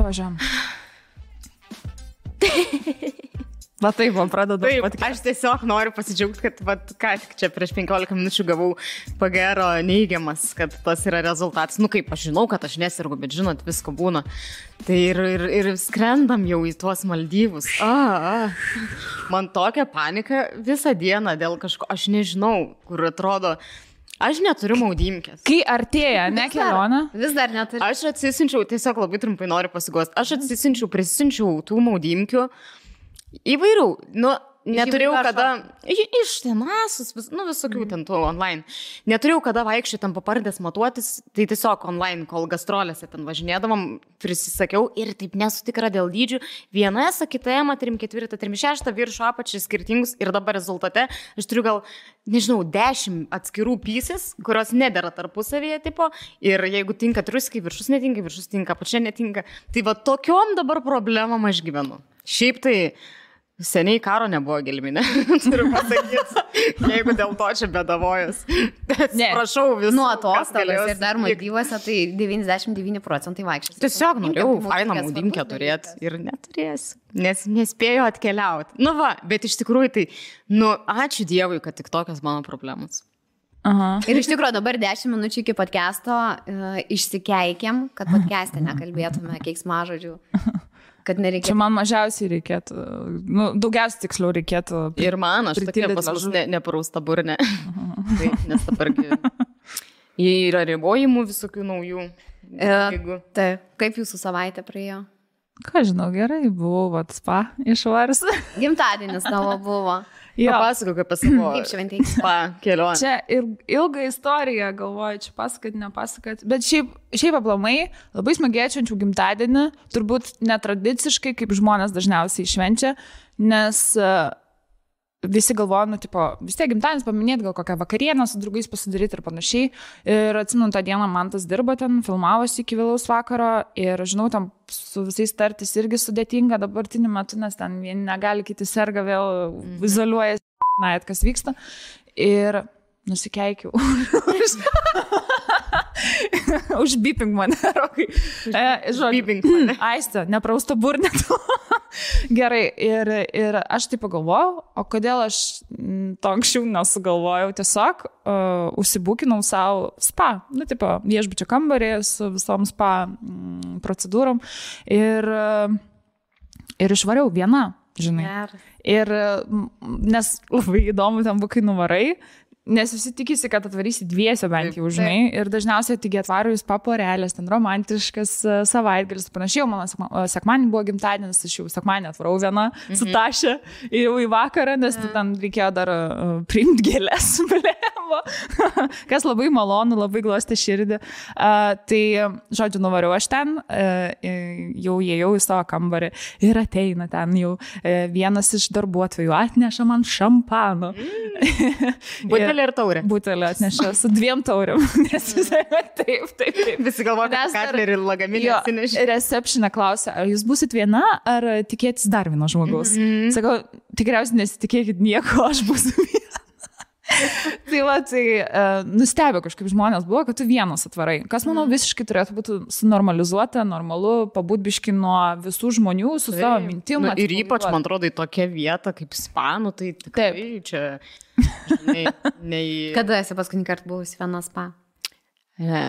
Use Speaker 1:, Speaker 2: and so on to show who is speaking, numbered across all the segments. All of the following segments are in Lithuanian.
Speaker 1: važiuojam. Va taip, man pradeda.
Speaker 2: Taip, aš tiesiog noriu pasidžiaugti, kad ką tik čia prieš 15 minučių gavau pagero neigiamas, kad tas yra rezultatas. Nu kaip, aš žinau, kad aš nesirgu, bet žinot, visko būna. Tai ir skrendam jau į tuos Maldyvus. Man tokia panika visą dieną dėl kažko, aš nežinau, kur atrodo. Aš neturiu maudymkės.
Speaker 1: Kai artėja, ne kelionė?
Speaker 3: Vis dar neturiu.
Speaker 2: Aš atsisinčiau, tiesiog labai trumpai noriu pasigosti, aš prisisinčiau tų maudymkių įvairių, neturėjau kada, iš tenasus, visokių ten tų online, neturėjau kada vaikščioti ten papardės matuotis, tai tiesiog online, kol gastrolėse ten važinėdavom, prisisakiau ir taip nesu tikra dėl dydžių, viena S, kita M, 3-4, 3-6, viršų apačiai skirtingus ir dabar rezultate aš turiu gal, nežinau, 10 atskirų pieces, kurios nedera tarpusavėje tipo ir jeigu tinka triuskiai, viršus tinka, apačia netinka, tai va tokiom dabar problemom aš gyvenu. Šiaip tai seniai karo nebuvo gelminė, turiu pasakyti, jeigu dėl to čia bedavojas. Prašau visų.
Speaker 3: Nuo atostogas ir dar Maldyvuose, tai 99% vaikščios.
Speaker 2: Tiesiog norėjau fainą maudymkę turėti ir neturėsiu, nes nespėjau atkeliauti. Bet iš tikrųjų tai, ačiū Dievui, kad tik tokios mano problemos.
Speaker 1: Aha.
Speaker 3: Ir iš tikrųjų dabar 10 minučių iki podcast'o išsikeikėm, kad podcast'e nekalbėtume keiksmažodžių. Kad nereikėtų.
Speaker 1: Čia man mažiausiai reikėtų, daugiausiai tiksliau reikėtų.
Speaker 2: Ir man, aš tokia pas mus neparausta burnė. Tai, nes dabargi yra ribojimų visokių naujų.
Speaker 3: Taip, kaip jūsų savaitė praėjo?
Speaker 1: Ką žinau, gerai, buvau spa išvaris.
Speaker 3: Gimtadienis tavo buvo.
Speaker 2: Papasakok apie savo spa kelionę.
Speaker 1: Čia ilga istorija, galvoju, čia pasakot, nepasakot. Bet šiaip aplamai labai smagėčiančių gimtadienį, turbūt netradiciškai, kaip žmonės dažniausiai švenčia, nes visi galvoja, vis tiek gimtadienis paminėti, gal kokią vakarienę su draugais pasidaryti ir panašiai. Ir atsimenu, tą dieną Mantas dirba ten, filmavosi iki vėlaus vakaro ir žinau, tam su visais tartis irgi sudėtinga dabartiniu metu, nes ten vieni negali, kiti serga, vėl izoliuoja, kas vyksta. Ir nusikeikiau. Užbipink mane, Rokai.
Speaker 2: Užbipink mane.
Speaker 1: Aiste, neprausta burnė. Gerai, ir aš taip pagalvojau, o kodėl aš to anksčiau nesugalvojau, tiesiog užsibukinau savo spa, viešbučio kambarį su visom spa procedūrom ir išvariau viena, žinai. Ir nes labai įdomu ten bukai nuvarai, nes visi tikisi, kad atvarysi dviese bent jau, žinai, ir dažniausiai tik atvaro jūs paporelės, ten romantiškas savaitgalis, panašiai, mano sekmanį buvo gimtadienis, aš jau sekmanį atvarau vieną su Taše jau į vakarą, nes ten reikėjo dar priimti gėlės, blėmo, kas labai malonu, labai glostė širdį. Tai, žodžiu, nuvariau aš ten, jau įėjau į savo kambarį ir ateina ten jau vienas iš darbuotojų atneša man šampano.
Speaker 2: Butelį ir taurę.
Speaker 1: Butelį atneša su 2 taurėm. Nes taip.
Speaker 2: Visi galvoja, kad katlerį ir lagaminį atsinešė.
Speaker 1: Recepšinė klausia, ar jūs būsit viena, ar tikėtis dar vieno žmogaus? Sakau, tikriausiai nesitikėkit nieko, aš būsiu viena. Tai nustebė kažkaip žmonės buvo, kad tu vienas atvarai. Kas, manau, visiškai turėtų būti sunormalizuota, normalu, pabūt nuo visų žmonių su savo mintim.
Speaker 2: Ir ypač, man atrodo, į tokią vietą kaip spa, tai tikrai čia...
Speaker 3: Kada esi paskutinį kartą buvusi viena spa?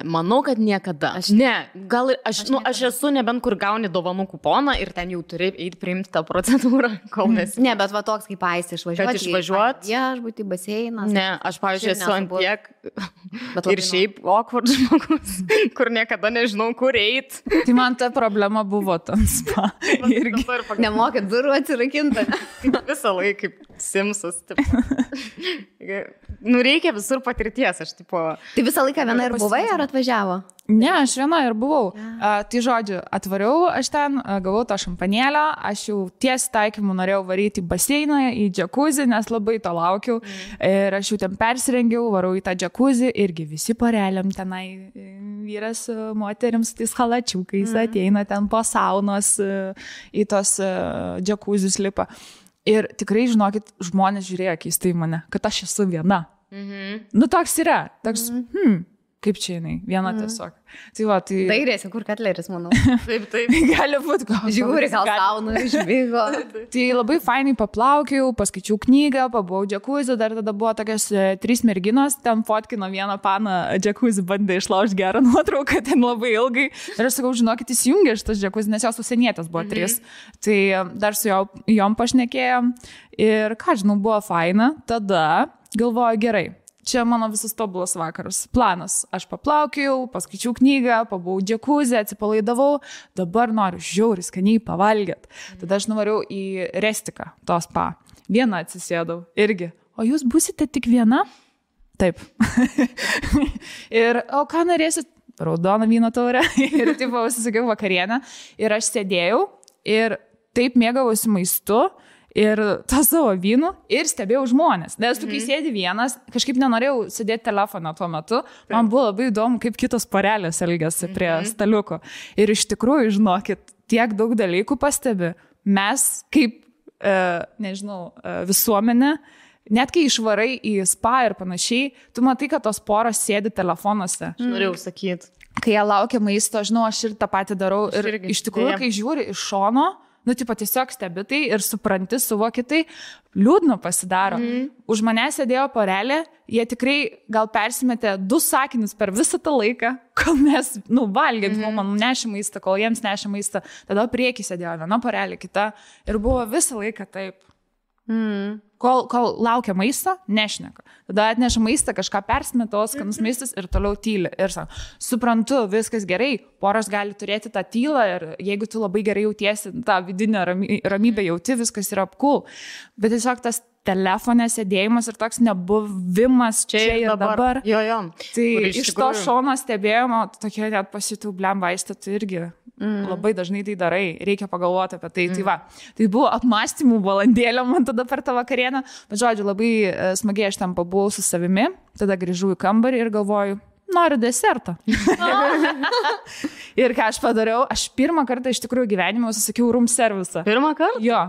Speaker 2: Manau, kad niekada. Aš esu nebent kur gauni dovanų kuponą ir ten jau turi eiti priimti tą procedūrą, kol nesi.
Speaker 3: Ne, bet va toks kaip Aistė išvažiuoti. Viešbutį, baseinas.
Speaker 2: Ne, aš, pavyzdžiui, esu ant tiek ir šiaip awkward žmogus, kur niekada nežinau, kur eiti.
Speaker 1: Tai man ta problema buvo tam spa.
Speaker 3: Nemokėt durų atsirakinti.
Speaker 2: Visą laiką kaip Simsas. Reikia visur patirties.
Speaker 3: Tai visą laiką viena ir buvai ar atvažiavo?
Speaker 1: Ne, aš viena ir buvau. Tai žodžiu, atvariau aš ten, gavau tą šampanėlę, aš jau ties taikymu norėjau varyti į baseiną, į džakuzį, nes labai to laukiau. Ir aš jau ten persirengiau, varau į tą džakuzį, irgi visi poreliam tenai, vyras moterims tais halačiukais ateina ten po saunos į tos džakuzius lipa. Ir tikrai, žinokit, žmonės žiūrėjo keistai mane, kad aš esu viena. Toks yra. Toks, Kaip čia jinai? Viena tiesiog. Tai va, tai...
Speaker 3: Dairėsi, kur Katleris, manau.
Speaker 2: Taip.
Speaker 1: Gali būti, gal.
Speaker 3: Žiūri, gal sauna, išbėgo.
Speaker 1: Tai labai fainai paplaukiau, paskaičiau knygą, pabuvau džekuzi, dar tada buvo tokios 3 merginos, ten fotkino vieną paną, džekuzi bandė išlaužti gerą nuotrauką, ten labai ilgai. Ir aš sakau, žinokit, įsijungė šitas džekuzi, nes jos užsienietės buvo 3. Tai dar su jom pašnekėjom. Ir ką žinau, buvo faina. Tada galvoju, gerai. Čia mano visas tobulas vakaras. Planas. Aš paplaukiau, paskaičiau knygą, pabuvau džekuzę, atsipalaidavau. Dabar noriu žiauriai skaniai pavalgyti. Tada aš nuvariau į Restiką, to spa. Viena atsisėdau. Irgi. O jūs būsite tik viena? Taip. Ir, o ką norėsit? Raudoną vyno taurę. Ir taip užsisakiau vakarienę. Ir aš sėdėjau ir taip mėgavausi maistu. Ir tą savo vynų ir stebėjau žmonės. Nes tu, kai sėdi vienas, kažkaip nenorėjau sėdėti telefoną tuo metu. Man buvo labai įdomu, kaip kitos porelės elgiasi prie staliuko. Ir iš tikrųjų, žinokit, tiek daug dalykų pastebi. Mes, kaip, visuomenė, net kai išvarai į spa ir panašiai, tu matai, kad tos poros sėdi telefonuose.
Speaker 2: Aš norėjau sakyti.
Speaker 1: Kai jie laukia maisto, žinau, aš ir tą patį darau. Ir iš tikrųjų, kai žiūri iš šono, tiesiog stebi tai ir supranti, suvoki tai, liūdna pasidaro. Už mane sėdėjo porelė, jie tikrai gal persimetė 2 sakinius per visą tą laiką, kol mes, valgėm, man nešė maistą, kol jiems nešė maistą. Tada priekį sėdėjo viena porelė, kita ir buvo visą laiką taip. Kol laukia maisto, nešneka. Tada atneša maistą, kažką persimeta, skanus maistas ir toliau tyli. Ir sako, suprantu, viskas gerai, poros gali turėti tą tylą ir jeigu tu labai gerai jautiesi, tą vidinę ramybę jauti, viskas yra cool. Bet tiesiog tas telefone sėdėjimas ir toks nebuvimas čia ir dabar.
Speaker 2: Jo.
Speaker 1: Tai iš to šono stebėjimo, tokie net pasijutau vaistą, tai irgi labai dažnai tai darai, reikia pagalvoti apie tai. Tai va, tai buvo apmąstymų valandėlė man tada per tą vakarienę, bet žodžiu, labai smagiai aš ten pabuvau su savimi, tada grįžau į kambarį ir galvoju, noriu desertą. Ir ką aš padariau, aš pirmą kartą iš tikrųjų gyvenime užsisakiau room servisą.
Speaker 2: Pirmą kartą?
Speaker 1: Jo.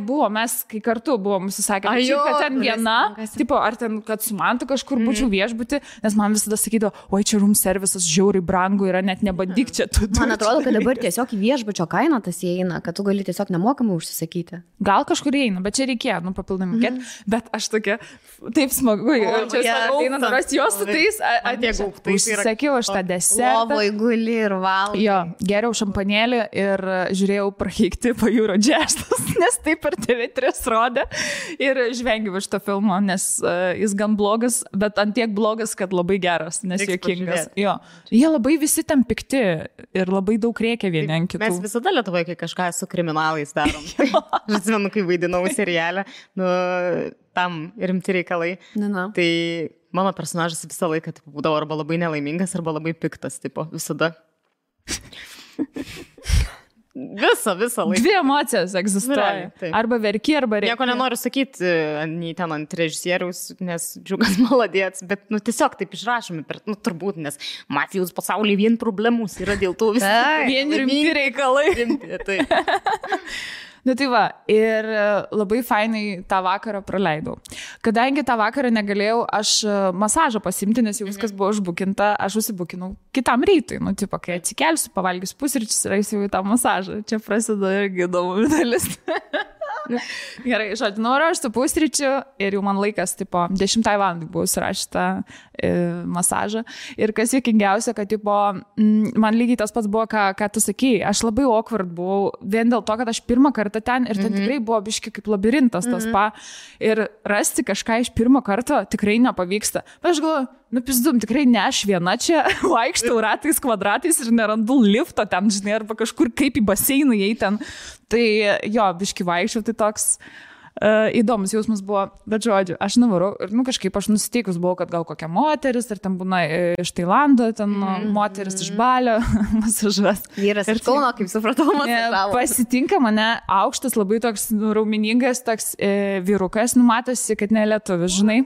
Speaker 1: Buvo, mes kai kartu buvom užsisakę. Kad ten viena, tipo, ar ten, kad su mantu kažkur būčiau viešbuti, nes man visada sakydavo, oi, čia room servisas žiauriai brangu yra, net nebandyk čia.
Speaker 3: Man atrodo, kad dabar tiesiog į viešbučio kainą tas įeina, kad tu gali tiesiog nemokamai užsisakyti.
Speaker 1: Gal kažkur įeina, bet čia reikėjo, papildomai mokėti. Bet aš tokia, taip smagu, čia ateina daras jos su tais, užsisakiau aš tą desertą.
Speaker 3: Lovoj guli ir valgai.
Speaker 1: Jo, geriau šampanėlį ir žiūrėjau prakeikti pajūro džestus, nes taip per TV3 rodė ir žvengiau iš to filmo, nes jis gan blogas, bet antiek blogas, kad labai geras, nes juokingas. Jo, jie labai visi ten pikti ir labai daug rėkia vieni ant kitų.
Speaker 2: Mes visada Lietuvoje, kai kažką su kriminalais darom. Aš atsimenu, kai vaidinau serialę, tam rimti reikalai. Tai mano personažas visą laiką būdavo arba labai nelaimingas, arba labai piktas, tipo, visada. Visą laiką. 2 emocijos egzistuoja. Arba verki, arba reikia. Nieko nenoriu sakyti, nei ten ant režisieriaus, nes Džiugas maladėts, bet tiesiog taip išrašomi, turbūt, nes mafijos pasaulyje vien problemus yra dėl to visą.
Speaker 1: Vien rimti reikalai. Tai va, ir labai fainai tą vakarą praleidau. Kadangi tą vakarą negalėjau aš masažą pasimti, nes jau viskas buvo užbukinta, aš užsibukinau kitam rytui. Kai atsikelsiu, pavalgysiu pusryčius ir eisiu į tą masažą. Čia prasideda irgi įdomu dalis. Gerai, žodžiu, noriu aš su pusryčiu ir jau man laikas, 10 valandai buvau surašyta masažą. Ir kas juokingiausia, kad man lygiai tas pats buvo, ką tu sakei. Aš labai awkward buvau, vien dėl to, kad aš pirmą kartą ten ir ten tikrai buvo biški kaip labirintas tas spa. Ir rasti kažką iš pirmo karto tikrai nepavyksta. Bet aš galvoju, pizdum, tikrai ne aš viena čia vaikštau ratais, kvadratais ir nerandu lifto ten, žinai, arba kažkur kaip į baseiną jei ten. Tai jo, biški vaikščiau, tai toks įdomus jausmas buvo, bet žodžiu, aš nuvarau ir kažkaip aš nusiteikus buvau, kad gal kokia moteris, ar ten būna iš Tailando, ten moteris iš Balio masažas.
Speaker 3: Vyras iš Kauno, kaip supratau, masažavo.
Speaker 1: Pasitinka mane aukštas, labai toks raumeningas, toks vyrukas, matosi, kad ne lietuvis, žinai.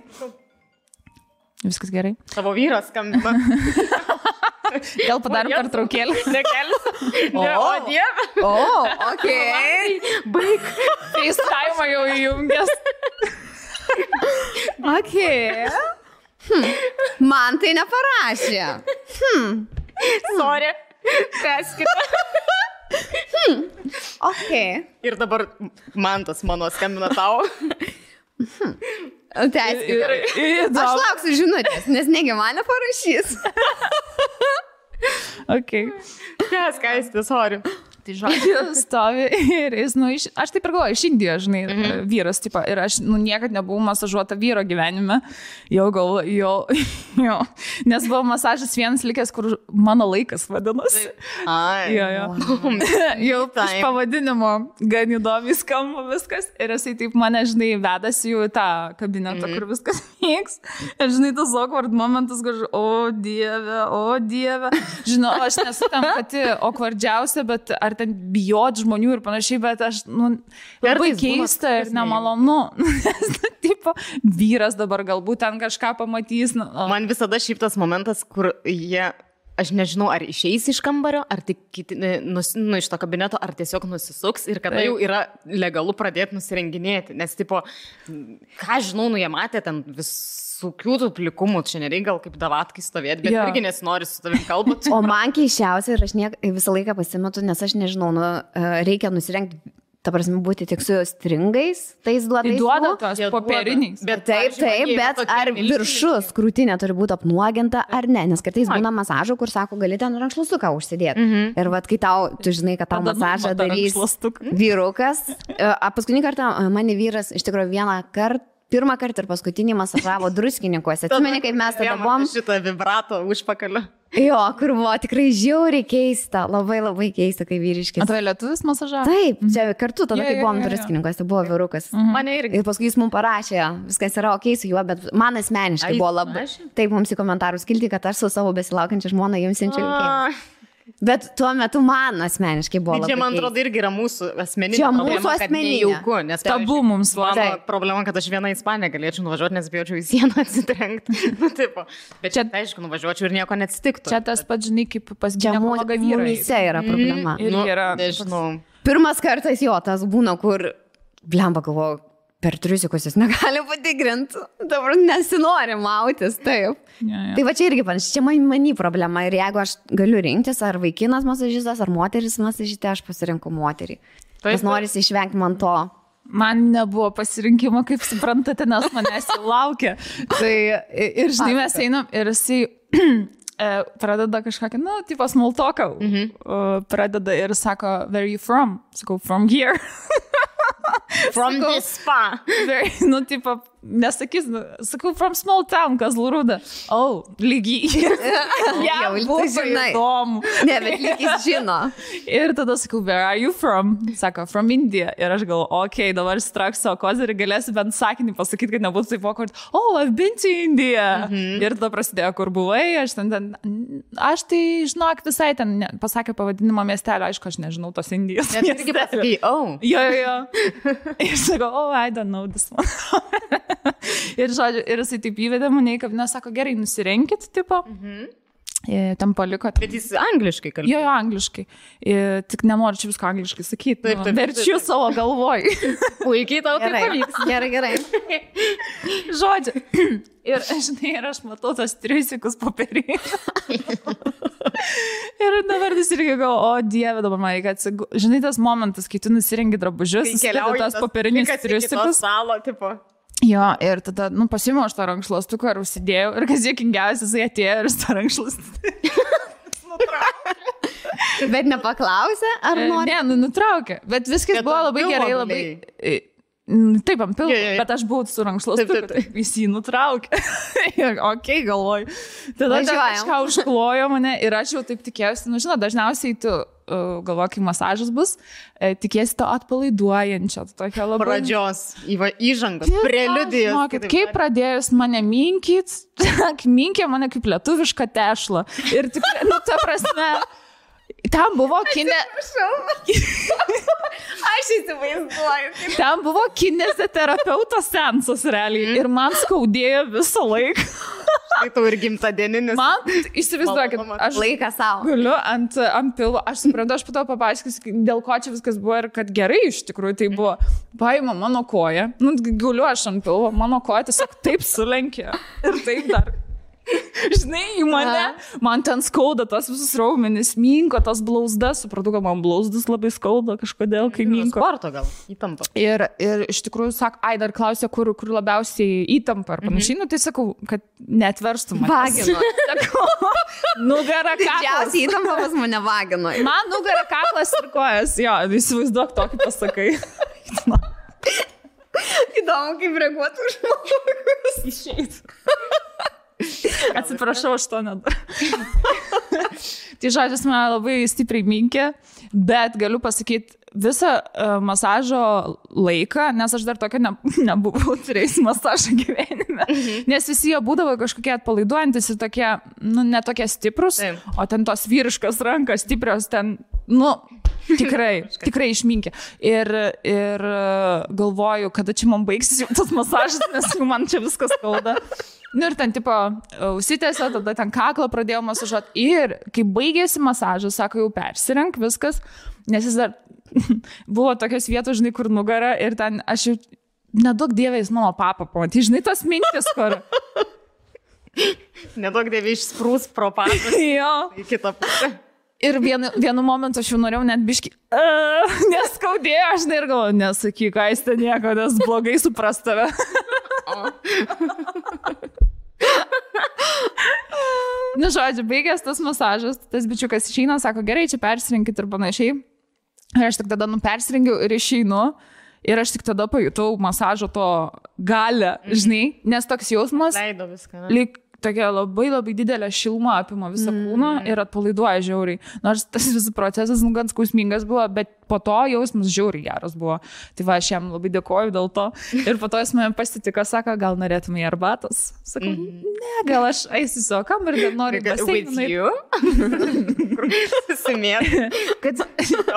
Speaker 1: Viskas gerai.
Speaker 2: Tavo vyras skambina.
Speaker 1: Gal padarom pertraukėlę?
Speaker 2: Nekelis. O, Dieve.
Speaker 3: Okei.
Speaker 2: Baig.
Speaker 1: FaceTime jau įjungęs.
Speaker 3: Okei. Man tai neparašė.
Speaker 2: Sorry. Tęskite.
Speaker 3: Ok.
Speaker 2: Ir dabar Mantas mano skambina tau.
Speaker 3: Tęskite. Aš lauksiu žinutės, nes negi man neparašys.
Speaker 1: Ok.
Speaker 2: Tęskite, sorry.
Speaker 1: Tai žodžiu, stovi ir jis, aš taip ir galvoju, iš Indijos, žinai, vyras, tipo, ir aš, niekad nebuvau masažuota vyro gyvenime, jau galvoju, jo, nes buvo masažas vienas likęs, kur mano laikas vadinasi.
Speaker 2: Ai.
Speaker 1: Jau iš pavadinimo gan įdomiai skamba viskas, ir jisai taip mane, žinai, vedasi jau į tą kabinetą, kur viskas vyks, ir žinai, tas awkward momentas, kur, o dieve, žinau, aš nesu tam pati awkwardžiausia, bet ar ten bijot žmonių ir panašiai, bet aš, labai keista ir nemalonu. Tipo, vyras dabar galbūt ten kažką pamatys.
Speaker 2: Man visada šiaip tas momentas, kur jie, aš nežinau, ar išeis iš kambario, ar tik iš to kabineto, ar tiesiog nusisuks ir kada jau yra legalu pradėti nusirenginėti. Nes, tipo, ką žinau, jie matė ten visokių tų plikumų, čia nereikia gal kaip davatkai stovėti, bet irgi nesinori su tavim kalbėti.
Speaker 3: O man keiščiausia ir aš visą laiką pasimetu, nes aš nežinau, reikia nusirengti, ta prasme, būti tik su stringais, tais duotais.
Speaker 1: Tai duoda tos popieriniais.
Speaker 3: Taip, bet ar viršus krūtinė turi būti apnuoginta ar ne, nes kartais būna masažų, kur sako, gali ten rankšluostuką užsidėti. Ir vat, kai tu žinai, kad tau masažą darys vyrukas, paskutinį kartą mane vyras iš tikrųjų pirmą kartą ir paskutinį masažavo druskininkuose. Atsimeni, kaip mes tada buvom.
Speaker 2: Šitą vibrato užpakaliu.
Speaker 3: Jo, kur buvo tikrai žiauriai keista, labai keista, kai vyriškis.
Speaker 1: Atrai lietuvis masažavo?
Speaker 3: Taip, čia kartu tada, kai buvom druskininkuose, buvo vyrukas.
Speaker 2: Mane irgi.
Speaker 3: Ir paskui jis mums parašė, viskas yra ok su juo, bet man asmeniškai buvo labai. Taip, mums į komentarus kilti, kad aš su savo besilaukiančia žmona jums siunčiu linkėjimus. Bet tuo metu man asmeniškai buvo labai.
Speaker 2: Čia, man atrodo, irgi yra mūsų asmeninė
Speaker 3: problema.
Speaker 2: Čia mūsų asmeninė.
Speaker 1: Nes tabu mums
Speaker 2: mano problema, kad aš vieną į Ispaniją galėčiau nuvažiuoti, nes bijočiau į sieną atsitrenkti. Bet čia, aišku, nuvažiuočiau ir nieko neatsitiktų.
Speaker 1: Čia tas pats, žinai, kaip pas ginekologą vyrai.
Speaker 3: Mumyse yra problema.
Speaker 2: Nežinau.
Speaker 3: Pirmas kartas jo, tas būna, kur, blemba, galvoju, per triusikus jis negali patikrinti. Dabar nesinori mautis, taip. Tai va čia irgi panašiai, čia mani problema. Ir jeigu aš galiu rinktis, ar vaikinas masažistas, ar moteris masažistė, aš pasirinku moterį. Nes norisi išvengti man to.
Speaker 1: Man nebuvo pasirinkimo, kaip suprantate, nes manęs jau laukia. Tai ir žinai, mes einam ir jisai pradeda kažkokį, tipo small talką. Pradeda ir sako, where are you from? Sakau, from here.
Speaker 2: From this spa.
Speaker 1: Tipo, nesakys, sakau, from small town, Kazlų Rūda. Lygiai.
Speaker 3: Jau,
Speaker 1: buvo įdomu.
Speaker 3: Ne, bet lygis žino.
Speaker 1: Ir tada sakau, where are you from? Sako, from India. Ir aš galvoju, ok, dabar straks savo kozerį, galėsiu bent sakinį pasakyti, kad nebūtų taip awkward. I've been to India. Ir tada prasidėjo, kur buvai, aš tai, žinok, visai ten pasakė pavadinimą miestelio, aišku, aš nežinau tos Indijos.
Speaker 2: Net irgi pasakai,
Speaker 1: Jo. Ir sakau, I don't know this one. Ir žodžiu, ir jisai taip įvedė mane, kaip nesako, gerai, nusirenkit, tipo. Ten paliko.
Speaker 2: Bet jis angliškai kalbėjo.
Speaker 1: Jo, angliškai. Tik nenoriu čia visko angliškai sakyti. Verčiu savo galvoj.
Speaker 2: Puikiai tau tai pavyks.
Speaker 3: Gerai.
Speaker 1: Žodžiu. Ir, žinai, ir aš matau tos triusikus popierį. Ir dabar vis irgi galvoju, Dieve, dabar man reikia atsigulti. Žinai, tas momentas, kai tu nusirengi drabužius, susideda tas popierinius triusikus. Jo, ir tada, pasiėmiau aš tą rankšluostuką ir užsidėjau. Ir kas juokingiausia, jisai atėjo ir tą rankšluostuką nutraukė.
Speaker 3: Bet nepaklausė, ar nori?
Speaker 1: Ne, nutraukė. Bet viskas buvo labai gerai, labai... Taip, ant pilvo, bet aš buvau su rankšluostuku, jis jį nutraukė. Ok, galvoju. Tada kažką užklojo mane ir aš jau taip tikėjausi. Žinot, dažniausiai tu galvoji, kai masažas bus, tikėsi to atpalaiduojančio.
Speaker 2: Pradžios, įžangos, preliudijos.
Speaker 1: Kaip pradėjus mane minkė mane kaip lietuvišką tešlą. Ir tikrai, ta prasme... Ten buvo
Speaker 3: Aš įsivaizduoju.
Speaker 1: Ten buvo kineziterapeuto seansas realiai. Ir man skaudėjo visą laiką.
Speaker 2: Tai tau ir gimtadieninis.
Speaker 1: Man, įsivaizduokit, aš
Speaker 3: laiką savo.
Speaker 1: Guliu ant pilvo. Aš suprantu, aš po to papaiškisiu, dėl ko čia viskas buvo ir kad gerai iš tikrųjų tai buvo. Paima mano koją. Guliu aš ant pilvo, mano koja tiesiog taip sulenkė. Ir taip dar. žinai, į mane, man ten skauda tos visus raumenis, minko, tos blauzdas, supratau, kad man blauzdas labai skauda kažkodėl, kai minko.
Speaker 2: Sporto gal, įtampa.
Speaker 1: Ir iš tikrųjų, dar klausė, kur labiausiai įtampa ar panašiai, tai sakau, kad netverstų mane.
Speaker 3: Vagino.
Speaker 1: Nugara kaklas.
Speaker 3: Didžiausiai įtampa pas mane vagino.
Speaker 1: Man nugara kaklas ir kojas, jo, įsivaizduok tokį pasakai.
Speaker 3: Įdomu, kaip reaguotų žmogus.
Speaker 1: Išeit. Atsiprašau, aš to nedarau. Tai žodžius mane labai stipriai minkė, bet galiu pasakyti visą masažo laiką, nes aš dar tokia nebuvau turėjus masažą gyvenime, nes visi jie būdavo kažkokie atpalaiduojantis ir tokie, netokie stiprus, o ten tos vyriškas rankas stiprios ten, tikrai išminkė. Ir galvoju, kada čia man baigsis jau tas masažas, nes man čia viskas skauda. Ir ten, tipo, užsitęsė, tada ten kaklą pradėjau masažuoti. Ir kai baigėsi masažas, sako, jau persirenk viskas, nes jis dar buvo tokios vietos, žinai, kur nugara ir ten aš jau nedaug dievės mano papą pamatyti, žinai, tas mintis, kur...
Speaker 2: Nedaug dievė išsprūs pro papą.
Speaker 1: Jo.
Speaker 2: Į kitą pusę.
Speaker 1: Ir vienu momentu aš jau norėjau net biški, neskaudėjo, aš ir galvoju, nesakyk, Aiste nieko, nes blogai supras tave. Žodžiu, baigęs tas masažas, tas bičiukas išeina, sako, gerai, čia persirinkit ir panašiai. Ir aš tik tada persirengiau ir išeinu. Ir aš tik tada pajutau masažo to galę, žinai, nes toks jausmas.
Speaker 2: Leido viską.
Speaker 1: Lyg tokia labai labai didelė šiluma apima visą kūną ir atpalaiduoja žiauriai. Nors tas visas procesas gan skausmingas buvo, bet po to jausmas žiauriai geras buvo. Tai va, aš jam labai dėkoju dėl to. Ir po to jis mane pasitiko, sako, gal norėtume į arbatos. Sakau, ne, gal aš eisiu savo kambarį, bet noriu
Speaker 2: With you? Susimėt.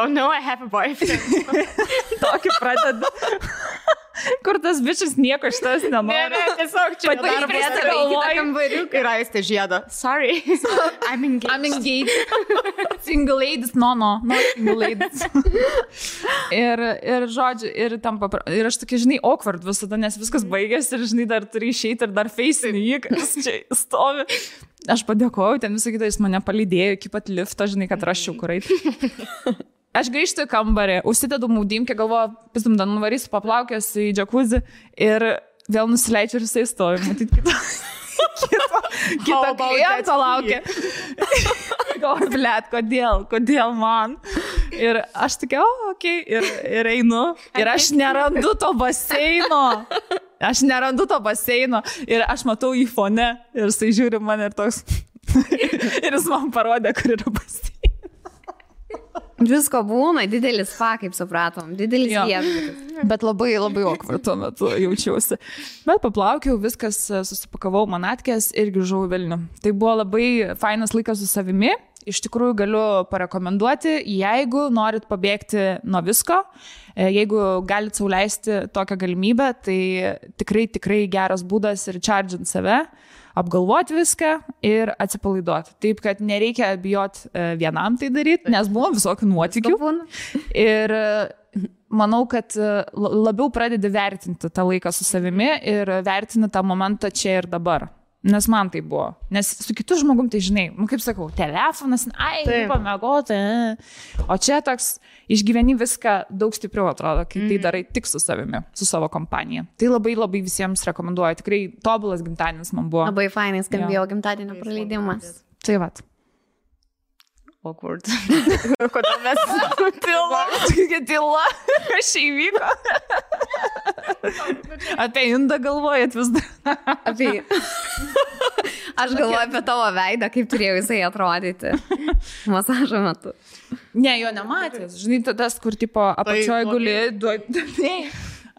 Speaker 2: Oh no, I have a boyfriend.
Speaker 1: Tokį pradedu. Kur tas bičias nieko šitas nenori.
Speaker 2: Ne, tiesiog čia
Speaker 1: darbas galvoju.
Speaker 2: Kambariuką ir Aistė žiedo. Sorry, I'm engaged.
Speaker 1: Single ladies, no, single ladies. ir žodžiu, ir aš tokia, žinai, awkward visada, nes viskas baigėsi ir, žinai, dar turi išeiti ir dar feisinį jį, kas čia stovi. Aš padėkoju, ten visą kitą jis mane palydėjo iki pat lifto, žinai, kad raščiau kur eiti. Aš grįžtu į kambarį, užsidedu maudymkę, galvoju, pisum, dar nuvarysiu paplaukęs į džakuzį ir vėl nusileidžiu ir jisai stovi, matyt, kito kliento laukia. Galvoju, blet, kodėl man? Ir aš tokia, okei, ir einu. Ir aš nerandu to baseino. Ir aš matau į fone ir jisai žiūri mane ir toks. Ir jis man parodė, kur yra baseinas.
Speaker 3: Visko būna, didelis spa, kaip supratom, didelis viešbutis.
Speaker 1: Bet labai labai awkward tuo metu jaučiausi. Bet paplaukiau, viskas, susipakavau manatkės ir grįžau į Vilnių. Tai buvo labai fainas laikas su savimi. Iš tikrųjų galiu parekomenduoti, jeigu norit pabėgti nuo visko, jeigu galit sau leisti tokią galimybę, tai tikrai geras būdas ir charge'int save, apgalvoti viską ir atsipalaiduoti. Taip, kad nereikia bijoti vienam tai daryti, nes buvo visokių nuotykių. Ir manau, kad labiau pradedi vertinti tą laiką su savimi ir vertini tą momentą čia ir dabar. Nes man tai buvo. Nes su kitu žmogum, tai žinai, kaip sakau, telefonas, pamegoti. O čia toks išgyveni viską daug stipriau atrodo, kai tai darai tik su savimi, su savo kompanija. Tai labai labai visiems rekomenduoju. Tikrai tobulas gimtadienis man buvo.
Speaker 3: Labai fainai skambėjo gimtadienio praleidimas.
Speaker 1: Tai vat.
Speaker 2: Awkward. Kodėl mes
Speaker 1: tyla? Kas čia įvyko? Apie Indą galvojat vis dar.
Speaker 3: Aš galvoju apie tavo veidą, kaip turėjo jisai atrodyti masažo metu.
Speaker 1: Ne, jo nematęs. Žinai, tas, kur tipo apačioj guli.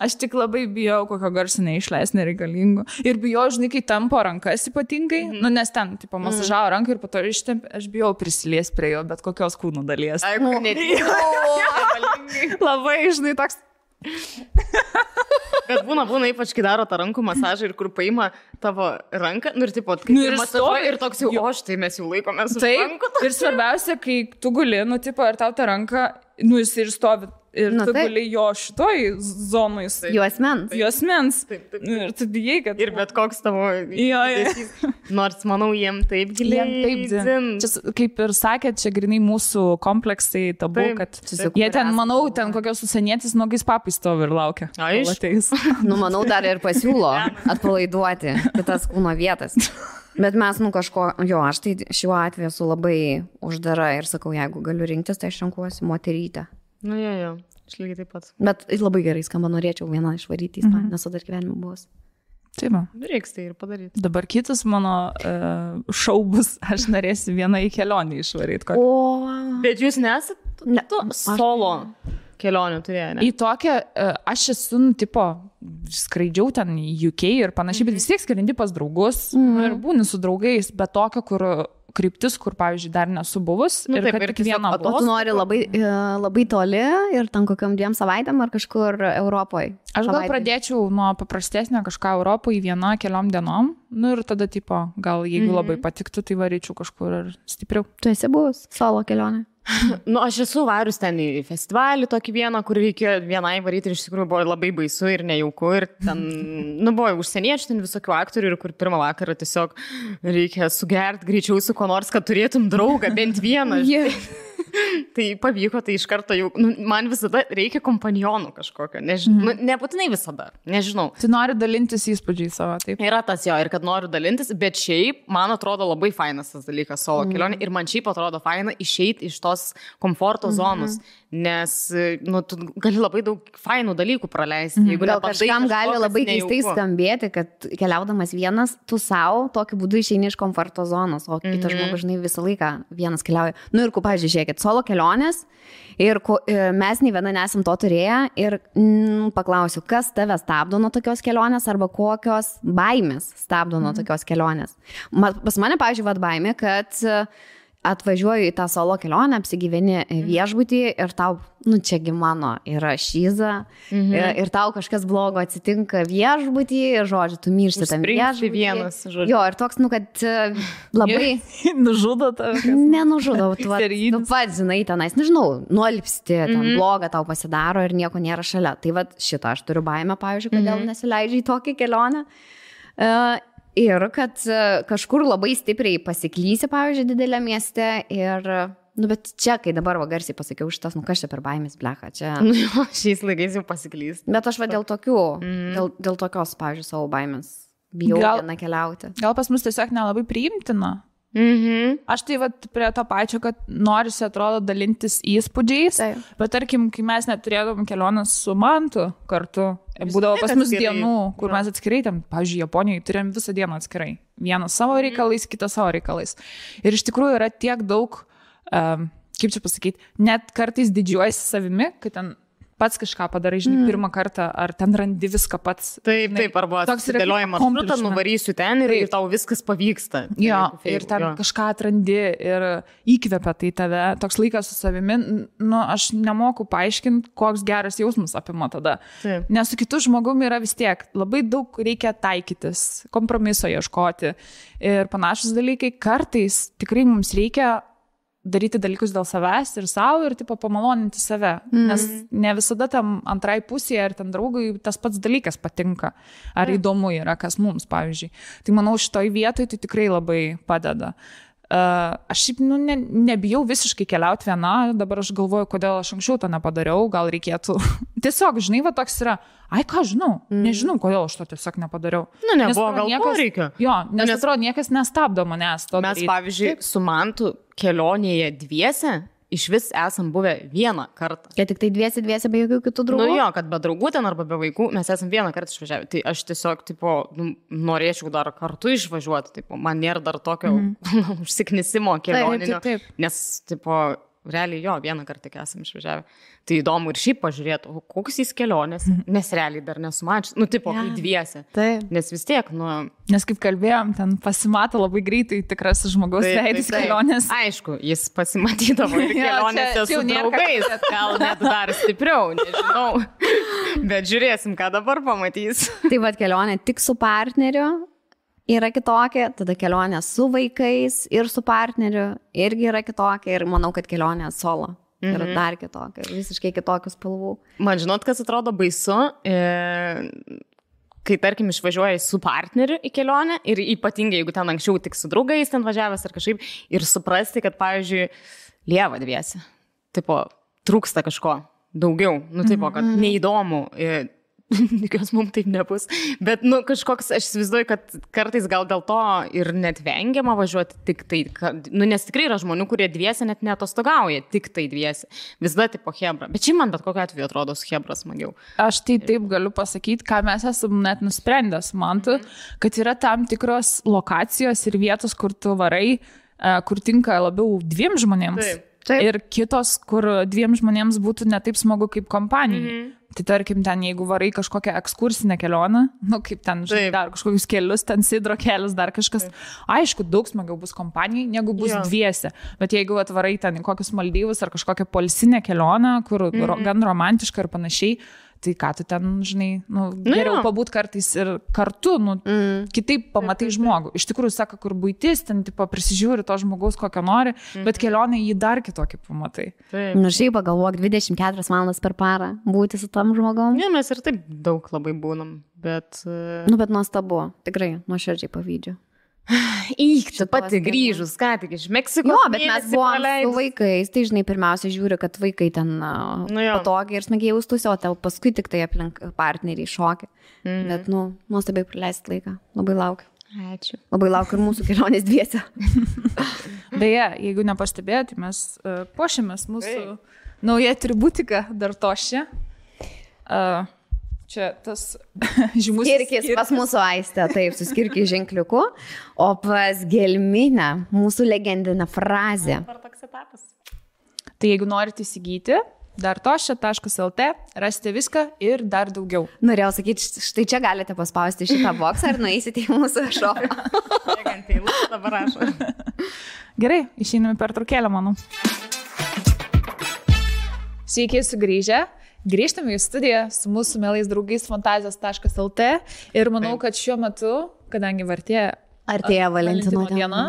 Speaker 1: Aš tik labai bijau, kokio garso neišleis nereikalingo. Ir bijau, žinai, kai tampo rankas ypatingai, nes ten, tipo, masažavo ranką ir po to ištempė, aš bijau prisilies prie jo, bet kokios kūno dalies.
Speaker 2: Ai, kur
Speaker 1: labai, žinai, toks.
Speaker 2: Bet būna ypač, kai daro tą rankų masažą ir kur paima tavo ranką, ir tipo, ir masažuoja ir toks jau, o štai mes jau laikomės už rankų.
Speaker 1: Ir svarbiausia, kai tu guli, tipo, ir tau tą ranką, jis ir stovi ir tu guli jo šitoj zonui. Juosmens. Ir tu bijai, kad...
Speaker 2: Ir bet koks tavo... Nors, manau, jiem taip giliai.
Speaker 1: Čia, kaip ir sakė, čia grinai mūsų kompleksai tabu, kad jie ten, manau, ten kokios užsienietis nogais papai stovi ir laukia.
Speaker 3: Manau, dar ir pasiūlo atpalaiduoti kitas kūno vietas. Bet mes, kažko, aš tai šiuo atveju esu labai uždara ir sakau, jeigu galiu rinktis, tai aš renkuosi moterytę.
Speaker 2: Aš lygiai taip pat.
Speaker 3: Bet labai gerai skamba, norėčiau vieną išvaryti į Ispaniją, nes dar gyvenime buvus.
Speaker 1: Taip,
Speaker 2: reiks tai ir padaryti.
Speaker 1: Dabar kitas mano šou bus, aš norėsiu vieną į kelionį išvaryti.
Speaker 2: Bet jūs nesat solo kelionių turėjo, ne?
Speaker 1: Į tokią, aš esu, skraidžiau ten į UK ir panašiai, bet vis tiek skrendi pas draugus ir būni su draugais, bet tokio, kur kryptis, kur, pavyzdžiui, dar nesu buvus. Ir kad tik vieną
Speaker 3: buvau. Tu nori labai toli ir ten kokiam 2 savaitėm ar kažkur Europoje?
Speaker 1: Aš gal pradėčiau nuo paprastesnio kažką Europoje 1 keliom dienom. Ir tada, gal jeigu labai patiktų, tai varyčiau kažkur ir stipriau.
Speaker 3: Tu esi buvus solo kelionė?
Speaker 2: Aš esu varius ten į festivalį tokį vieną, kur reikėjo vienai varyti ir iš tikrųjų buvo labai baisu ir nejauku ir ten, buvo užsieniečių, ten visokių aktorių ir kur pirmą vakarą tiesiog reikia sugerti greičiau su ko nors, kad turėtum draugą, bent vieną. Tai pavyko, tai iš karto jau, man visada reikia kompanionų kažkokio, nebūtinai visada, nežinau.
Speaker 1: Tu nori dalintis įspūdžiai savo, taip?
Speaker 2: Yra tas ir kad noriu dalintis, bet šiaip man atrodo labai fainas tas dalykas solo kelionė ir man šiaip atrodo faina išeiti iš tos komforto zonos, nes tu gali labai daug fainų dalykų praleisti.
Speaker 3: Gal kažkam gali labai keistai skambėti, kad keliaudamas vienas, tu savo tokiu būdu išeini iš komforto zonos, o kitas žmogus, visą laiką vienas keliauja. Ir pavyzdžiui, žiūrėkit, solo kelionės ir mes nei viena nesam to turėję ir paklausiu, kas tave stabdo nuo tokios kelionės arba kokios baimės stabdo nuo tokios kelionės. Pas mane, pavyzdžiui, baimė, kad atvažiuoju į tą solo kelionę, apsigyveni viešbutį ir tau, čiagi mano yra šyza ir tau kažkas blogo atsitinka viešbutį ir, žodžiu, tu miršti tam viešbutį.
Speaker 2: Vienas, žodžiu.
Speaker 3: Jo, ir toks, kad labai...
Speaker 1: Nužudo tave.
Speaker 3: Nenužudo, tu pats, žinai, tenais, nežinau, nuolpsti, ten bloga tau pasidaro ir nieko nėra šalia. Tai šitą aš turiu baimę, pavyzdžiui, kodėl nesileidžiu į tokią kelionę. Ir kad kažkur labai stipriai pasiklysi, pavyzdžiui, didelė mieste ir, bet čia, kai dabar garsiai pasakiau šitas, kas čia per baimės, blecha, čia...
Speaker 2: Šiais laikais jau pasiklys.
Speaker 3: Bet aš dėl tokių, dėl tokios, pavyzdžiui, savo baimės bijau vieną keliauti.
Speaker 1: Gal pas mus tiesiog nelabai priimtina. Aš tai prie to pačio, kad norisi, atrodo, dalintis įspūdžiais, bet tarkim, kai mes neturėdavom kelionės su Mantu kartu, būdavo pas mus dienų, kur mes atskirai, pavyzdžiui, Japonijoje turėjom visą dieną atskirai. Vienas savo reikalais, kitas savo reikalais. Ir iš tikrųjų yra tiek daug, kaip čia pasakyti, net kartais didžiuojasi savimi, kad ten pats kažką padarai, žinai, pirmą kartą, ar ten randi viską pats.
Speaker 2: Taip, arba atsidėlioji maršrutą, nuvarysiu ten ir tau viskas pavyksta.
Speaker 1: Jo, ir ten kažką atrandi ir įkvepia tai tave. Toks laikas su savimi, aš nemoku paaiškinti, koks geras jausmas apima tada.
Speaker 2: Taip.
Speaker 1: Nes su kitu žmogumi yra vis tiek labai daug reikia taikytis, kompromiso ieškoti ir panašus dalykai. Kartais tikrai mums reikia daryti dalykus dėl savęs ir savo ir pamaloninti save. Nes ne visada tam antrai pusėje ar ten draugui tas pats dalykas patinka. Ar įdomu yra, kas mums, pavyzdžiui. Tai manau, šitoj vietoj tai tikrai labai padeda. Aš šiaip nebijau visiškai keliauti viena, dabar aš galvoju, kodėl aš anksčiau to nepadariau, gal reikėtų. Tiesiog, žinai, toks yra, ką žinau, nežinau, kodėl aš to tiesiog nepadariau.
Speaker 2: Nebuvo gal poreikio.
Speaker 1: Jo, nes atrodo, niekas nestabdo manęs to daryti.
Speaker 2: Mes, pavyzdžiui, su Mantu kelionėje dviese iš vis esam buvę vieną kartą.
Speaker 3: Kad tik tai dviese be jokių kitų draugų?
Speaker 2: Jo, kad be draugų ten arba be vaikų mes esam vieną kartą išvažiavę. Tai aš tiesiog, norėčiau dar kartu išvažiuoti. Man nėra dar tokio užsiknisimo kelioninio.
Speaker 1: Taip.
Speaker 2: Nes, realiai vieną kartą tik esam išvažiavę. Tai įdomu ir šiaip pažiūrėti, koks jis kelionės, nes realiai dar nesumačius. Kai dviese.
Speaker 3: Taip.
Speaker 2: Nes vis tiek,
Speaker 1: Nes kaip kalbėjom, ten pasimato labai greitai tikras žmogaus veidis kelionės.
Speaker 2: Aišku, jis pasimatydavo ir kelionėse su draugais. Gal net dar stipriau, nežinau. Bet žiūrėsim, ką dabar pamatys.
Speaker 3: Tai kelionė tik su partneriu yra kitokia, tada kelionė su vaikais ir su partneriu irgi yra kitokia ir manau, kad kelionė solo Ir dar kitokio, ir visiškai kitokių spalvų.
Speaker 2: Man žinot, kas atrodo baisu, kai, tarkim, išvažiuoji su partneriu į kelionę ir ypatingai, jeigu ten anksčiau tik su draugais ten važiavęs ar kažkaip, ir suprasti, kad, pavyzdžiui, lieva dviesi. Tipo, trūksta kažko daugiau. Nu, tipo, kad neįdomu. Tikiuosi, mums taip nebus. Bet, nu, kažkoks, aš įsivaizduoju, kad kartais gal dėl to ir net vengiama važiuoti tik tai, nu, nes tikrai yra žmonių, kurie dviesi net neatostogauja, tik tai dviesi. Visada tipo hebra. Bet čia man bet kokiu atveju atrodo su hebra smagiau.
Speaker 1: Aš tai taip galiu pasakyti, ką mes esame net nusprendęs, mantu, kad yra tam tikros lokacijos ir vietos, kur tu varai, kur tinka labiau 2 žmonėms. Taip. Ir kitos, kur 2 žmonėms būtų ne taip smagu kaip kompanijai. Tai tarkim, ten jeigu varai kažkokią ekskursinę kelionę, nu kaip ten, žinai, dar kažkokius kelius, ten sidro kelius, dar kažkas, aišku, daug smagiau bus kompanijai, negu bus dviese. Bet jeigu atvarai ten į kokius Maldyvus ar kažkokią poilsinę kelionę, kur gan romantiška ir panašiai, tai ką tu ten, žinai, nu, geriau pabūt kartais ir kartu, nu, kitaip pamatai žmogų. Iš tikrųjų, sako, kur buitis, ten, tipo, prisižiūri to žmogaus, kokio nori, bet kelionė jį dar kitokį pamatai.
Speaker 3: Nu, šiaip pagalvok, 24 valandas per parą būti su tam žmogom.
Speaker 2: Ne, mes ir taip daug labai būnam, bet...
Speaker 3: Nu, bet nuostabu, tikrai, nuoširdžiai pavydžiu.
Speaker 2: Tu pati grįžus, ką tik iš Meksikos.
Speaker 3: Jo, bet mes buvom su vaikais, tai žinai, pirmiausia žiūri, kad vaikai ten patogiai ir smagiai jaustųsi, o tau paskui tik tai aplink partneriai šokia. Bet, nu, nuostabiai praleisti laiką. Labai laukiu.
Speaker 2: Ačiū.
Speaker 3: Labai laukiu ir mūsų kelionės dviese.
Speaker 1: Beje, jeigu nepastebėjote, mes puošiamės mūsų nauja atributika dar tošia. Čia tas žymus
Speaker 3: skirkis pas mūsų Aistę, taip, su skirkis ženkliuku, o pas Gelminę mūsų legendinę frazę.
Speaker 1: Tai jeigu norite įsigyti, dartošia.lt, rasite viską ir dar daugiau.
Speaker 3: Norėjau sakyti, štai čia galite paspausti šitą boksą ir nueisite į mūsų šopą.
Speaker 2: Dabar rašo.
Speaker 1: Gerai, išeiname per trukėlę, manau. Sveiki sugrįžę. Grįžtame į studiją su mūsų mielais draugais fantazijos.lt ir manau, kad šiuo metu, kadangi artėja Valentino diena,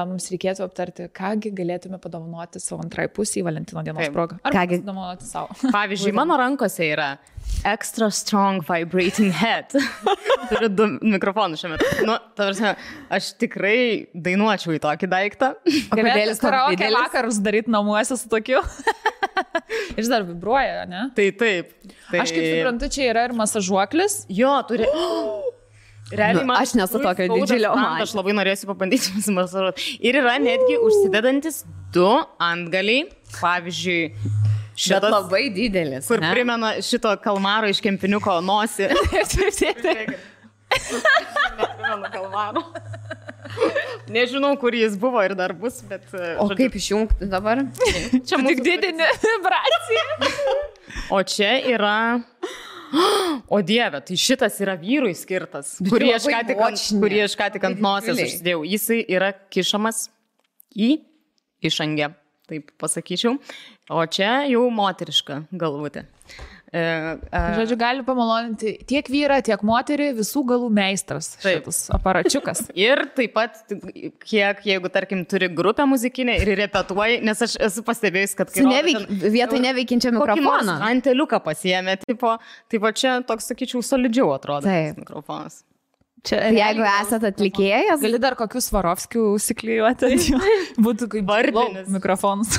Speaker 1: mums reikėtų aptarti, kągi galėtume padovanoti savo antrai pusį Valentino dienos progą. Ar padovanoti savo?
Speaker 2: Pavyzdžiui, mano rankose yra extra strong vibrating head. Turiu 2 mikrofonus šiuo metu. Nu, tavrasi, aš tikrai dainuočiau į tokį daiktą.
Speaker 1: Galėtų karaoke vakarus daryti namuose su tokiu. Ir dar vibruoja, ne?
Speaker 2: Tai taip. Tai...
Speaker 1: Aš kaip suprantu, čia yra ir masažuoklis.
Speaker 2: Jo, turi... Realiai,
Speaker 3: aš nesu tokio didžiulio.
Speaker 2: Aš labai norėsiu pabandyti masažuoti. Ir yra netgi užsidedantis 2 antgaliai. Pavyzdžiui, šitas...
Speaker 3: Bet labai didelis.
Speaker 2: Kur primena šito kalmaro iš kempiniuko nosį. Neprimenu kalmaro. Nežinau, kur jis buvo ir dar bus, bet...
Speaker 3: O kaip išjungti dabar?
Speaker 1: Čia tik didinė vibracija.
Speaker 2: O čia yra... O Dieve, tai šitas yra vyrui skirtas, kurį aš ką tik ant nosės užsidėjau. Jisai yra kišamas į išangę, taip pasakyčiau. O čia jau moteriška galvutė.
Speaker 1: Žodžiu, gali pamaloninti tiek vyrą, tiek moterį, visų galų meistras šitas aparačiukas.
Speaker 2: Ir taip pat, jeigu, tarkim, turi grupę muzikinę ir repetuoji, nes aš esu pastebėjus, kad...
Speaker 3: Vietoj neveikiančio mikrofoną.
Speaker 2: Anteliuką pasiėmė, tipo čia toks, sakyčiau, solidžiau atrodo tas mikrofonas.
Speaker 3: Čia, jeigu esate atlikėjas,
Speaker 1: gali dar kokius Svarovskių užsiklijuoti. Būtų kaip vardinis mikrofonas.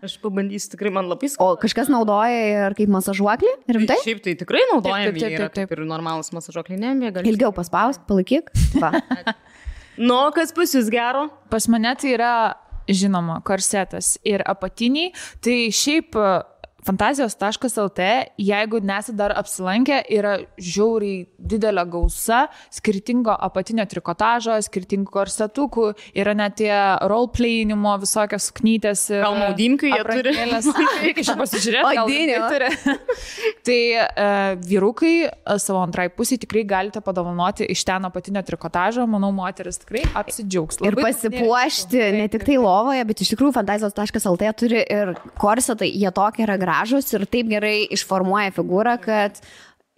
Speaker 2: Aš pabandysiu, tikrai man labai skauda.
Speaker 3: O kažkas naudoja ir kaip masažuoklį? Rimtai?
Speaker 2: Šiaip tai tikrai naudojami yra kaip ir normalus masažuokliai.
Speaker 3: Ilgiau paspausk, palaikyk.
Speaker 2: Nu, kas pas jūs gero?
Speaker 1: Pas mane tai yra, žinoma, korsetas ir apatiniai. Tai šiaip... Fantazijos.lt, jeigu nesate dar apsilankę, yra žiauriai didelė gausa skirtingo apatinio trikotažo, skirtingų korsetukų, yra net tie roleplayinimo visokios suknytės.
Speaker 2: Gal maudimkių jie turi?
Speaker 1: Reikia čia pasižiūrėti, gal turi. Tai vyrukai savo antrai pusį tikrai galite padovanoti iš ten apatinio trikotažo, manau, moteris tikrai apsidžiaugs.
Speaker 3: Ir pasipuošti ne tik tai lovoje, bet iš tikrųjų Fantazijos.lt turi ir korsetai, jie tokie yra gražus ir taip gerai išformuoja figūrą, kad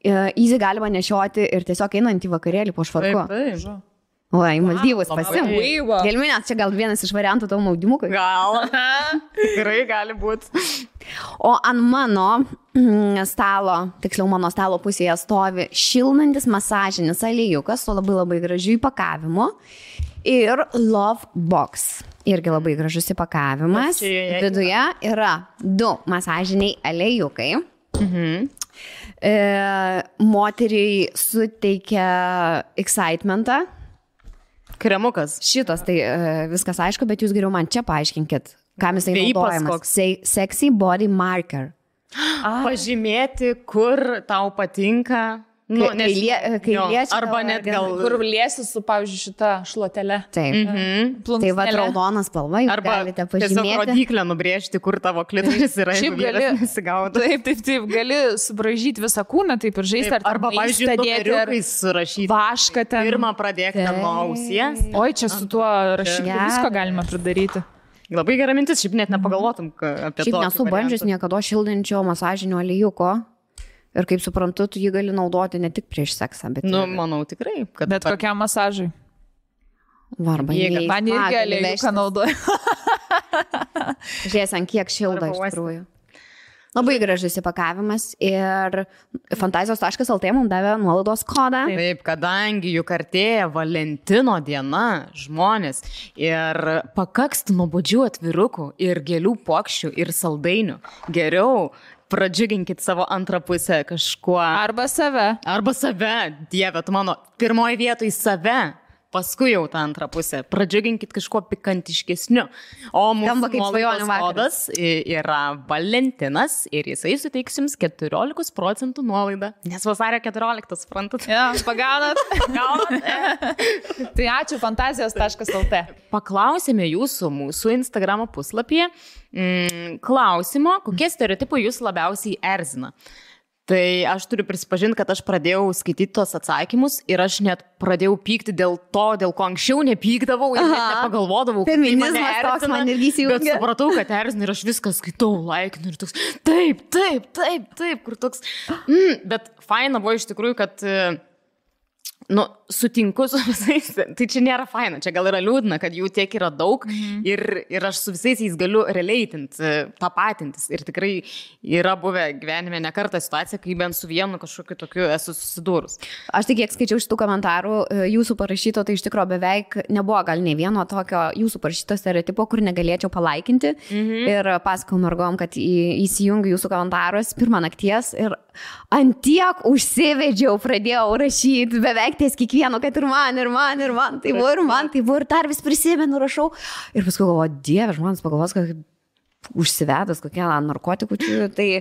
Speaker 3: easy galima nešioti ir tiesiog einant į vakarėlį po švarku.
Speaker 2: Taip.
Speaker 3: O, į Maldyvus pasim. Gelminės, čia gal vienas iš variantų tavo maudimukui.
Speaker 2: Gal. Tikrai gali būti.
Speaker 3: O ant mano stalo, tiksliau mano stalo pusėje stovi šildantis masažinis aliejukas su labai labai gražiu įpakavimu ir Love Box. Irgi labai gražus įpakavimas. Viduje yra 2 masažiniai aliejukai. Moteriai suteikia excitementą.
Speaker 2: Kremukas.
Speaker 3: Šitas, tai viskas aišku, bet jūs geriau man čia paaiškinkit, kam jisai naudojamas. Sexy Body Marker.
Speaker 2: Pažymėti, kur tau patinka. Nu,
Speaker 3: kai liečia.
Speaker 2: Arba net gal.
Speaker 1: Kur liesi su, pavyzdžiui, šita šluotelė.
Speaker 3: Taip. Tai va, raudonas spalva, jūs galite pažymėti.
Speaker 2: Tiesiog rodiklę nubrėžti, kur tavo klitoris yra.
Speaker 1: Šiaip gali nesigauti. Taip, gali subražyti visą kūną, taip ir žaisti.
Speaker 2: Arba, pavyzdžiui, numeriukais surašyti.
Speaker 1: Vašką ten.
Speaker 2: Pirmą pradėk nuo ausies.
Speaker 1: Oi, čia su tuo rašymu visko galima pridaryti.
Speaker 2: Labai gera mintis, šiaip net nepagalvotum apie to.
Speaker 3: Šiaip nesu bandžius niekada šildančio masažinio aliejūko. Ir kaip suprantu, tu jį gali naudoti ne tik prieš seksą, bet...
Speaker 2: Nu, manau, tikrai.
Speaker 1: Bet kokiam masažui?
Speaker 3: Varba,
Speaker 1: man irgi aliejūką naudoju.
Speaker 3: Žiūrėsim, kiek šilda iš tikrųjų. Labai gražus įpakavimas ir fantazijos.lt mums davė nuolaidos kodą.
Speaker 2: Taip, kadangi juk artėja Valentino diena, žmonės, ir pakaks nuobodžių atvirukų ir gėlių puokščių ir saldainių. Geriau pradžiuginkit savo antrą pusę kažkuo.
Speaker 1: Arba save.
Speaker 2: Dieve, tu mano, pirmoji vietoj save, paskui jau tą antrą pusę. Pradžiuginkit kažkuo pikantiškesniu. O mūsų nuolaidos kodas yra Valentinas ir jisai suteiks jums 14% nuolaidą. Nes vasario 14, suprantat?
Speaker 1: Ja, pagaunat. Tai ačiū fantazijos.lt.
Speaker 2: Paklausėme jūsų mūsų Instagramo puslapyje klausimo, kokie stereotipai jūs labiausiai erzina. Tai aš turiu prisipažinti, kad aš pradėjau skaityti tos atsakymus ir aš net pradėjau pykti dėl to, dėl ko anksčiau nepykdavau ir net nepagalvodavau.
Speaker 3: Feminizmas toks man irgi įsijungia.
Speaker 2: Bet supratau, kad erzina ir aš viską skaitau, laikinu ir toks, taip, kur toks. Bet faina buvo iš tikrųjų, kad... Nu, sutinku su visais, tai čia nėra faina, čia gal yra liūdna, kad jų tiek yra daug ir aš su visais jais galiu releitinti, tapatintis ir tikrai yra buvę gyvenime ne kartą situacija, kai bent su vienu kažkokiu tokiu esu susidūrus.
Speaker 3: Aš tik kiek skaičiau šitų komentarų jūsų parašyto, tai iš tikrųjų beveik nebuvo gal nei vieno tokio jūsų parašyto stereotipo, kur negalėčiau palaikinti ir pasakau mergom, kad įsijungiu jūsų komentarus pirmą nakties ir antiek užsivedžiau, pradėjau rašyti beveik ties kiekvieno, kad ir man, tai buvo ir dar vis prisimenu, rašau. Ir paskui galvoju, Dieve, žmonės pagalvos, kad užsivedus kokie narkotikų, tai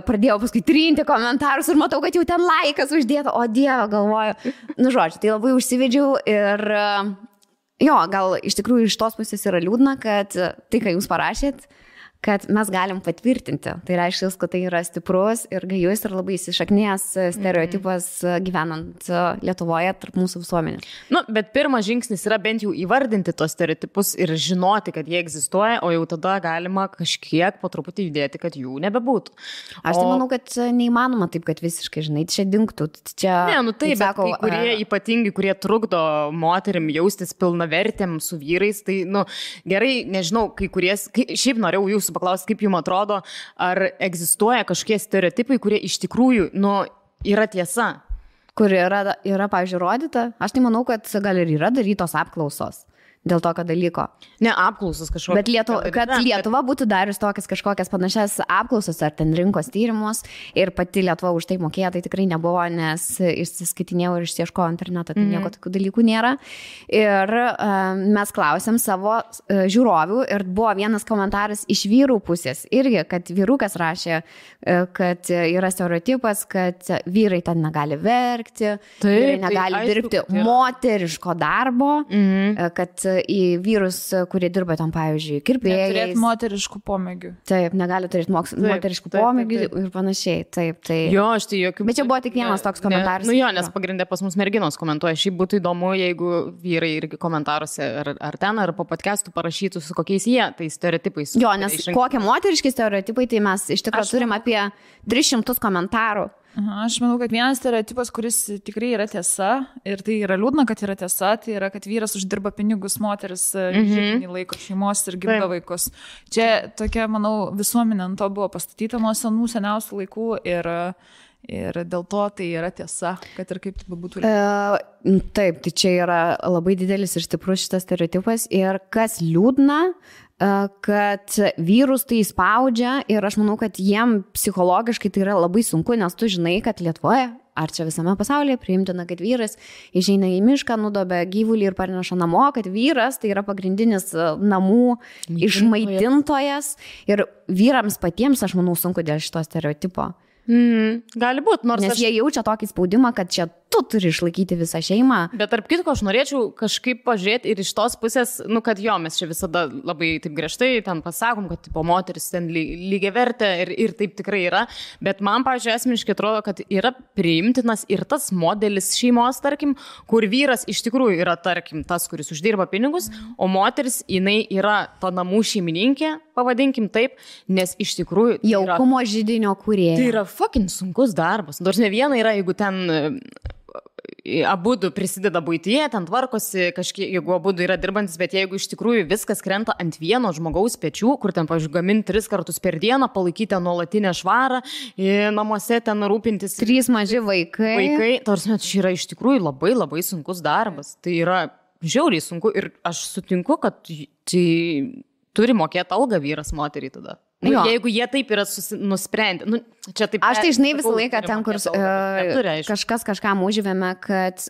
Speaker 3: pradėjau paskui trinti komentarus ir matau, kad jau ten laikas uždėta, o Dieve, galvoju. Nu, žodžiu, tai labai užsivedžiau ir jo, gal iš tikrųjų iš tos pusės yra liūdna, kad tai, ką jūs parašėt, kad mes galim patvirtinti. Tai reiškia, kad tai yra stiprus ir gajus ir labai įsišaknėjęs stereotipas gyvenant Lietuvoje tarp mūsų visuomenės.
Speaker 2: Nu, bet pirmas žingsnis yra bent jau įvardinti tos stereotipus ir žinoti, kad jie egzistuoja, o jau tada galima kažkiek po truputį judėti, kad jų nebebūtų.
Speaker 3: Aš tai manau, kad neįmanoma taip, kad visiškai, žinai, čia dingtų. Čia,
Speaker 2: ne, nu taip, bet kai kurie ypatingi, kurie trukdo moterim jaustis pilnavertėm su vyrais, tai, nu, gerai, nežinau, kai kurie, šiaip norėjau jūsų paklausti, kaip jums atrodo, ar egzistuoja kažkokie stereotipai, kurie iš tikrųjų, nu, yra tiesa.
Speaker 3: Kur yra, pavyzdžiui, rodyta. Aš tai manau, kad gal ir yra darytos apklausos dėl tokio dalyko.
Speaker 2: Ne, apklausas kažkokios.
Speaker 3: Bet kad Lietuva būtų darius tokias kažkokias panašias apklausas ar ten rinkos tyrimus ir pati Lietuva už tai mokėjo, tai tikrai nebuvo, nes išsiskaitinėjau ir išieškojau internetą, tai nieko tokių dalykų nėra. Ir mes klausėm savo žiūrovių ir buvo vienas komentaras iš vyrų pusės irgi, kad vyrukas rašė, kad yra stereotipas, kad vyrai ten negali verkti, vyrai negali dirbti moteriško darbo, kad į vyrus, kurie dirba tam, pavyzdžiui, kirpėjais.
Speaker 1: Neturėti moteriškų pomėgių.
Speaker 3: Taip, negali turėti moteriškų pomėgių ir panašiai. Taip.
Speaker 2: Jo, aš tai jokių... Bet
Speaker 3: čia buvo tik vienas toks komentaras.
Speaker 2: Nu jo, nes pagrindė pas mus merginos komentuoja. Šiaip būtų įdomu, jeigu vyrai irgi komentaruose ar ten, ar po podcastų parašytų, su kokiais jie, tai stereotipais.
Speaker 3: Jo, nes kokie moteriški stereotipai, tai mes iš tikrųjų turim apie 300 komentarų.
Speaker 1: Aš manau, kad vienas stereotipas, kuris tikrai yra tiesa, ir tai yra liūdna, kad yra tiesa, tai yra, kad vyras uždirba pinigus, moteris žyminį laiko šeimos ir gimdo vaikus. Čia tokia, manau, visuomenė ant to buvo pastatyta nuo seniausių laikų ir dėl to tai yra tiesa, kad ir kaip tai būtų.
Speaker 3: Taip, tai čia yra labai didelis ir stiprus šitas stereotipas ir kas liūdna, kad vyrus tai spaudžia ir aš manau, kad jiem psichologiškai tai yra labai sunku, nes tu žinai, kad Lietuvoje ar čia visame pasaulyje priimtina, kad vyras išeina į mišką, nudobia gyvulį ir parneša namo, kad vyras tai yra pagrindinis namų išmaitintojas ir vyrams patiems, aš manau, sunku dėl šito stereotipo.
Speaker 2: Gali būti,
Speaker 3: nes jie jaučia tokį spaudimą, kad čia tu turi išlaikyti visą šeimą.
Speaker 2: Bet tarp kitko, aš norėčiau kažkaip pažiūrėti ir iš tos pusės, kad jo, mes čia visada labai taip griežtai ten pasakom, kad tipo, moteris ten lygiai vertė ir taip tikrai yra, bet man, pavyzdžiui, asmeniškai atrodo, kad yra priimtinas ir tas modelis šeimos, tarkim, kur vyras iš tikrųjų yra, tarkim, tas, kuris uždirba pinigus, o moteris, jinai yra ta namų šeimininkė, pavadinkim taip, nes iš tikrųjų
Speaker 3: jaukumo židinio kūrėja.
Speaker 2: Tai yra fucking sunkus darbas. Nors ne viena yra, jeigu ten abudu prisideda buityje, ten tvarkosi, kažkiek, jeigu abudu yra dirbantis, bet jeigu iš tikrųjų viskas krenta ant vieno žmogaus pečių, kur ten, pavyzdžiui, gaminti 3 kartus per dieną, palaikyti nuolatinę švarą, namuose ten rūpintis.
Speaker 3: 3 maži vaikai.
Speaker 2: Tarsi, čia yra iš tikrųjų labai labai sunkus darbas. Tai yra žiauriai sunku ir aš sutinku, kad tai turi mokėti algą vyras moteriai tada. Jeigu jie taip yra nusprendę. Taip,
Speaker 3: aš tai žinai visą laiką ten, kur kažkas kažkam užvėme, kad,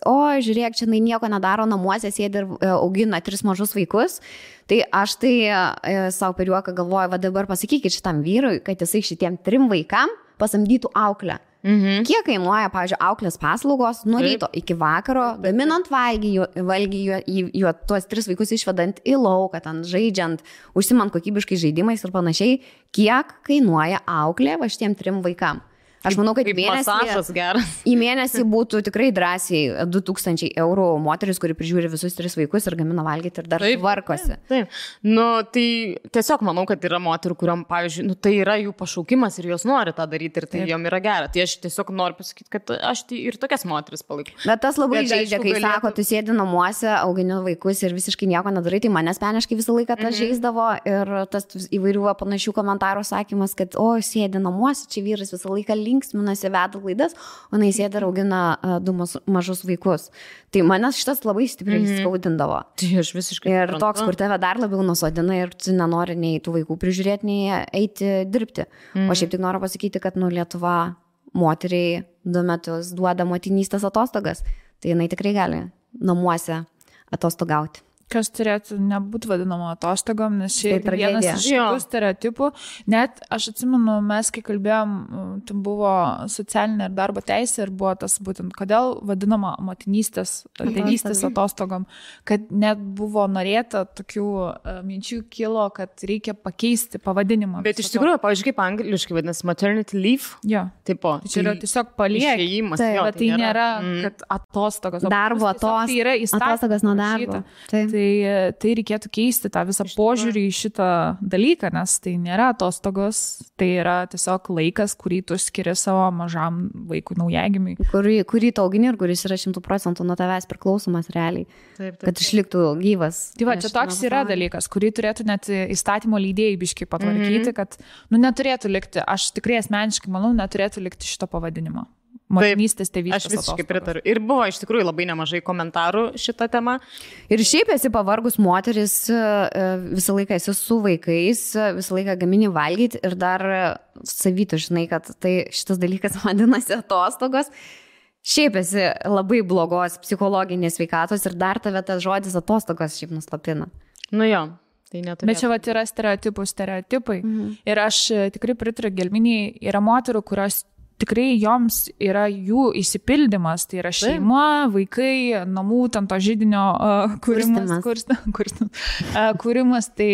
Speaker 3: žiūrėk, čia nieko nedaro namuose, sėdi ir augina 3 mažus vaikus. Tai aš tai savo per juoką galvoju, va dabar pasakykit šitam vyrui, kad jisai šitiem 3 vaikam pasamdytų auklę. Kiek kainuoja, pavyzdžiui, auklės paslaugos nuo ryto iki vakaro, gaminant valgį, tuos 3 vaikus išvedant į lauką, ten žaidžiant, užsimant kokybiškai žaidimais ir panašiai, kiek kainuoja auklė va šitiem 3 vaikam. Aš manau, kad į mėnesį būtų tikrai drąsiai 2000 eurų moteris, kuri prižiūri visus 3 vaikus ir gamina valgyti ir dar tvarkosi.
Speaker 2: Taip. Tai tiesiog manau, kad yra moterų, kuriam, pavyzdžiui, tai yra jų pašaukimas ir jos nori tą daryti ir tai jom yra gera. Tai aš tiesiog noriu pasakyti, kad aš tai ir tokias moteris palaikau.
Speaker 3: Bet tas labai žaidžia, kai sako, tu sėdi namuose, augini vaikus ir visiškai nieko nedarai, tai mane asmeniškai visą laiką tas žaisdavo ir tas įvairių panašių komentarų sakymas, kad sėdi namuose, čia vyras visą laiką linksminasi, veda laidas, o jis sėdi ir augina 2 mažus vaikus. Tai manęs šitas labai stipriai skaudindavo.
Speaker 2: Tai aš visiškai.
Speaker 3: Ir toks, kur tave dar labiau nusodina ir tu nenori nei tų vaikų prižiūrėti, nei eiti dirbti. O šiaip tik noriu pasakyti, kad Lietuva moteriai 2 metus duoda motinystės atostogas. Tai jinai tikrai gali namuose atostogauti.
Speaker 1: Kas turėtų nebūti vadinama atostogom, nes šiaip vienas iš šitų stereotipų. Net aš atsimenu, mes kai kalbėjom, tai buvo socialinė ir darbo teisė ir buvo tas būtent, kodėl vadinama motinystės, tėvystės atostogom, kad net buvo norėta tokių minčių kilo, kad reikia pakeisti pavadinimą.
Speaker 2: Bet iš tikrųjų, pavyzdžiui, kaip angliškai vadinasi maternity leave.
Speaker 1: Jo.
Speaker 2: Tipo,
Speaker 1: čia yra tiesiog paliek. Tai nėra, kad atostogos.
Speaker 3: Darbo atostogas nuo darbo.
Speaker 1: Tai reikėtų keisti tą visą požiūrį į šitą dalyką, nes tai nėra atostogos, tai yra tiesiog laikas, kurį tu skiri savo mažam vaikui naujagimiui.
Speaker 3: Kurį tu augini ir kuris yra 100% nuo tavęs priklausomas realiai, kad išliktų gyvas.
Speaker 1: Tai va, čia toks yra dalykas, kurį turėtų net įstatymo leidėjai biškai patvarkyti, kad neturėtų likti, aš tikrai asmeniškai manau, neturėtų likti šito pavadinimo. Motinystės, tėvystės.
Speaker 2: Aš visiškai pritariu. Ir buvo iš tikrųjų labai nemažai komentarų šitą temą.
Speaker 3: Ir šiaip esi pavargus moteris, visą laiką esi su vaikais, visą laiką gamini valgyti ir dar savytų žinai, kad tai šitas dalykas vadinasi atostogos. Šiaip esi labai blogos psichologinės sveikatos ir dar tave tas žodis atostogos šiaip nuslapina.
Speaker 2: Jo.
Speaker 1: Bet čia vat yra stereotipai. Ir aš tikrai pritariu Gelminei, yra moterų, kurios tikrai joms yra jų išsipildymas, tai yra šeima, vaikai, namų, ten to židinio kūrimas, tai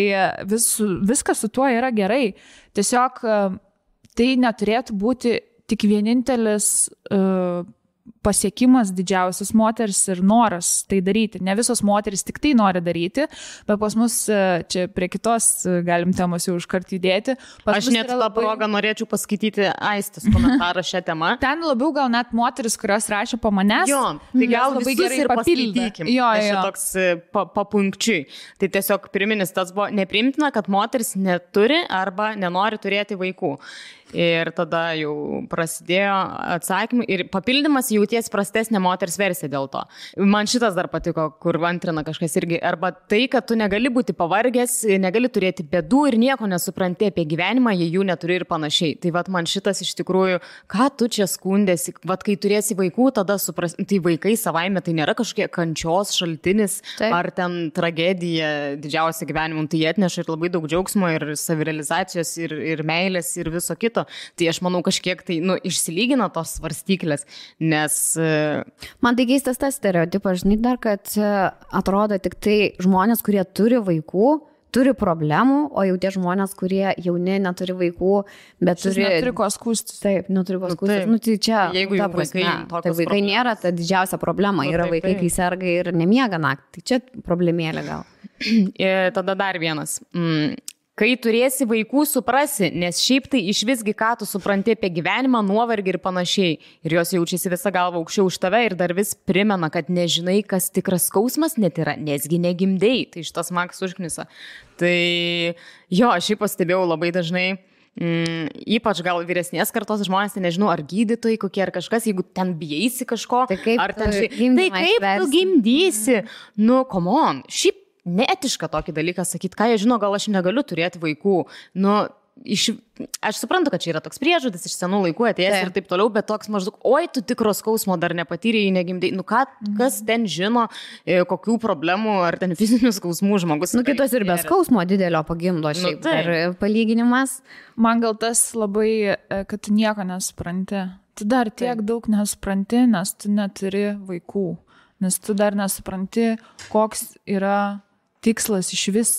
Speaker 1: viskas su tuo yra gerai. Tiesiog tai neturėtų būti tik vienintelis pasiekimas didžiausias moters ir noras tai daryti. Ne visos moteris tik tai nori daryti, bet pas mus čia prie kitos galim temos jau užkart judėti.
Speaker 2: Aš net tą progą norėčiau paskaityti Aistės komentarą šią temą.
Speaker 1: Ten labiau gal net moteris, kurios rašė po manęs.
Speaker 2: Jo, tai gal labai gerai ir paskaitykim. Jo. Toks papunkčiui. Tai tiesiog pirminis tas buvo nepriimtina, kad moteris neturi arba nenori turėti vaikų. Ir tada jau prasidėjo atsakymai ir papildymas jauties prastesnė moters versija dėl to. Man šitas dar patiko, kur antrina kažkas irgi. Arba tai, kad tu negali būti pavargęs, negali turėti bėdų ir nieko nesupranti apie gyvenimą, jei jų neturi ir panašiai. Tai vat man šitas iš tikrųjų, ką tu čia skundėsi, vat kai turėsi vaikų, tada suprasi, tai vaikai savaime tai nėra kažkokie kančios šaltinis. Taip. Ar ten tragedija didžiausia gyvenimų, tai jie atneša ir labai daug džiaugsmo ir savirealizacijos ir meilės ir viso kito. Tai aš manau kažkiek tai išsilygina tos svarstyklės, nes...
Speaker 3: Man tai keistas tas stereotipas, žinai, dar, kad atrodo tik tai žmonės, kurie turi vaikų, turi problemų, o jau tie žmonės, kurie jauni, neturi vaikų, bet
Speaker 1: neturi ko skųstis.
Speaker 3: Taip, neturi ko skųstis. Tai čia,
Speaker 2: jeigu jau
Speaker 3: vaikai nėra ta didžiausia problema, yra vaikai, kai serga ir nemiega naktį. Tai čia problemėlė gal.
Speaker 2: Tada dar vienas. Kai turėsi vaikų, suprasi, nes šiaip tai iš visgi ką tu supranti apie gyvenimą, nuovargį ir panašiai. Ir jos jaučiasi visą galvą aukščiau už tave ir dar vis primena, kad nežinai, kas tikras skausmas net yra, nesgi negimdei. Tai šitas Max užknisa. Tai jo, aš šiaip pastebėjau labai dažnai, ypač gal vyresnės kartos žmonės, tai nežinau, ar gydytojai kokie ar kažkas, jeigu ten bijaisi kažko,
Speaker 3: tai kaip
Speaker 2: ar ten tu gimdysi, come on, šiaip neetiška tokį dalyką sakyti, ką jie žino, gal aš negaliu turėti vaikų. Aš suprantu, kad čia yra toks priežodis iš senų laikų atėjęs ir taip toliau, bet toks maždaug, oi, tu tikro skausmo dar nepatyrėjai, negimdai. Kas ten žino, kokių problemų ar ten fizinių skausmų žmogus.
Speaker 3: Kitos ir be skausmo didelio pagimdo šiaip. Ir palyginimas.
Speaker 1: Man gal tas labai, kad tu nieko nesupranti. Tu dar tiek daug nesupranti, nes tu neturi vaikų. Nes tu dar nesupranti, koks yra tikslas iš vis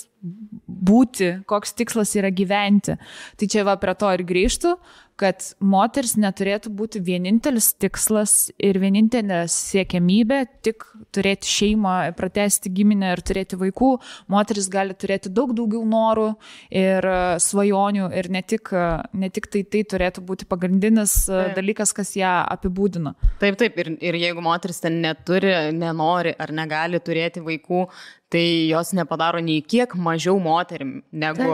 Speaker 1: būti, koks tikslas yra gyventi. Tai čia va prie to ir grįžtų, kad moteris neturėtų būti vienintelis tikslas ir vienintelė siekiamybė tik turėti šeimą, pratęsti giminę ir turėti vaikų. Moteris gali turėti daug daugiau norų ir svajonių ir ne tik tai turėtų būti pagrindinis dalykas, kas ją apibūdina.
Speaker 2: Taip, ir jeigu moteris ten neturi, nenori ar negali turėti vaikų, tai jos nepadaro nei kiek mažiau moterim negu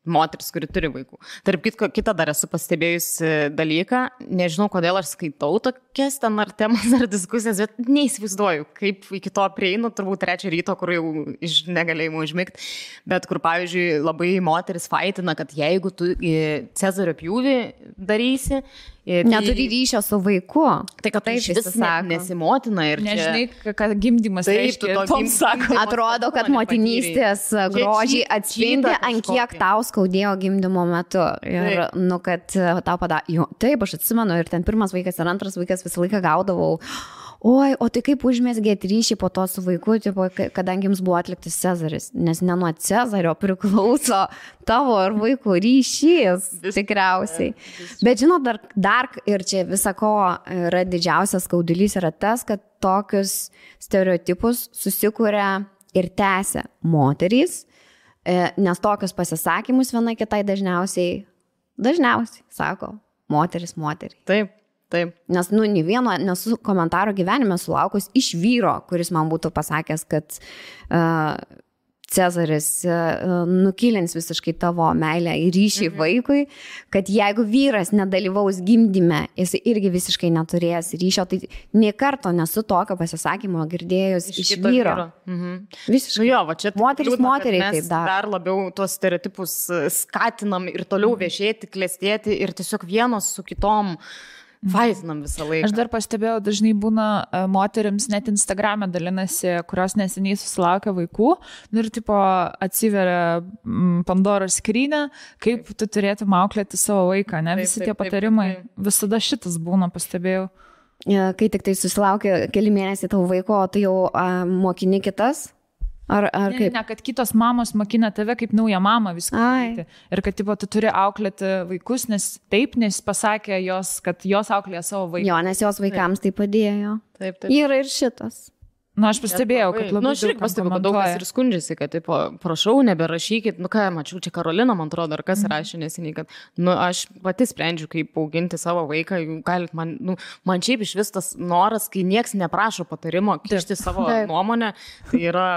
Speaker 2: moteris, kuri turi vaikų. Tarp kitą dar esu pastebėjusi dalyką, nežinau, kodėl aš skaitau tokias ten ar temas ar diskusijas, bet neįsivaizduoju, kaip iki to prieinu, turbūt 3 ryto, kur jau iš negalėjimo užmigti, bet kur, pavyzdžiui, labai moteris faitina, kad jeigu tu Cezario pjūvį darysi,
Speaker 3: neturi ryšio su vaiku.
Speaker 2: Tai kad tai vis nesimotina ir
Speaker 1: nežinai, kad gimdymas reiškia.
Speaker 3: Atrodo, kad motinystės grožį atspindi, ant kiek tau skaudėjo gimdymo metu. Ir, kad tau padarė. Taip, aš atsimenu, ir ten pirmas vaikas ir antras vaikas visą laiką gaudavau. Oi, o tai kaip užmezgėt ryšį po to su vaiku, kadangi jums buvo atliktas Cezaris, nes ne nuo Cezario priklauso tavo ir vaikų ryšys, tikriausiai. Bet žinot, dar ir čia visako yra didžiausias skaudulys yra tas, kad tokius stereotipus susikuria ir tęsia moterys, nes tokius pasisakymus viena kitai dažniausiai sako moteris.
Speaker 2: Taip.
Speaker 3: Nes, nei vieno nesu komentaro gyvenime sulaukus iš vyro, kuris man būtų pasakęs, kad Cezaris nukilins visiškai tavo meilę ir ryšį vaikui, kad jeigu vyras nedalyvaus gimdyme, jis irgi visiškai neturės ryšio, tai nė karto nesu tokio pasisakymo girdėjus iš vyro. Visiškai.
Speaker 2: Jo, va čia
Speaker 3: moteriai taip
Speaker 2: dar labiau tuos stereotipus skatinam ir toliau viešėti, klestėti ir tiesiog vienos su kitom vaitinam visą laiką.
Speaker 1: Aš dar pastebėjau, dažnai būna moterims net Instagram'e dalinasi, kurios neseniai susilaukia vaikų, ir tipo atsiveria Pandoros skrynia, kaip tu turėtum auklėti savo vaiką, ne? Visi tie patarimai, visada šitas būna, pastebėjau.
Speaker 3: Kai tik tai susilaukia keli mėnesiai tavo vaiko, o tu jau mokini kitas, Ar kaip?
Speaker 1: Ne, kad kitos mamos mokina tave kaip naują mamą viską daryti. Ir kad tipo, tu turi auklėti vaikus, nes pasakė jos, kad jos auklėja savo vaikus.
Speaker 3: Jo, nes jos vaikams tai padėjo.
Speaker 2: Taip.
Speaker 3: Yra ir šitas.
Speaker 1: Aš pastebėjau, kad labai
Speaker 2: aš irgi pastebėjau, kad daug kas ir skundžiasi, kad, tipo, prašau, neberašykit, mačiau, čia Karolina, man atrodo, ar kas rašė neseniai, kad, aš pati sprendžiu, kaip auginti savo vaiką, galit man šiaip iš vis tas noras, kai nieks neprašo patarimo, kišti savo nuomonę, tai yra...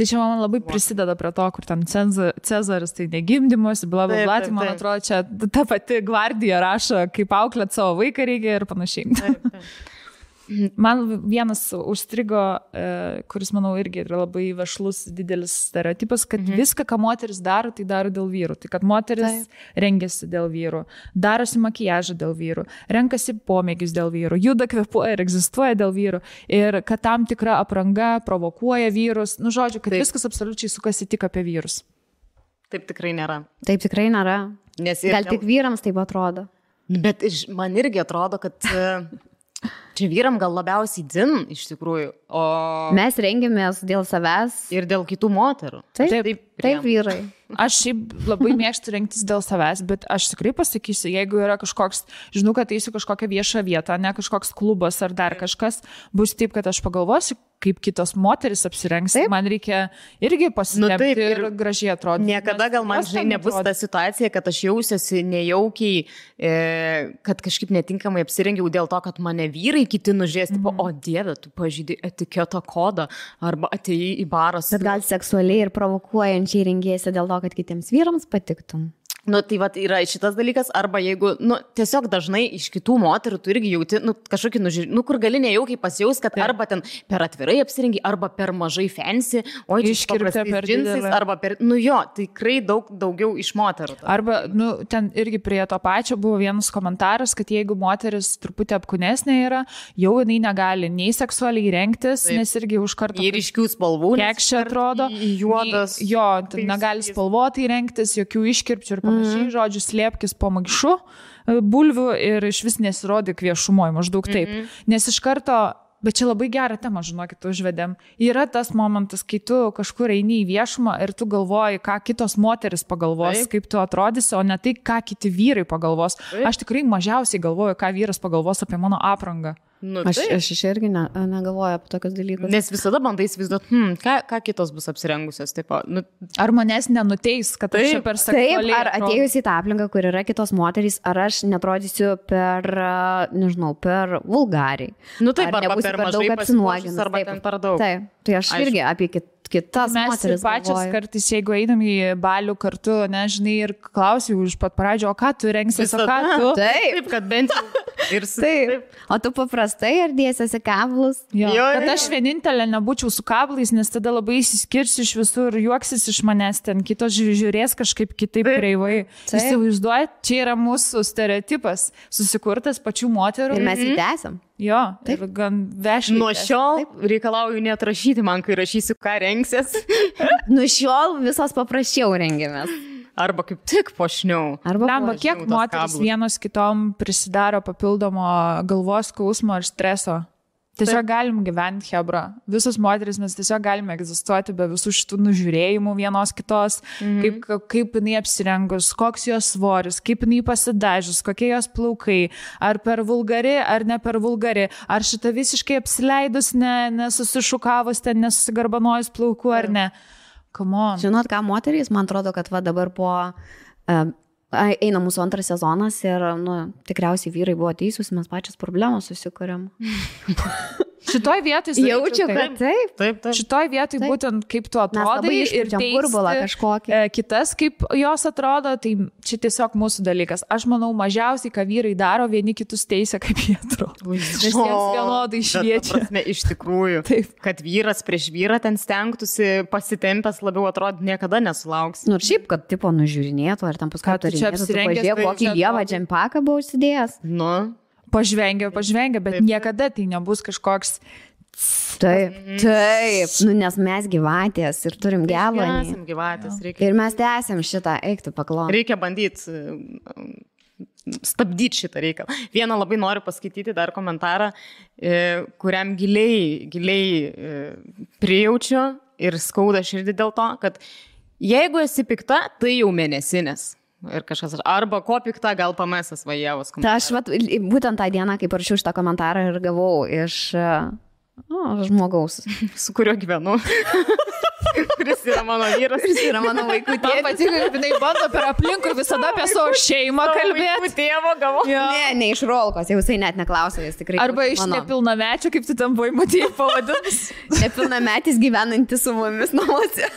Speaker 1: Tai čia man labai prisideda prie to, kur ten Cezaris, tai negimdymus, blablabla, tai man atrodo, čia ta pati gvardija rašo, kaip auklėt savo vaiką reikia ir panašiai.
Speaker 2: Taip.
Speaker 1: Man vienas užstrigo, kuris, manau, irgi yra labai vešlus didelis stereotipas, kad viską, ką moteris daro, tai daro dėl vyrų. Tai kad moteris rengiasi dėl vyrų, darosi makiažą dėl vyrų, renkasi pomėgius dėl vyrų, juda, kvėpuoja ir egzistuoja dėl vyrų. Ir kad tam tikra apranga provokuoja vyrus. Žodžiu, kad viskas absoliučiai sukasi tik apie vyrus.
Speaker 2: Taip tikrai nėra.
Speaker 3: Taip tikrai nėra. Gal tik vyrams taip atrodo.
Speaker 2: Bet man irgi atrodo, kad... Čia vyram gal labiausiai dzin, iš tikrųjų, o...
Speaker 3: Mes rengiamės dėl savęs.
Speaker 2: Ir dėl kitų moterų.
Speaker 3: Taip vyrai.
Speaker 1: Aš šiaip labai mėgstu rengtis dėl savęs, bet aš tikrai pasakysiu, jeigu yra kažkoks, žinau, kad eisiu kažkokią viešą vietą, ne kažkoks klubas ar dar kažkas, bus taip, kad aš pagalvosiu, kaip kitos moteris apsirengs, man reikia irgi pasitempti ir gražiai atrodyti.
Speaker 2: Niekada gal man nebus ta situacija, kad aš jausiuosi nejaukiai, kad kažkaip netinkamai apsirengiau dėl to, kad mane vyrai kiti nužies, tipo, o Dieve, tu pažydai etiketo kodą, arba atėjai į barą.
Speaker 3: Bet gal seksualiai ir provokuojančiai rengėsi dėl to, kad kitiems vyrams patiktum.
Speaker 2: Tai vat yra šitas dalykas, arba jeigu, tiesiog dažnai iš kitų moterų tu irgi jauti, kažkokį nužiūrį, kur gali nejaukiai pasijaus, kad arba ten per atvirai apsirengi, arba per mažai fancy, o
Speaker 1: iškirpta per
Speaker 2: džinsais, arba per, tikrai daugiau iš moterų.
Speaker 1: Arba, ten irgi prie to pačio buvo vienas komentaras, kad jeigu moteris truputį apkūnesnė yra, jau jinai negali nei seksualiai rengtis, nes irgi už kartą...
Speaker 2: Ir ryškių spalvų.
Speaker 1: Kekšė atrodo.
Speaker 2: Juodas.
Speaker 1: Jo, negali spalvotai rengtis, jokių iškirpčių ir žodžiu, slėpkis po maišu bulvių ir iš vis nesirodyk viešumoje, maždaug taip. Nes iš karto, bet čia labai gerą temą, žinokit, užvedėm. Yra tas momentas, kai tu kažkur eini į viešumą ir tu galvoji, ką kitos moteris pagalvos, kaip tu atrodysi, o ne tai, ką kiti vyrai pagalvos. Aš tikrai mažiausiai galvoju, ką vyras pagalvos apie mano aprangą.
Speaker 3: Aš irgi negalvoju apie tokius dalykus.
Speaker 2: Nes visada bandai įsivaizduoti, ką kitos bus apsirengusios. Taip,
Speaker 1: ar manęs nenuteis, kad aš čia per seksualiai...
Speaker 3: Ar atėjus į tą aplinką, kur yra kitos moterys, ar aš netrodysiu per vulgariai.
Speaker 2: Taip, arba per mažai pasipuošus, arba ten per daug.
Speaker 3: Taip, tai aš irgi apie kitas moteris
Speaker 1: pačias galvoju. Kartais, jeigu einam į balių kartu, nežinai, ir klausiu iš pat pradžio, o ką tu rengsies, o ką tu?
Speaker 2: Taip, kad bent jau.
Speaker 3: Taip. O tu paprastai ar dėsiesi kablus?
Speaker 1: Jo, kad aš vienintelė nebūčiau su kablais, nes tada labai įsiskirsiu iš visur, juoksis iš manęs, ten kitos žiūrės kažkaip kitaip kreivai. Įsivaizduojat, čia yra mūsų stereotipas, susikurtas pačių moterų.
Speaker 3: Ir mes jį tęsiam.
Speaker 1: Jo, ir gan vešliai.
Speaker 2: Nuo šiol reikalauju net rašyti man, kai rašysiu, ką rengsies.
Speaker 3: Nuo šiol visos paprasčiau rengiamės.
Speaker 2: Arba kaip tik pošniau.
Speaker 1: Lemba, kiek moteris vienos kitom prisidaro papildomo galvos skausmo ir streso. Tiesiog galim gyventi, hebra. Visos moteris mes tiesiog galime egzistuoti be visų šitų nužiūrėjimų vienos kitos, kaip jinai apsirengus, koks jos svoris, kaip jinai pasidažius, kokie jos plaukai, ar per vulgari, ar ne per vulgari, ar šita visiškai apsileidus, nesusišukavus, nesusigarbanojus plaukų, ar ne.
Speaker 3: Žinot, ką moterys, man atrodo, kad va dabar po... eina mūsų antras sezonas ir tikriausiai vyrai buvo teisūs, mes pačios problemos susikuriam.
Speaker 1: Šitoj vietoj
Speaker 3: jaučiu, kad taip.
Speaker 1: Šitoj vietoj būtent kaip tu atrodai ir teisti kitas, kaip jos atrodo, tai čia tiesiog mūsų dalykas. Aš manau, mažiausiai, ką vyrai daro, vieni kitus teisia, kaip jie atrodo. Nes jiems vienodai šviečia.
Speaker 2: Iš tikrųjų, kad vyras prieš vyrą ten stengtųsi pasitempęs labiau atrodyti, niekada nesulauks.
Speaker 3: Šiaip, kad tipo nužiūrinėtų, ar tam paskui pažiūrėk, kokį lievą džempaką buvo užsidėjęs.
Speaker 1: Pažvengia, bet niekada tai nebus kažkoks...
Speaker 3: Taip, nes mes gyvatės ir turim gevanį. Ir mes tęsiam šitą, eik tu paklon.
Speaker 2: Reikia bandyti stabdyti šitą reikalą. Vieną labai noriu paskaityti dar komentarą, kuriam giliai prijaučiu ir skauda širdį dėl to, kad jeigu esi pikta, tai jau mėnesinės. Ir kažkas, arba ko pikta, gal pamesas vajavos.
Speaker 3: Ta aš būtent tą dieną, kai parašiau šitą komentarą ir gavau iš žmogaus,
Speaker 2: su kuriuo gyvenu. Kuris yra mano vyras,
Speaker 3: kuris yra mano vaikų tėvas.
Speaker 1: Man patiko, kad jinai bando per aplinkui visada apie savo šeimą kalbėti.
Speaker 2: Vaikų tėvo gavau.
Speaker 3: Ne iš rolkos, jau jisai net neklausė, jis tikrai.
Speaker 1: Arba iš nepilnamečio, kaip tu ten buvai matyti pavadinus.
Speaker 3: Nepilnametis gyvenantis su mumis namuose.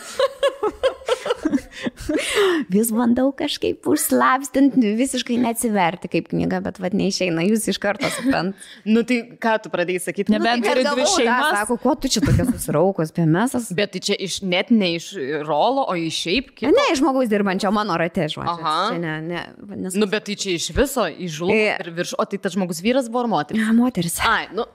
Speaker 3: Vis bandau kažkaip užslapstinti, visiškai neatsiverti kaip knyga, bet vad neišeina, jūs iš karto suprant.
Speaker 2: Nu tai ką tu pradėjai sakyti?
Speaker 1: Nebent turi dvi šeimas.
Speaker 3: Sako, ko tu čia tokia susiraukos, pėmesas?
Speaker 2: Bet tai čia net ne iš rolo, o iš šiaip kito?
Speaker 3: Ne, iš žmogaus dirbančio mano rate, žodžiu.
Speaker 2: Aha. Nu bet tai čia iš viso, iš žulų ir virš. O tai tas žmogus vyras buvo ar moteris?
Speaker 3: Moteris.
Speaker 2: Ai, nu.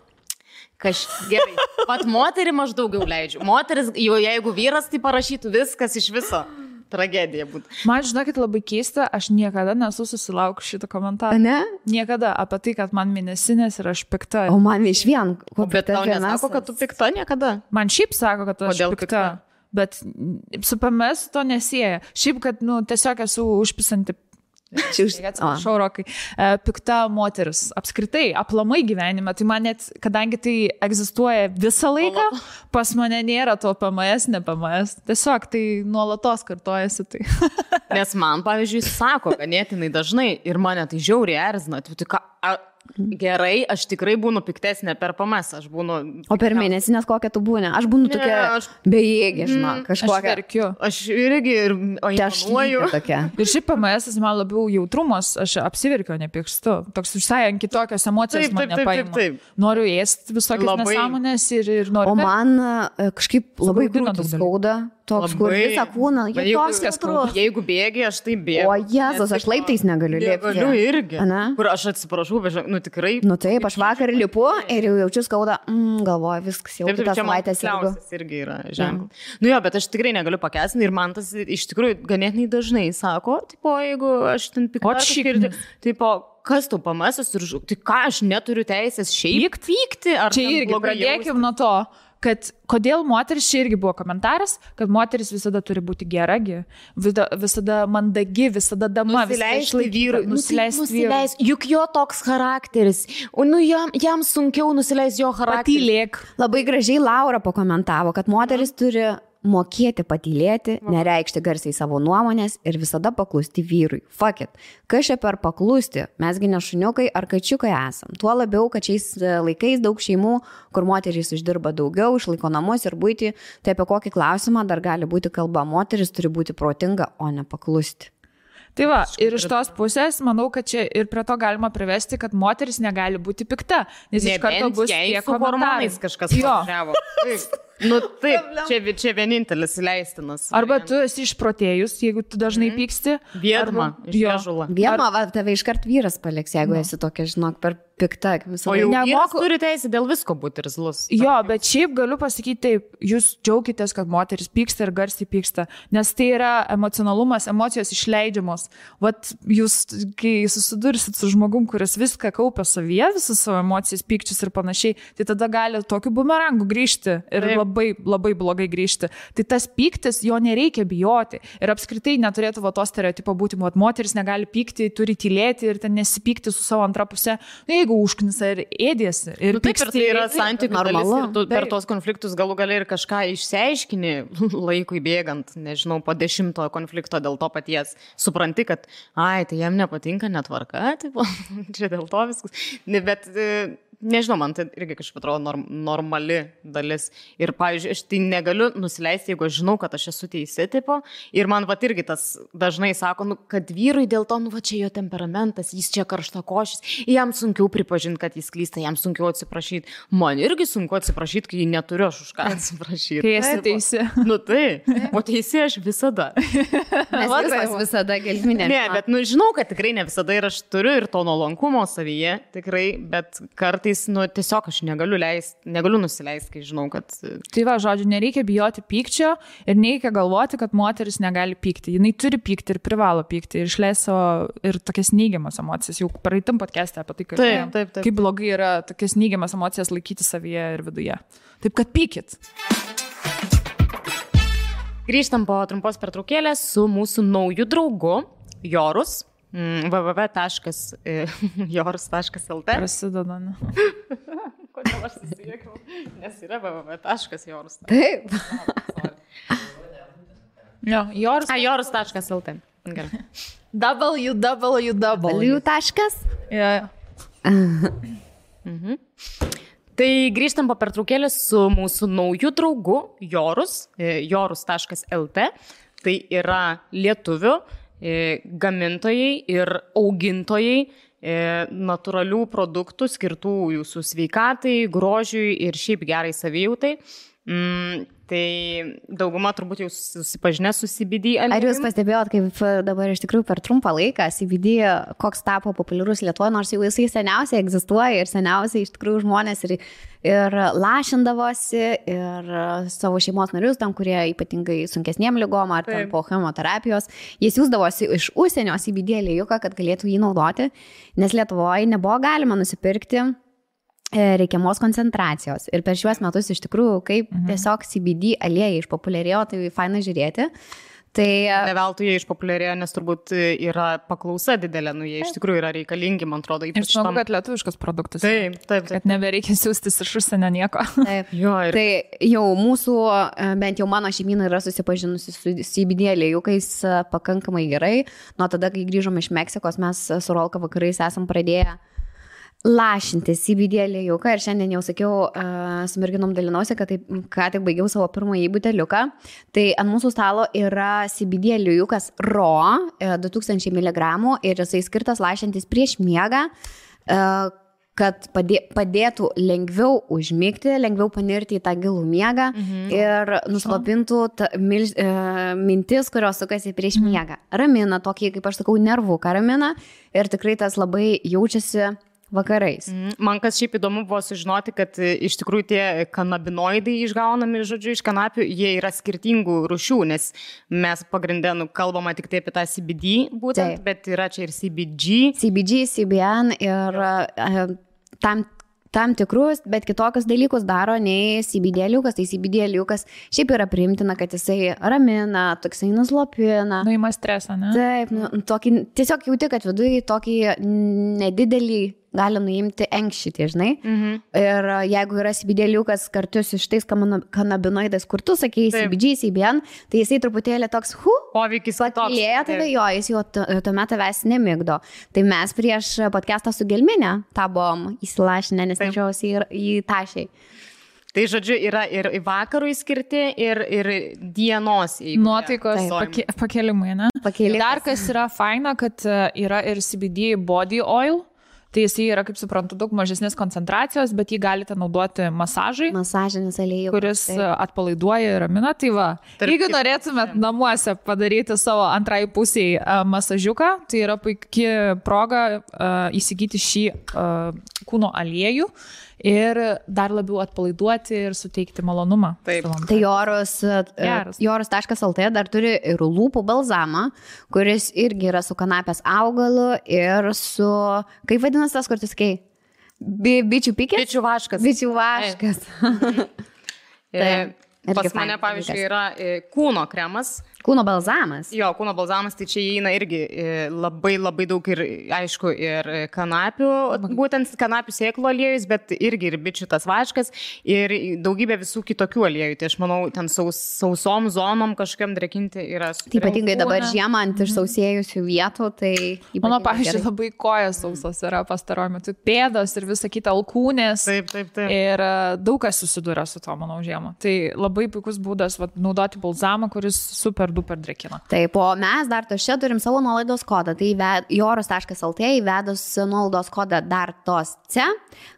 Speaker 2: Gerai. Pat moterį aš daugiau leidžiu. Moteris, jau jeigu vyras, tai parašytų viskas iš viso. Tragedija būtų.
Speaker 1: Man, žinokit, labai keista, aš niekada nesu susilaukus šitą komentarą.
Speaker 3: Ne?
Speaker 1: Niekada apie tai, kad man mėnesinės ir aš pikta.
Speaker 3: O man iš vien.
Speaker 2: Bet tau nesako, kad tu pikta niekada?
Speaker 1: Man šiaip sako, kad aš pikta. Bet su PMS to nesieja. Šiaip, kad, tiesiog esu užpisanti. Atsiprašau, Rokai. Pikta moteris. Apskritai, aplamai gyvenime. Tai man net, kadangi tai egzistuoja visą laiką, pas mane nėra to PMS, ne PMS. Tiesiog tai nuolatos kartojasi. Tai.
Speaker 2: Nes man, pavyzdžiui, sako ganėtinai dažnai ir mane tai žiauriai erzina. Gerai, aš tikrai būnu piktesnė per PMS, aš būnu...
Speaker 3: O per mėnesinės kokią tu būni? Aš būnu tokia bejėgė, žinok, kažkokia.
Speaker 1: Aš verkiu.
Speaker 2: Aš irgi aimanuoju.
Speaker 1: Ir šiaip PMS man labiau jautrumas, aš apsiverkiu, nepykstu. Toks visai ant kitokios emocijos mane paima. Noriu ėsti visokias nesąmonės ir noriu...
Speaker 3: O man kažkaip labai krūtis skauda. Toks, kur visą kūną,
Speaker 2: jeigu bėgi, aš tai bėgu.
Speaker 3: O Jėzus, aš laiptais negaliu lipti.
Speaker 2: Negaliu irgi. Kur aš atsiprašau, bet tikrai.
Speaker 3: Taip, aš vakar lipu ir jau jaučiu skaudą, galvoju, viskas jau kitą savaitę sėdu.
Speaker 2: Irgi yra ženklas. Bet aš tikrai negaliu pakęsti ir man tas iš tikrųjų ganėtinai dažnai sako, jeigu aš ten pikta, kas tu pamesas ir tai ką aš neturiu teisės šiaip pykti?
Speaker 1: Čia irgi pradėkim nuo to. Kad kodėl moteris, čia irgi buvo komentaras, kad moteris visada turi būti geragi, visada mandagi, visada dama,
Speaker 2: nusileisti vyrui. Juk jo toks charakteris, jam sunkiau nusileisti jo charakterį.
Speaker 1: Patylėk.
Speaker 3: Labai gražiai Laura pakomentavo, kad moteris turi mokėti patylėti, nereikšti garsiai savo nuomonės ir visada paklusti vyrui. Fuck it. Kas čia per paklusti? Mesgi ne šuniukai ar kačiukai esam. Tuo labiau, kad šiais laikais daug šeimų, kur moterys uždirba daugiau, išlaiko namus ir buitį, tai apie kokį klausimą dar gali būti kalba. Moteris turi būti protinga, o ne paklusti.
Speaker 1: Tai va, ir iš tos pusės, manau, kad čia ir prie to galima privesti, kad moteris negali būti pikta, nes iš karto bus tie komentarai.
Speaker 2: Kažkas pažiavo. Taip, čia vienintelis leistinas.
Speaker 1: Arba tu esi išprotėjus, jeigu tu dažnai pyksti.
Speaker 2: Viedma, išžula.
Speaker 3: Viedma, tave iškart vyras paliks, jeigu esi tokia, žinok, per pikta.
Speaker 2: O jau vyras turi teisę dėl visko būti irzlus.
Speaker 1: Jo, bet šiaip galiu pasakyti taip, jūs džiaukitės, kad moteris pyksta ir garsiai pyksta, nes tai yra emocionalumas, emocijos išleidžiamos. Vat jūs, kai susidursit su žmogum, kuris viską kaupia savyje, visas savo emocijas, pykčius ir panašiai, tai tada gali tokiu bumerangu grįžti ir labai, labai blogai grįžti. Tai tas pyktis, jo nereikia bijoti. Ir apskritai neturėtų to stereotipo būti, kad moteris negali pykti, turi tylėti ir ten nesipykti su savo antra pusė. Jeigu užknisa ir ėdėsi. Ir
Speaker 2: taip, ir tai yra santykių dalis. Ir tu per tos konfliktus galų gali ir kažką išsiaiškini laikui bėgant, nežinau, po 10 konflikto dėl to paties. Supranti, kad, tai jam nepatinka netvarka, čia dėl to viskas. Bet... Nežinau, man tai irgi kažkaip atrodo normali dalis. Ir, pavyzdžiui, aš tai negaliu nusileisti, jeigu aš žinau, kad aš esu teisi, tipo. Ir man irgi tas dažnai sako, kad vyrui dėl to, čia jo temperamentas, jis čia karštakošis, jam sunkiau pripažinti, kad jis klysta, jam sunkiau atsiprašyti. Man irgi sunku atsiprašyti, kai neturiu aš už ką atsiprašyti.
Speaker 1: Kai esi teisi.
Speaker 2: O teisi aš visada.
Speaker 3: Mes visada gelminė.
Speaker 2: Ne, bet žinau, kad tikrai ne visada ir aš turiu ir to nuolankumo savyje, tikrai, bet kartais tiesiog aš negaliu nusileisti, kai žinau, kad...
Speaker 1: Tai va, žodžiu, nereikia bijoti pykčio ir nereikia galvoti, kad moteris negali pykti. Jinai turi pykti ir privalo pykti ir išleis savo ir tokias neigiamas emocijas. Jau praeitam podcast'e apie tai, kaip blogai yra tokias neigiamas emocijas laikyti savyje ir viduje. Taip, kad pykit.
Speaker 2: Grįžtam po trumpos pertraukėlės su mūsų nauju draugu Jorus. www.jorus.lt
Speaker 1: Prasideda, ne?
Speaker 2: Kodėl aš susijėkiau? Nes yra www.jorus.
Speaker 3: Taip.
Speaker 1: Jo, Jorus.
Speaker 2: Jorus.lt. Gerai.
Speaker 1: www.
Speaker 3: Taškas?
Speaker 1: Ja.
Speaker 2: Tai grįžtam po pertraukėlės su mūsų nauju draugu Jorus, jorus.lt. Tai yra lietuvių gamintojai ir augintojai natūralių produktų skirtų jūsų sveikatai, grožiui ir šiaip gerai savijautai. Tai dauguma turbūt jau susipažinę su CBD.
Speaker 3: Ar jūs pastebėjot, kaip dabar iš tikrųjų per trumpą laiką CBD koks tapo populiarus Lietuvoje, nors jau jisai seniausiai egzistuoja ir seniausiai iš tikrųjų žmonės ir lašindavosi ir savo šeimos narius, tam, kurie ypatingai sunkesniem lygom ar ten po chemoterapijos, jie siūsdavosi iš užsienio CBD aliejų, kad galėtų jį naudoti, nes Lietuvoje nebuvo galima nusipirkti reikiamos koncentracijos. Ir per šiuos metus iš tikrųjų, kaip tiesiog CBD aliejai išpopuliarėjo, tai faina žiūrėti. Tai
Speaker 2: ne veltui jie išpopuliarėjo, nes turbūt yra paklausa didelė, jie iš tikrųjų yra reikalingi, man atrodo,
Speaker 1: ypač tam. Kad lietuviškas produktas.
Speaker 2: Taip.
Speaker 1: Kad nebereikia siūstis iš užsienio nieko.
Speaker 3: Taip. Tai jau mūsų, bent jau mano šeimyna yra susipažinusi su CBD aliejukais pakankamai gerai. Nuo tada, kai grįžom iš Meksikos, mes su Rolka vakarais esam pradėję lašinti CBD aliejūką ir šiandien jau sakiau, su merginom dalinausi, kad taip, ką tik baigiau savo pirmąjį buteliuką. Tai ant mūsų stalo yra CBD aliejūkas Raw 2000 mg ir jisai skirtas lašintis prieš miegą, kad padėtų lengviau užmigti, lengviau panirti į tą gilų miegą ir nuslopintų mintis, kurios sukasi prieš miegą. Ramina, tokį, kaip aš sakau, nervuką ramina ir tikrai tas labai jaučiasi vakarais.
Speaker 2: Man kas šiaip įdomu buvo sužinoti, kad iš tikrųjų tie kanabinoidai išgaunami, žodžiu, iš kanapių, jie yra skirtingų rūšių, nes mes pagrindė kalbama tik tai apie tą CBD būtent, bet yra čia ir CBG,
Speaker 3: CBN ir tam tikrus, bet kitokius dalykus daro nei CBD aliejūkas. Tai CBD aliejūkas šiaip yra priimtina, kad jisai ramina, toksai nuslopina.
Speaker 1: Nuima stresą, ne?
Speaker 3: Taip, tokį, tiesiog jauti, kad viduje tokį nedidelį gali nuimti enkšitį, žinai. Ir jeigu yra CBD aliejūkas kartu su šitais kanabinoidais, kur tu sakei CBG, CBN, tai jisai truputėlį toks,
Speaker 2: poveikis
Speaker 3: pakilėja tave, jis jau tuomet tavęs nemigdo. Tai mes prieš podcastą su Gelminė tą buvom įsilašinę, nes nežiausi į tašiai.
Speaker 2: Tai žodžiu, yra ir vakarui skirti, ir dienos.
Speaker 1: Nuotaikos pakelimai, ne? Dar kas yra faina, kad yra ir CBD body oil. Tai jis yra, kaip suprantu, daug mažesnės koncentracijos, bet jį galite naudoti masažai.
Speaker 3: Masažinis aliejus.
Speaker 1: Kuris atpalaiduoja ir ramina. Tai va, jeigu norėtumėt namuose padaryti savo antrai pusiai masažiuką, tai yra puikia proga įsigyti šį kūno aliejų ir dar labiau atpalaiduoti ir suteikti malonumą.
Speaker 3: Taip. Tai jorus.lt dar turi ir lūpų balzamą, kuris irgi yra su kanapės augalu ir su, kaip vadinasi tas, kur tu sakei? Bičių pikės?
Speaker 2: Bičių vaškas.
Speaker 3: Bičių vaškas.
Speaker 2: Pas mane, pavyzdžiui, yra kūno kremas.
Speaker 3: Kūno balzamas.
Speaker 2: Jo, kūno balzamas, tai čia įeina irgi labai daug ir, aišku, ir kanapių, būtent kanapių sėklų aliejus, bet irgi ir bičių tas vaškas ir daugybė visų kitokių aliejų. Tai aš manau, ten sausom zonom kažkokiam drekinti yra super.
Speaker 3: Taip, ypatingai dabar žiemą ant išsausėjusių vietų, tai...
Speaker 1: Mano, pavyzdžiui, labai kojas sausos yra pastaruoju metu, pėdos ir visa kita, alkūnės.
Speaker 2: Taip.
Speaker 1: Ir daug kas susiduria su to, manau, žiemą. Tai labai puikus būdas naudoti balzamą, kuris super duper drekina.
Speaker 3: Taip, o mes dar čia turim savo nuolaidos kodą. Tai jorus.lt įvedus nuolaidos kodą dar tos C,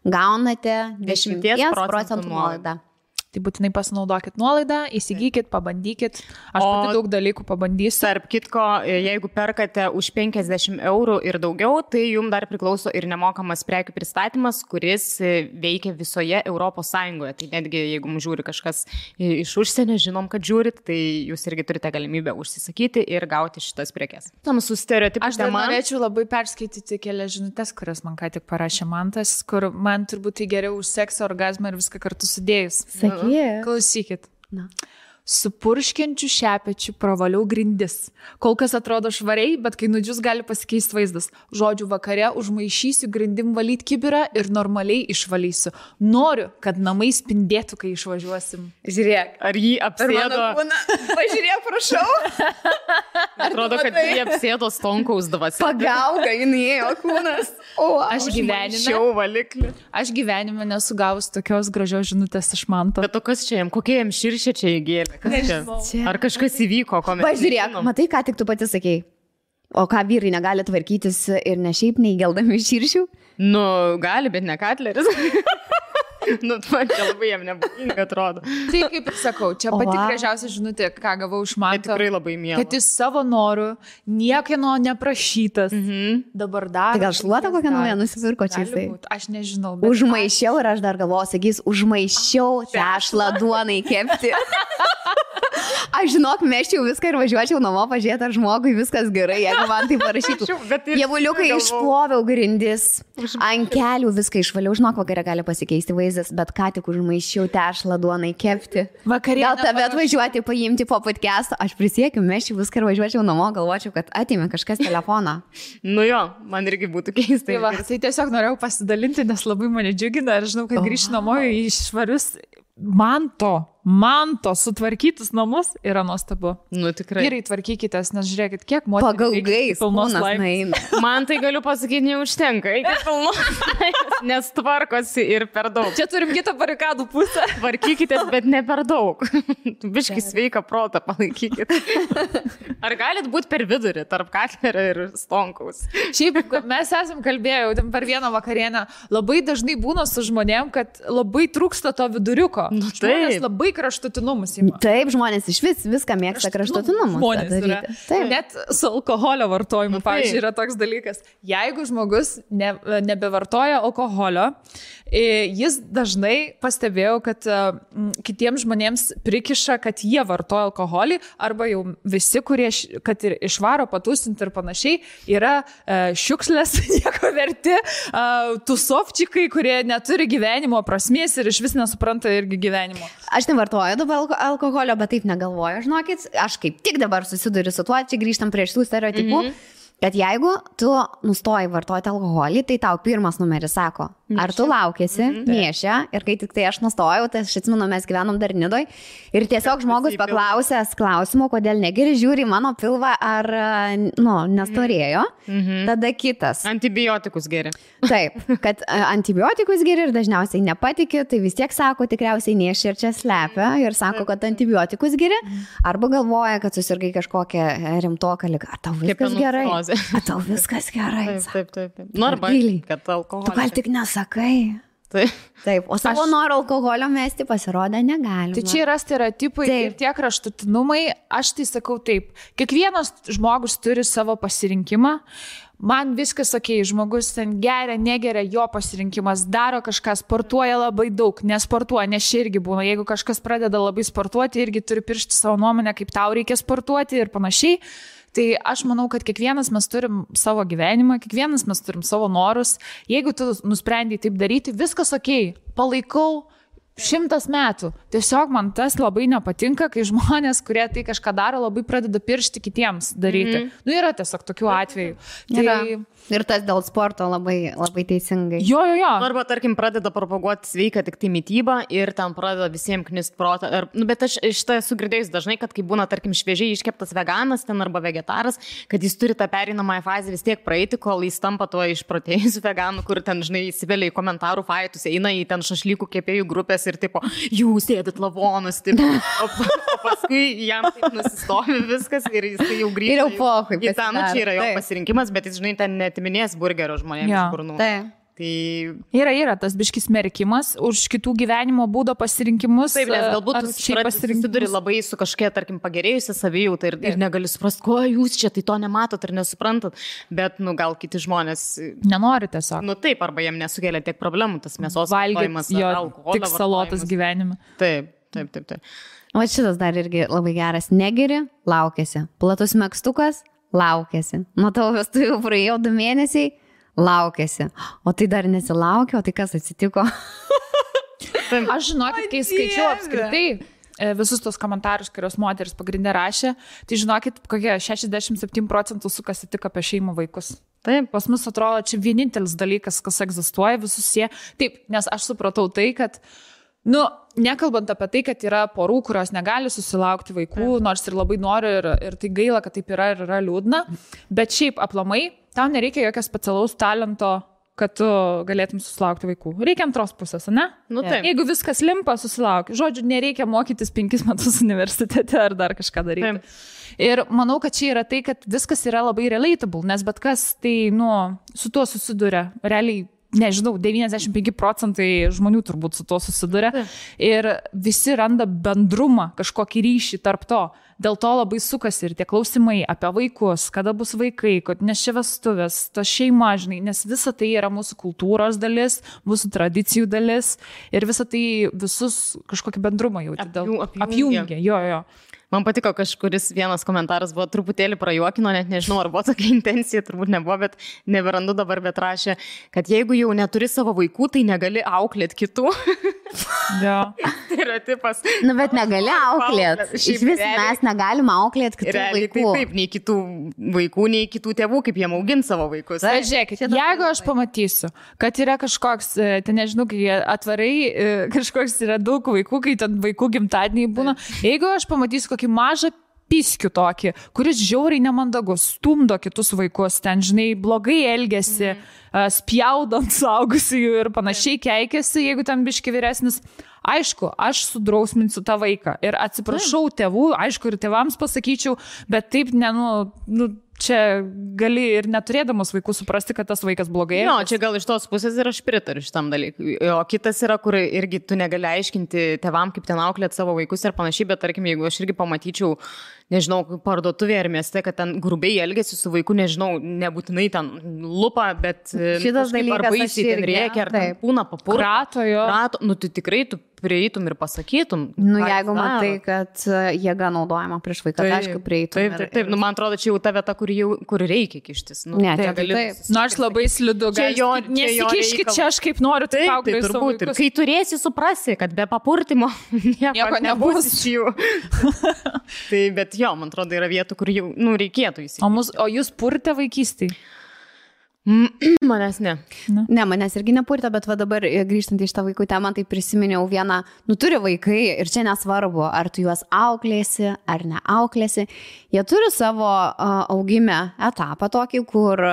Speaker 3: gaunate 10% nuolaidą.
Speaker 1: Tai būtinai pasinaudokit nuolaidą, įsigykit, pabandykit. Aš pati daug dalykų pabandysiu.
Speaker 2: Tarp kitko, jeigu perkate už 50 eurų ir daugiau, tai jums dar priklauso ir nemokamas prekių pristatymas, kuris veikia visoje Europos Sąjungoje. Tai netgi jeigu mums žiūri kažkas iš užsienio, žinom, kad žiūrit, tai jūs irgi turite galimybę užsisakyti ir gauti šitas prekes.
Speaker 1: Aš dar norėčiau labai perskaityti kelias žinutės, kurias man ką tik parašė Mantas, kur man turbūt tai geriau už seksą, orgazmą ir viską kartu sudėjus.
Speaker 3: Yeah.
Speaker 1: Klausykit. su purškiančiu šepečiu pravaliau grindis. Kol kas atrodo švariai, bet kai nudžius gali pasikeisti vaizdas. Žodžiu, vakare užmaišysiu grindim valyti kibirą ir normaliai išvalysiu. Noriu, kad namai spindėtų, kai išvažiuosim.
Speaker 2: Žiūrėk, ar jį apsėdo?
Speaker 3: Pažiūrėk, prašau.
Speaker 2: Atrodo, kad jį apsėdo Stonkaus dvasia.
Speaker 3: Pagauga, jinai ėjo kūnas. O,
Speaker 1: aš gyvenime nesu gavus tokios gražios žinutės iš Manto.
Speaker 2: Bet o kas čia jam, kokie jam širšė čia įgėlė? Ar kažkas įvyko?
Speaker 3: Pažiūrėk, matai, ką tik tu pati sakei. O ką vyrai negali tvarkytis ir ne šiaip neįgeldami širšių?
Speaker 2: Nu, gali, bet ne Katleris. Nu, man čia labai jam nebūtinga atrodo.
Speaker 1: Tai kaip ir sakau, čia pati gražiausia žinutė, ką gavau iš Manto.
Speaker 2: Tai tikrai labai miela.
Speaker 1: Kad jis savo norų, niekieno neprašytas. Dabar dar.
Speaker 3: Tai gal šluotą kokią naują nusipirko čia jisai?
Speaker 1: Aš nežinau.
Speaker 3: Užmaišiau ir aš dar galvoju, sakys, užmaišiau tešlą duonai kepti. Aš žinok, meščiau viską ir važiuočiau namo pažiūrėti, ar žmogui viskas gerai, jeigu man tai parašytų. Jievuliukai išploviau grindis, ant kelių viską išvaliau, žinok, vakare gali pasikeisti vaizdas, bet ką tik užmaišiau tešlą duonai kepti. Gal tave atvažiuoti, paimti po podcast'o, aš prisiekiu, meščiau viską ir važiuočiau namo, galvočiau, kad atėmė kažkas telefoną.
Speaker 2: Nu jo, man irgi būtų keistai.
Speaker 1: Tai tiesiog norėjau pasidalinti, nes labai mane džiugina ir žinau, kad grįžti namo į švarius Manto sutvarkytus namus yra nuostabu.
Speaker 2: Nu tikrai.
Speaker 1: Vyrai tvarkykitės, nes žiūrėkit, kiek moterų
Speaker 3: pagalgais pilnos laimės.
Speaker 2: Man tai galiu pasakyti, neužtenka, iki pilnos laimės, nes tvarkosi ir per daug.
Speaker 1: Čia turim kitą barikadų pusę.
Speaker 2: Tvarkykitės, bet ne per daug. Biški sveiką protą palaikykit. Ar galit būti per vidurį tarp Katlerio ir Stonkaus?
Speaker 1: Šiaip mes esam kalbėję per vieną vakarienę, labai dažnai būna su žmonėm, kad labai trūksta to viduriuko.
Speaker 2: Nu,
Speaker 1: žmonės labai kraštutinumus ima.
Speaker 3: Taip, žmonės iš viską mėgsta kraštutinumus.
Speaker 1: Net su alkoholio vartojimu, pavyzdžiui, yra toks dalykas. Jeigu žmogus nebevartoja alkoholio, jis dažnai pastebėjo, kad kitiems žmonėms prikiša, kad jie vartoja alkoholį, arba jau visi, kurie, kad ir išvaro patūsinti ir panašiai, yra šiukšlės, nieko verti, tusovčikai, kurie neturi gyvenimo prasmės ir iš vis nesupranta irgi gyvenimo.
Speaker 3: Aš nevartoju dabar alkoholio, bet taip negalvoju, žinokit, aš kaip tik dabar susiduriu su tuo, čia grįžtam prie šitų stereotipų, kad jeigu tu nustoji vartoti alkoholį, tai tau pirmas numeris sako, ar tu laukėsi, nešia, ir kai tik tai aš nustojau, tai aš atsimenu, mes gyvenom dar Nidoj, ir tiesiog žmogus paklausęs klausimų, kodėl negeri, žiūri mano pilvą, ar, nestorėjo, tada kitas.
Speaker 2: Antibiotikus geri.
Speaker 3: Taip, kad antibiotikus geri ir dažniausiai nepatikė, tai vis tiek sako, tikriausiai nešia ir čia slepia, ir sako, kad antibiotikus geri, arba galvoja, kad susirgai kažkokią rimtoką ligą. Ar tau viskas gerai? Ar tau viskas gerai?
Speaker 2: Taip. Nu, arba, kad alkoholis.
Speaker 3: Tu gal tik nesakai. Taip, o savo noro alkoholio mesti pasirodė negalima.
Speaker 1: Tai čia yra stereotipai ir tie kraštutinumai, aš tai sakau taip, kiekvienas žmogus turi savo pasirinkimą, man viskas okei, žmogus ten geria, negeria, jo pasirinkimas, daro kažką, sportuoja labai daug, nesportuoja, nes čia irgi būna, jeigu kažkas pradeda labai sportuoti, irgi turi piršti savo nuomonę, kaip tau reikia sportuoti ir panašiai. Tai aš manau, kad kiekvienas mes turim savo gyvenimą, kiekvienas mes turim savo norus. Jeigu tu nusprendai taip daryti, viskas okei, palaikau 100 metų. Tiesiog man tas labai nepatinka, kai žmonės, kurie tai kažką daro, labai pradeda piršti kitiems daryti. Nu, yra tiesiog tokių atvejų. Tai...
Speaker 3: Ir tas dėl sporto labai, labai teisingai.
Speaker 1: Jo.
Speaker 2: Arba, tarkim, pradeda propaguoti sveiką tik tai mitybą ir ten pradeda visiems knist protą. Bet aš šitą esu girdėjus dažnai, kad kai būna, tarkim, šviežiai iškeptas veganas ten arba vegetaras, kad jis turi tą pereinamąją fazę vis tiek praeiti, kol jis tampa tuo išprotėjusiu veganu, kur ten, žinai, įsivelia į komentarų faitus, eina į ten šašlykų kepėjų grupės ir tipo, jūs ėdit lavonus, tipo, o paskui jam taip nusistovi viskas ir jis jau grįžta.
Speaker 3: Ir jau pohui.
Speaker 2: Į tą, čia yra jo pasirinkimas, bet jis, žinai, ten netiminės burgerio žmonėms iš burnų. Tai...
Speaker 1: Yra tas biškis merkimas už kitų gyvenimo būdo pasirinkimus.
Speaker 2: Taip, nes galbūt susiduri labai su kažkokia, tarkim, pagerėjusia savijauta ir negali suprasti, ko jūs čia tai to nematot ir nesuprantat, bet, gal kiti žmonės...
Speaker 1: Nenori tiesiog.
Speaker 2: Taip, arba jiem nesukelia tiek problemų, tas mėsos vartojimas, alkoholio
Speaker 1: tik salotas gyvenime.
Speaker 2: Taip.
Speaker 3: O šitas dar irgi labai geras. Negeri, laukiasi. Platus megztukas, laukiasi. Nuo tavo vestuvių praėjo 2 mėnesiai, laukiasi. O tai dar nesilaukia, o tai kas atsitiko?
Speaker 1: Aš žinokit, kai skaičiau apskritai visus tos komentarus, kurios moteris pagrindė rašė, tai žinokit, kokie 67% sukasi tik apie šeimų vaikus.
Speaker 2: Taip.
Speaker 1: Pas mus atrodo, čia vienintelis dalykas, kas egzistuoja, visus jie. Taip, nes aš supratau tai, kad nekalbant apie tai, kad yra porų, kurios negali susilaukti vaikų, nors ir labai nori ir tai gaila, kad taip yra ir yra liūdna, bet šiaip aplamai, tau nereikia jokio specialaus talento, kad tu galėtum susilaukti vaikų. Reikia antros pusės, ne?
Speaker 2: Taip.
Speaker 1: Jeigu viskas limpa, susilauk. Žodžiu, nereikia mokytis 5 metus universitete ar dar kažką daryti. Taip. Ir manau, kad čia yra tai, kad viskas yra labai relatable, nes bet kas tai, su tuo susiduria. Realiai, nežinau, 95% žmonių turbūt su tuo susiduria. Ir visi randa bendrumą, kažkokį ryšį tarp to. Dėl to labai sukasi ir tie klausimai apie vaikus, kada bus vaikai, nes čia vestuvės, to šeima, žinai, nes visa tai yra mūsų kultūros dalis, mūsų tradicijų dalis ir visa tai visus kažkokį bendrumą jauti. Apjungia. Jo.
Speaker 2: Man patiko, kažkuris vienas komentaras buvo truputėlį prajuokino, net nežinau, ar buvo tokia intencija, turbūt nebuvo, bet neberandu dabar, bet rašė, kad jeigu jau neturi savo vaikų, tai negali auklėti kitų.
Speaker 1: Jo.
Speaker 2: Tai yra tipas.
Speaker 3: Bet negali auklėti. Iš vis mes negalime auklėti kitų vaikų.
Speaker 2: Taip, nei kitų vaikų, nei kitų tėvų, kaip jie augina savo vaikus.
Speaker 1: Žiūrėkit, jeigu aš pamatysiu, kad yra kažkoks, tai nežinau, kai atvarai, kažkoks yra daug vaikų, kai ten vaikų gimtadieniai būna, jeigu aš pamatysiu kokį mažą piskių tokį, kuris žiauriai nemandagus, stumdo kitus vaikus, ten, žinai, blogai elgiasi, spjaudant suaugusiųjų ir panašiai keikiasi, jeigu ten biški vyresnis. Aišku, aš sudrausminsiu tą vaiką ir atsiprašau tėvų, aišku, ir tėvams pasakyčiau, bet taip, čia gali ir neturėdamas vaikų suprasti, kad tas vaikas blogai.
Speaker 2: Jo, čia gal iš tos pusės ir aš pritariu šitam dalykui. O kitas yra, kur irgi tu negali aiškinti tėvam, kaip ten auklėti savo vaikus ir panašiai, bet tarkim, jeigu aš irgi pamatyčiau, nežinau, parduotuvėje ar mieste, kad ten grubiai elgesi su vaiku, nežinau, nebūtinai ten lupa, bet
Speaker 3: šitas dalykas
Speaker 2: ar baisiai ten rėkia, ar ten būna papurto.
Speaker 1: Krato,
Speaker 2: tai tikrai tu prieitum ir pasakytum.
Speaker 3: Jeigu matai, kad jėga naudojama prieš vaiką, tai aišku, prieitum.
Speaker 2: Taip. Man atrodo, čia jau ta vieta, kur reikia kištis.
Speaker 3: Ne, čia
Speaker 1: taip. Aš labai slidu. Nesikiškit čia, aš kaip noriu, tai auklėsiu savo vaikus.
Speaker 2: Kai turėsi, suprasi, kad be papurtimo nieko nebus iš jų. Tai, bet jo, man atrodo, yra vietų, kur jau reikėtų įsikišti.
Speaker 1: O jūs purtė vaikystėje?
Speaker 2: Manęs ne.
Speaker 3: Ne, manęs irgi nepurtė, bet va dabar grįžtant į šitą vaikų temą, tai prisiminiau vieną, turi vaikai ir čia nesvarbu, ar tu juos auklėsi ar neauklėsi, jie turi savo augime etapą tokį, kur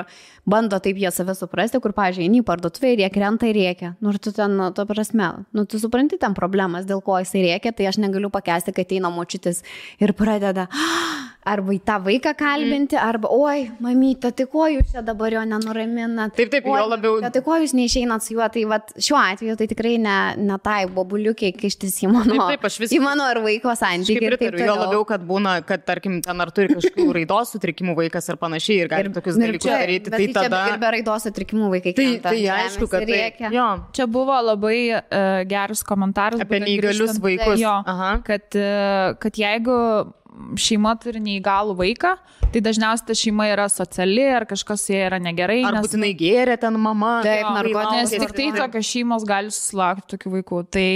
Speaker 3: bando taip jie save suprasti, kur, pavyzdžiui, eini į parduotuvę ir jie krenta ir rėkia. Ir tu ten, to prasme, tu supranti ten problemas, dėl ko jisai rėkia, tai aš negaliu pakęsti, kad eina močiutis ir pradeda arba į tą vaiką kalbinti, arba, oi, mamyte, tai ko jūs čia dabar jo nenuraminat?
Speaker 2: Taip, jo labiau.
Speaker 3: Tai ko jūs neišeinat su juo? Tai vat, šiuo atveju tai tikrai ne tai bobuliukiai kištis į mano ar vaiko santykį.
Speaker 2: Jo labiau, kad būna, kad, tarkim, ten ar turi kažkokių raidos sutrikimų vaikas ar panašiai ir gali tokius dalykus daryti. Tai tada...
Speaker 3: Ir be raidos sutrikimų vaikai krenta.
Speaker 2: Tai aišku, kad tai...
Speaker 1: Čia buvo labai geras komentaras.
Speaker 2: Apie neįgalius vaikus.
Speaker 1: Jo, kad jeigu šeima turi neįgalų vaiką, tai dažniausiai ta šeima yra sociali ar kažkas jie yra negerai.
Speaker 2: Ar būtinai gėrė ten mama.
Speaker 1: Taip, nes tik tai tokios šeimos gali susilaukti tokių vaikų. Tai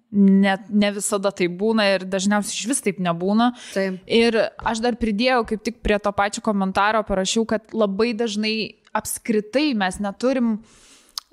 Speaker 1: ne visada tai būna ir dažniausiai iš vis taip nebūna.
Speaker 3: Taip.
Speaker 1: Ir aš dar pridėjau, kaip tik prie to pačio komentaro parašiau, kad labai dažnai apskritai mes neturim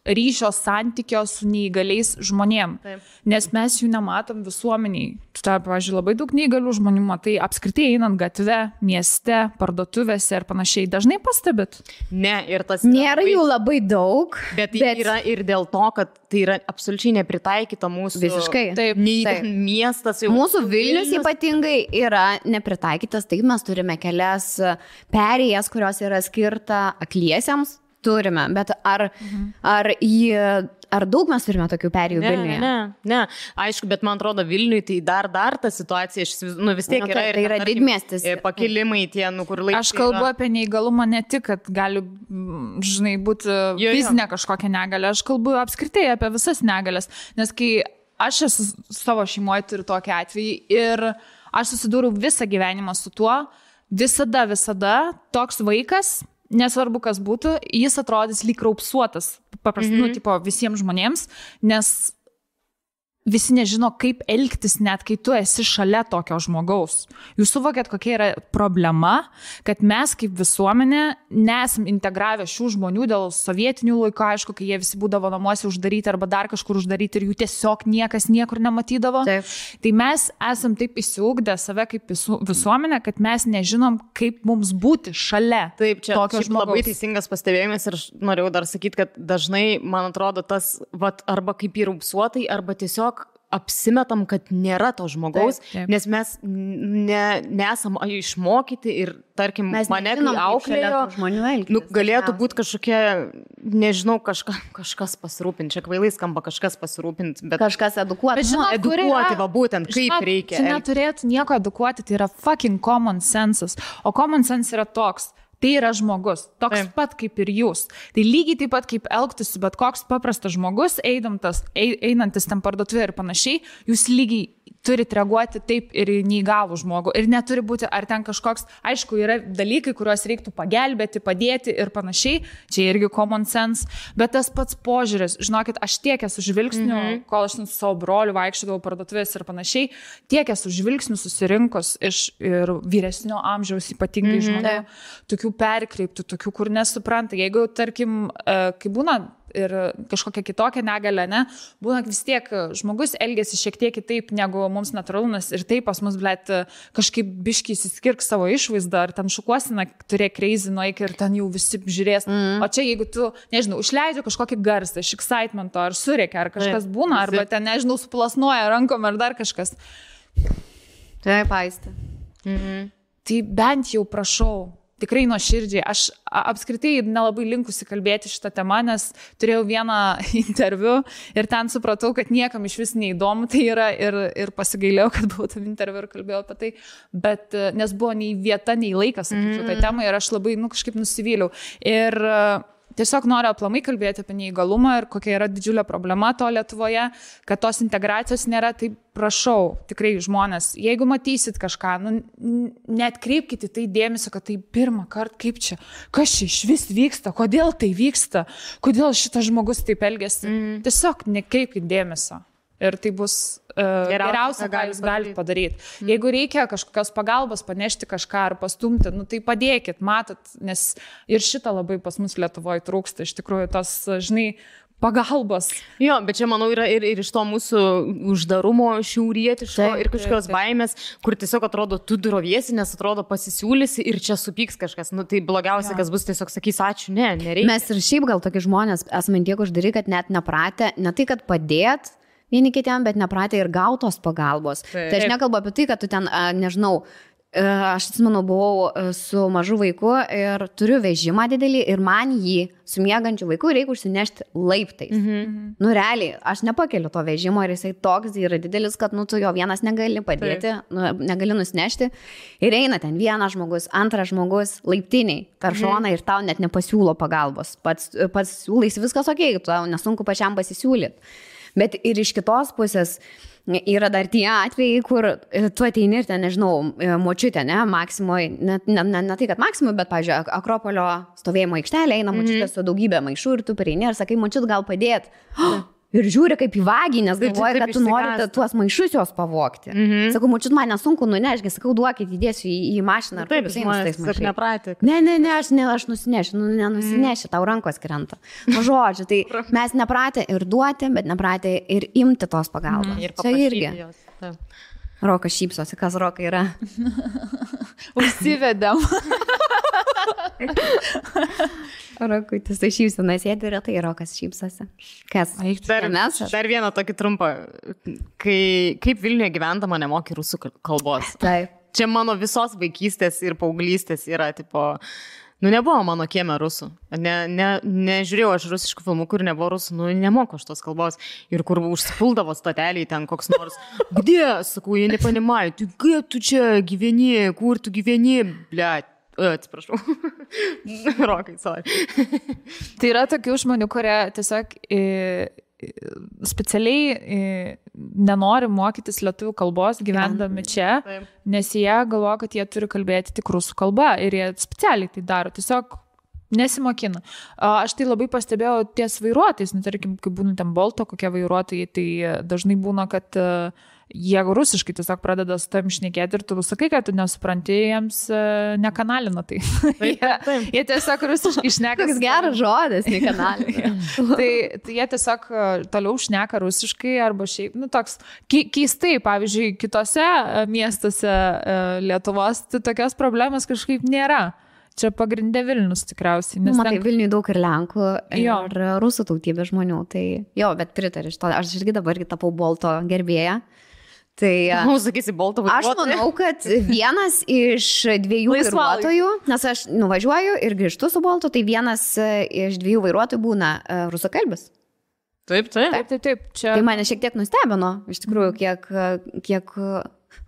Speaker 1: ryšio santykio su neįgaliais žmonėm.
Speaker 2: Taip.
Speaker 1: Nes mes jų nematom visuomeniai. Tai, pavyzdžiui, labai daug neįgalių žmonių matai apskritai einant gatve, mieste, parduotuvėse ir panašiai. Dažnai pastebit?
Speaker 2: Ne, ir tas...
Speaker 3: Nėra jų labai daug.
Speaker 2: Bet yra ir dėl to, kad tai yra absoliučiai nepritaikyta mūsų...
Speaker 3: Visiškai.
Speaker 2: Taip. Miestas jau...
Speaker 3: Mūsų Vilnius ypatingai yra nepritaikytas. Taip, mes turime kelias perėjas, kurios yra skirta akliesiems. Turime, bet ar daug mes turime tokių perėjų Vilniuje?
Speaker 2: Ne. Aišku, bet man atrodo Vilniui tai dar ta situacija, vis tiek yra ir...
Speaker 3: Tai yra didmiestis.
Speaker 2: Pakilimai tie, kur laikai...
Speaker 1: Aš kalbu apie neįgalumą ne tik, kad gali, žinai, būti fizinė kažkokia negalė, aš kalbu apskritai apie visas negalės, nes kai aš esu savo šeimoje turiu tokį atvejį ir aš susidūriau visą gyvenimą su tuo, visada toks vaikas, nesvarbu, kas būtų, jis atrodys lyg raupsuotas, paprastai, tipo visiems žmonėms, nes visi nežino, kaip elgtis, net kai tu esi šalia tokio žmogaus. Jūs suvokėt, kokia yra problema, kad mes kaip visuomenė nesam integravę šių žmonių dėl sovietinių laikų, aišku, kai jie visi būdavo namuose uždaryti arba dar kažkur uždaryti ir jų tiesiog niekas niekur nematydavo.
Speaker 3: Taip.
Speaker 1: Tai mes esam taip įsiugdę save kaip visuomenė, kad mes nežinom, kaip mums būti šalia tokio žmogaus.
Speaker 2: Labai teisingas pastebėjimas ir norėjau dar sakyti, kad dažnai, man atrodo, tas arba kaip įrūpsuotai, arba tiesiog apsimetam, kad nėra to žmogaus, taip. Nes mes nesam išmokyti ir, tarkim,
Speaker 3: mes
Speaker 2: mane kai auklėjo, galėtų būti kažkokia, nežinau, kažkas pasirūpinti, čia kvailai skamba kažkas pasirūpinti, bet
Speaker 3: kažkas edukuoti.
Speaker 2: Edukuoti, va būtent, kaip reikia.
Speaker 1: Čia neturėtų nieko edukuoti, tai yra fucking common sense. O common sense yra toks. Tai yra žmogus, toks pat kaip ir jūs. Tai lygiai taip pat kaip elgtųsi, bet koks paprastas žmogus, einantis ten parduotuvėje ir panašiai, jūs lygiai turit reaguoti taip ir neįgalų žmogų. Ir neturi būti, ar ten kažkoks, aišku, yra dalykai, kuriuos reiktų pagelbėti, padėti ir panašiai. Čia irgi common sense. Bet tas pats požiūris, žinokit, aš tiek esu žvilgsnių, kol aš su savo broliu vaikščiodavau parduotuvės ir panašiai, tiek esu žvilgsnių susirinkus iš ir vyresnio amžiaus ypatingai žmonių, tokių perkreiptų, tokių, kur nesupranta. Jeigu, tarkim, kai būna ir kažkokia kitokia negalė, ne, būna vis tiek žmogus elgesi šiek tiek kitaip negu mums natūralumas ir taip pas mus, blėt, kažkaip biškiai įsiskirk savo išvaizdą, ar ten šukuosina, turėk crazy nueik ir ten jau visi žiūrės. O čia jeigu tu, nežinau, užleidži kažkokį garsą iš excitemento, ar surėkia, ar kažkas būna, arba ten, nežinau, suplasnuoja rankom, ar dar kažkas.
Speaker 3: Taip, Aistė.
Speaker 1: Tai bent jau prašau, tikrai nuoširdžiai. Aš apskritai nelabai linkusi kalbėti šitą temą, nes turėjau vieną interviu ir ten supratau, kad niekam iš vis neįdomu tai yra ir pasigailėjau, kad buvau tam interviu ir kalbėjau apie tai, bet nes buvo nei vieta, nei laikas, sakyčiau, tai temai ir aš labai, kažkaip nusivyliau. Ir tiesiog noriu aplamai kalbėti apie neįgalumą ir kokia yra didžiulė problema to Lietuvoje, kad tos integracijos nėra. Tai prašau, tikrai žmonės, jeigu matysit kažką, neatkreipkite tai dėmesio, kad tai pirmą kartą, kaip čia, kas čia iš vis vyksta, kodėl tai vyksta, kodėl šitas žmogus taip elgiasi. Tiesiog nekreipkite dėmesio. Ir tai bus geriausia, ką jūs galite padaryti. Jeigu reikia kažkokios pagalbos, panešti kažką ar pastumti, tai padėkit, matot, nes ir šitą labai pas mus Lietuvoje trūksta, iš tikrųjų, tos, žinai, pagalbos.
Speaker 2: Jo, bet čia, manau, yra ir iš to mūsų uždarumo šiaurietiško ir kažkokios baimės, kur tiesiog atrodo, tu droviesi, nes atrodo pasisiūlysi ir čia supyks kažkas. Tai blogiausia, kas bus, tiesiog sakys, ačiū, nereikia.
Speaker 3: Mes ir šiaip gal tokie žmonės esame tiek uždari, kad net nepratę, ne tai, kad padėt vieni kitiem, bet nepratę ir gautos pagalbos. Tai aš nekalbu apie tai, kad tu ten, nežinau, aš atsimenu, buvau su mažu vaiku ir turiu vežimą didelį ir man jį su miegančiu vaiku reikia užsinešti laiptais. Realiai, aš nepakeliu to vežimo ir jisai toks yra didelis, kad tu jo vienas negali padėti, negali nusinešti. Ir eina ten vienas žmogus, antras žmogus laiptiniai per šoną ir tau net nepasiūlo pagalbos. Pats siūlaisi viskas okei, tau nesunku pačiam pasisiūlyti. Bet ir iš kitos pusės yra dar tie atvejai, kur tu ateini ir ten, nežinau, močiutė, ne, Maksimoj, ne tai, kad Maksimoj, bet, pavyzdžiui, Akropolio stovėjimo aikštelė, eina močiutė su daugybė maišų ir tu prieini ir sakai, močiut, gal padėt. Ir žiūri kaip į vagį, nes galvoja, kad tu norite tuos maišus jos pavogti. Sakau, močiut, man nesunku nunešti, sakau, duokit, įdėsiu į mašiną.
Speaker 2: Taip, žmonės nepratė.
Speaker 3: Ne, aš nusinešiu, nenusinešiu, tau rankos krenta. Žodžiu, tai mes nepratę ir duoti, bet nepratę ir imti tos pagalbos. Čia irgi. Rokas šypsosi, kas Roka yra.
Speaker 1: Užsivedėm.
Speaker 3: Rokutis, tai šypsina sėdi ir tai Rokas šypsosi. Kas?
Speaker 2: Dar vieną tokį trumpą. Kaip Vilniuje gyvendama nemoki rusų kalbos.
Speaker 3: Taip.
Speaker 2: Čia mano visos vaikystės ir paauglystės yra, tipo, nebuvo mano kieme rusų. Nežiūrėjau aš rusiškų filmų, kur nebuvo rusų, nemoku aš tos kalbos. Ir kur užsipuldavo stoteliai ten koks nors. Где? Sakau, jie nepanimai. Tu kaip tu čia gyveni, kur tu gyveni, bliat. Atsiprašau. Rokai, sorry.
Speaker 1: Tai yra tokių žmonių, kurie tiesiog specialiai nenori mokytis lietuvių kalbos gyvendami čia, nes jie galvoja, kad jie turi kalbėti tik rusų kalba ir jie specialiai tai daro. Tiesiog Nesimokina. Aš tai labai pastebėjau ties vairuotojais, tarkim, kai būna ten Bolto kokie vairuotojai, tai dažnai būna, kad jie rusiškai tiesiog pradeda su tam šnekėti ir tu sakai, kad tu nesupranti, jiems nekanalina tai. Jie tiesiog rusiškai šneka.
Speaker 3: Koks geras žodis, nekanalina.
Speaker 1: tai jie tiesiog toliau šneka rusiškai arba šiaip, toks keistai, pavyzdžiui, kitose miestuose Lietuvos tai tokios problemos kažkaip nėra. Čia pagrindė Vilnius tikriausiai.
Speaker 3: Matai, Vilniui daug ir Lenkų, ir rusų tautybės žmonių. Tai jo, bet pritariu iš to. Aš irgi dabar tapau Bolto gerbėja. Tai,
Speaker 2: sakysi, Bolto vairuotoju.
Speaker 3: Aš manau, kad vienas iš 2 vairuotojų, nes aš nuvažiuoju ir grįžtu su Boltu, tai vienas iš 2 vairuotojų būna rusakalbis.
Speaker 2: Taip.
Speaker 1: Čia...
Speaker 3: Tai mane šiek tiek nustebino, iš tikrųjų, kiek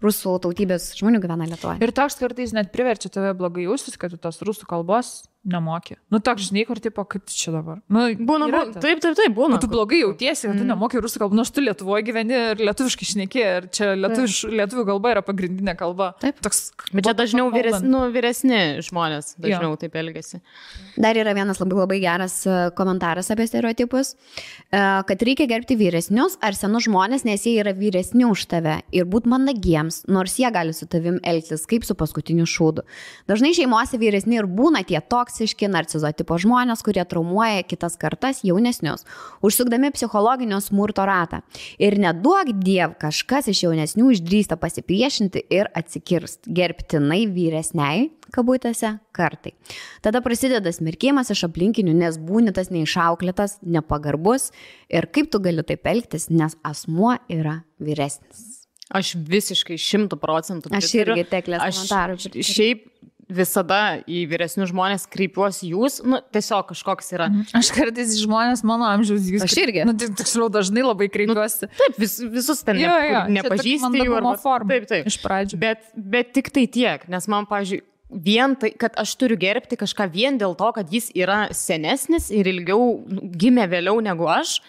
Speaker 3: rusų tautybės žmonių gyvena Lietuvoje.
Speaker 1: Ir toks kartais net priverčia tave blogai jaustis, kad tu tos rusų kalbos nemokė. Toks žinai, kur tipo, kaip čia dabar.
Speaker 2: Būna.
Speaker 1: Tu blogai jautiesi, kad tu nemokė rusų kalbą. Aš tu Lietuvoje gyveni ir lietuviškai šneki, ir čia lietuvių kalba yra pagrindinė kalba.
Speaker 3: Taip.
Speaker 1: Toks,
Speaker 2: bet čia dažniau vyresni žmonės dažniau taip elgiasi.
Speaker 3: Dar yra vienas labai geras komentaras apie stereotipus, kad reikia gerbti vyresnius ar senus žmonės, nes jie yra vyresni už tave ir būt mandagiems, nors jie gali su tavim elgtis kaip su paskutiniu šūdu. Dažnai šeimose vyresni ir būna tie toksiški narcizo tipo žmonės, kurie traumuoja kitas kartas jaunesnius, užsukdami psichologinio smurto ratą. Ir neduok diev, kažkas iš jaunesnių išdrįsta pasipriešinti ir atsikirst, gerbtinai vyresniai, kabutėse, kartai. Tada prasideda smerkimas iš aplinkinių, nes būni tas neišauklėtas, nepagarbus ir kaip tu gali taip elgtis, nes asmuo yra vyresnis.
Speaker 2: Aš visiškai 100%.
Speaker 3: Aš irgi teklės komentarų.
Speaker 2: Šiaip visada į vyresnius žmonės kreipiuosi jūs, tiesiog kažkoks yra.
Speaker 1: Aš kartais žmonės mano amžiaus jūs.
Speaker 3: Aš irgi.
Speaker 1: Tiksliau dažnai labai kreipiuosi.
Speaker 2: Taip, visus ten nepažįsti jų.
Speaker 1: Taip. Iš pradžių.
Speaker 2: Bet tik tai tiek, nes man, pavyzdžiui, vien tai, kad aš turiu gerbti kažką vien dėl to, kad jis yra senesnis ir ilgiau gimė vėliau negu aš.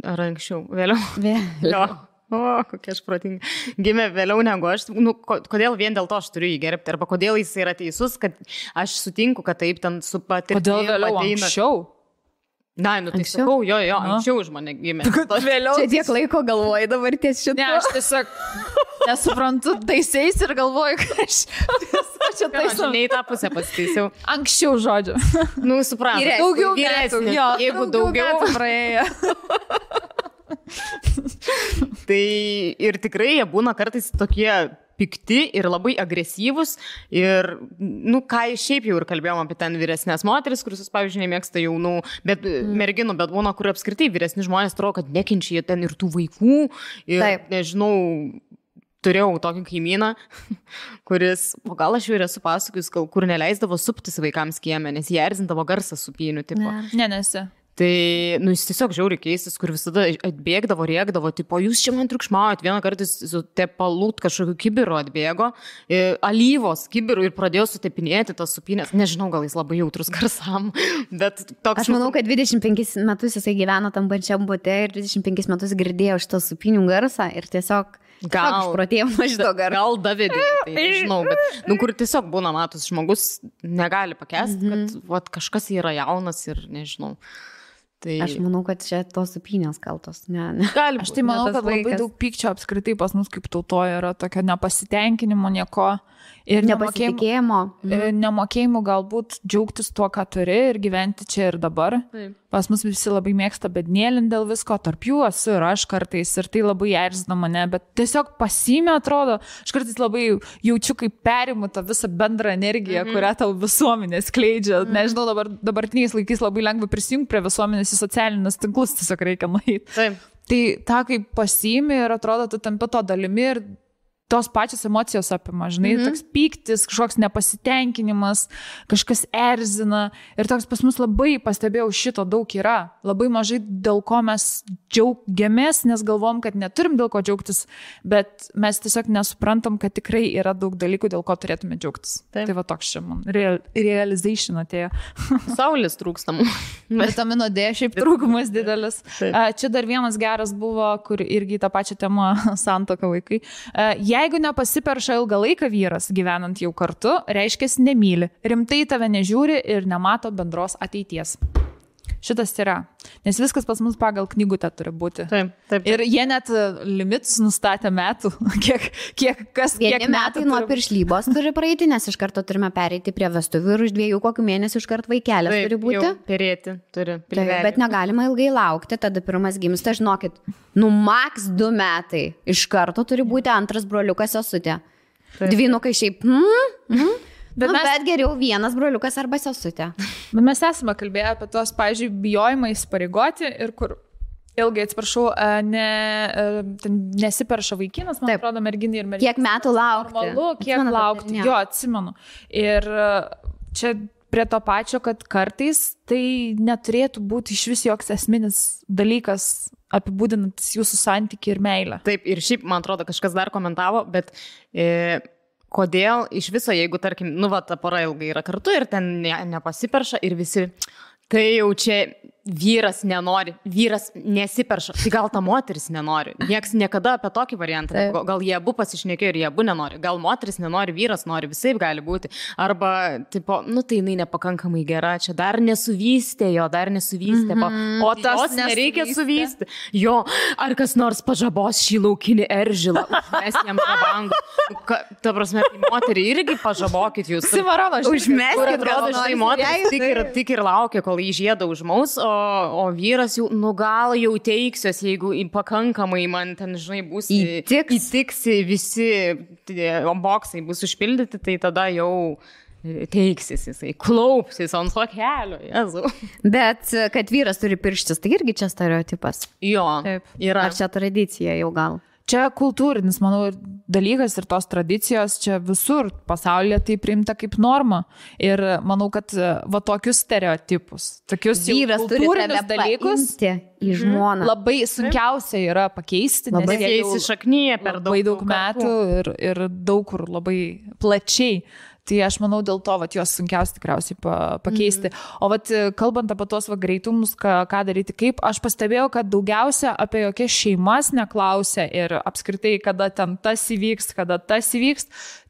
Speaker 2: Ar anksčiau? Vėliau. Kokia aš protinga. Gimė vėliau negu aš. Kodėl vien dėl to aš turiu jį gerbti? Arba kodėl jis yra teisus, kad aš sutinku, kad taip ten su patirtimi.
Speaker 1: Kodėl vėliau anksčiau?
Speaker 2: Na, tai sakau, anksčiau už mane gimė.
Speaker 3: Vėliau. Čia tiek laiko galvoju dabar ties šitą.
Speaker 1: Ne, aš tiesiog nesuprantu taisiais ir galvoju, kad aš čia taisau.
Speaker 2: Ne į tą pusę pasitaisiau.
Speaker 1: Anksčiau žodžiu.
Speaker 2: Suprantu.
Speaker 1: Daugiau metų.
Speaker 2: Jeigu daugiau
Speaker 1: praėjo.
Speaker 2: Tai ir tikrai jie būna kartais tokie pikti ir labai agresyvus ir, ką šiaip jau ir kalbėjom apie ten vyresnės moteris, kuris, pavyzdžiui, nemėgsta jaunų merginų, bet būna, kur apskritai vyresni žmonės atrodo, kad nekenčia ten ir tų vaikų ir, nežinau, turėjau tokį kaimyną, kuris, gal aš jau ir esu pasakojus, kur neleisdavo suptis vaikams kieme, nes jie erzindavo garsą supynių tipo.
Speaker 1: Nesi.
Speaker 2: Tai, jis tiesiog žiauriai keistis, kur visada atbėgdavo, rėkdavo, tipo, jūs čia man triukšmaujat, vieną kartą su tepalūt kažkokiu kibiru atbėgo, alyvos kibiru ir pradėjo sutepinėti tas supynės. Nežinau, gal jis labai jautrus garsam, bet toks...
Speaker 3: Aš manau, kad 25 metus jisai gyveno tam pačiam bute ir 25 metus girdėjo šitą supynių garsą ir tiesiog...
Speaker 2: Gal davidė, tai nežinau, bet, kur tiesiog būna matus, žmogus negali pakęsti, kad kažkas yra jaunas ir nežinau. Tai...
Speaker 3: Aš manau, kad čia tos supynės kaltos.
Speaker 1: Aš tai manau, kad labai daug pykčio apskritai pas mus kaip tautoje yra tokio nepasitenkinimo nieko. Ir nemokėjimų galbūt džiaugtis tuo, ką turi ir gyventi čia ir dabar. Taip. Pas mus visi labai mėgsta bednėlin dėl visko, tarp jų esu ir aš kartais ir tai labai erzina mane, bet tiesiog pasiimė atrodo, aš kartais labai jaučiu, kaip perimu tą visą bendrą energiją, kurią tau visuomenė skleidžia. Nežinau, dabartiniais laikais labai lengva prisijungti prie visuomenės į socialinius tinklus, tiesiog reikia nueiti.
Speaker 2: Taip.
Speaker 1: Tai tą kaip pasiimė ir atrodo, tu tampi to dalimi ir tos pačios emocijos apima, žinai, toks pyktis, kažkoks nepasitenkinimas, kažkas erzina ir toks pas mus labai, pastebėjau, šito daug yra. Labai mažai dėl ko mes džiaugiamės, nes galvom, kad neturim dėl ko džiaugtis, bet mes tiesiog nesuprantam, kad tikrai yra daug dalykų, dėl ko turėtume džiaugtis. Taip. Tai va toks čia man realization atėjo.
Speaker 2: Saulės trūkstam.
Speaker 1: Vitamino D šiaip trūkumas didelis. Čia dar vienas geras buvo, kur irgi tą pačią temą santuoka vaikai. Jeigu nepasiperša ilgą laiką vyras, gyvenant jau kartu, reiškia nemyli, rimtai tave nežiūri ir nemato bendros ateities. Šitas yra, nes viskas pas mus pagal knygutę turi būti.
Speaker 2: Taip.
Speaker 1: Ir jie net limitus nustatė metų, kiek
Speaker 3: metai nuo piršlybos turi praeiti, nes iš karto turime pereiti prie vestuvių ir už 2 kokių mėnesių iš karto vaikelės turi būti.
Speaker 2: Taip, perėti turi.
Speaker 3: Taip, bet negalima ilgai laukti, tada pirmas gimsta, žinokit, maks 2 metai iš karto turi būti antras broliukas sesutė. Dvynukai šiaip, Bet geriau vienas broliukas arba sesutė.
Speaker 1: Bet mes esame kalbėję apie tos, pavyzdžiui, bijojimą įsipareigoti ir kur ilgai, atsiprašau, nesiperša vaikinas, man atrodo, merginai ir merginai.
Speaker 3: Kiek metų laukti?
Speaker 1: Normalu, kiek laukti. Jo, atsimenu. Ir čia prie to pačio, kad kartais tai neturėtų būti iš vis joks esminis dalykas apibūdinantis jūsų santykį ir meilę.
Speaker 2: Taip, ir šiaip, man atrodo, kažkas dar komentavo, bet kodėl iš viso, jeigu, tarkim, ta pora ilgai yra kartu ir ten nepasiperša ir visi, tai jau čia vyras nenori, vyras nesiperša, tai gal ta moteris nenori. Niekas niekada apie tokį variantą, gal jie abu pasišnekėjo ir jie abu nenori, gal moteris nenori, vyras nori, visai gali būti. Arba, tipo, tai jinai nepakankamai gera, čia dar nesuvystė jo, o tas nereikia suvysti. Jo, ar kas nors pažabos šį laukinį eržilą, mes jam žabangų. Ta prasme, moterį irgi pažabokit jūs.
Speaker 1: Simarano,
Speaker 3: užmeskit,
Speaker 2: atrodo, štai moteris tik ir laukia, kol jį žiedą užmaus, o vyras jau, gal jau teiksiuos, jeigu pakankamai man ten, žinai, bus įtiksi visi boksai bus užpildyti, tai tada jau teiksis jisai, klaupsis ant to kelio, Jėzau.
Speaker 3: Bet kad vyras turi pirštis, tai irgi čia stereotipas.
Speaker 2: Jo, yra.
Speaker 3: Ar čia tradicija jau gal?
Speaker 1: Čia kultūrinis, manau, dalykas ir tos tradicijos čia visur pasaulyje tai priimta kaip norma. Ir manau, kad tokius stereotipus, tokius kultūrinius dalykus
Speaker 3: į žmoną
Speaker 1: labai sunkiausia yra pakeisti,
Speaker 2: nes jie įsišaknyja per
Speaker 1: daug metų ir daug kur labai plačiai. Tai aš manau, dėl to juos sunkiausia tikriausiai pakeisti. O kalbant apie tos greitumus, ką daryti, kaip, aš pastebėjau, kad daugiausia apie jokias šeimas neklausia ir apskritai, kada ten tas įvyks,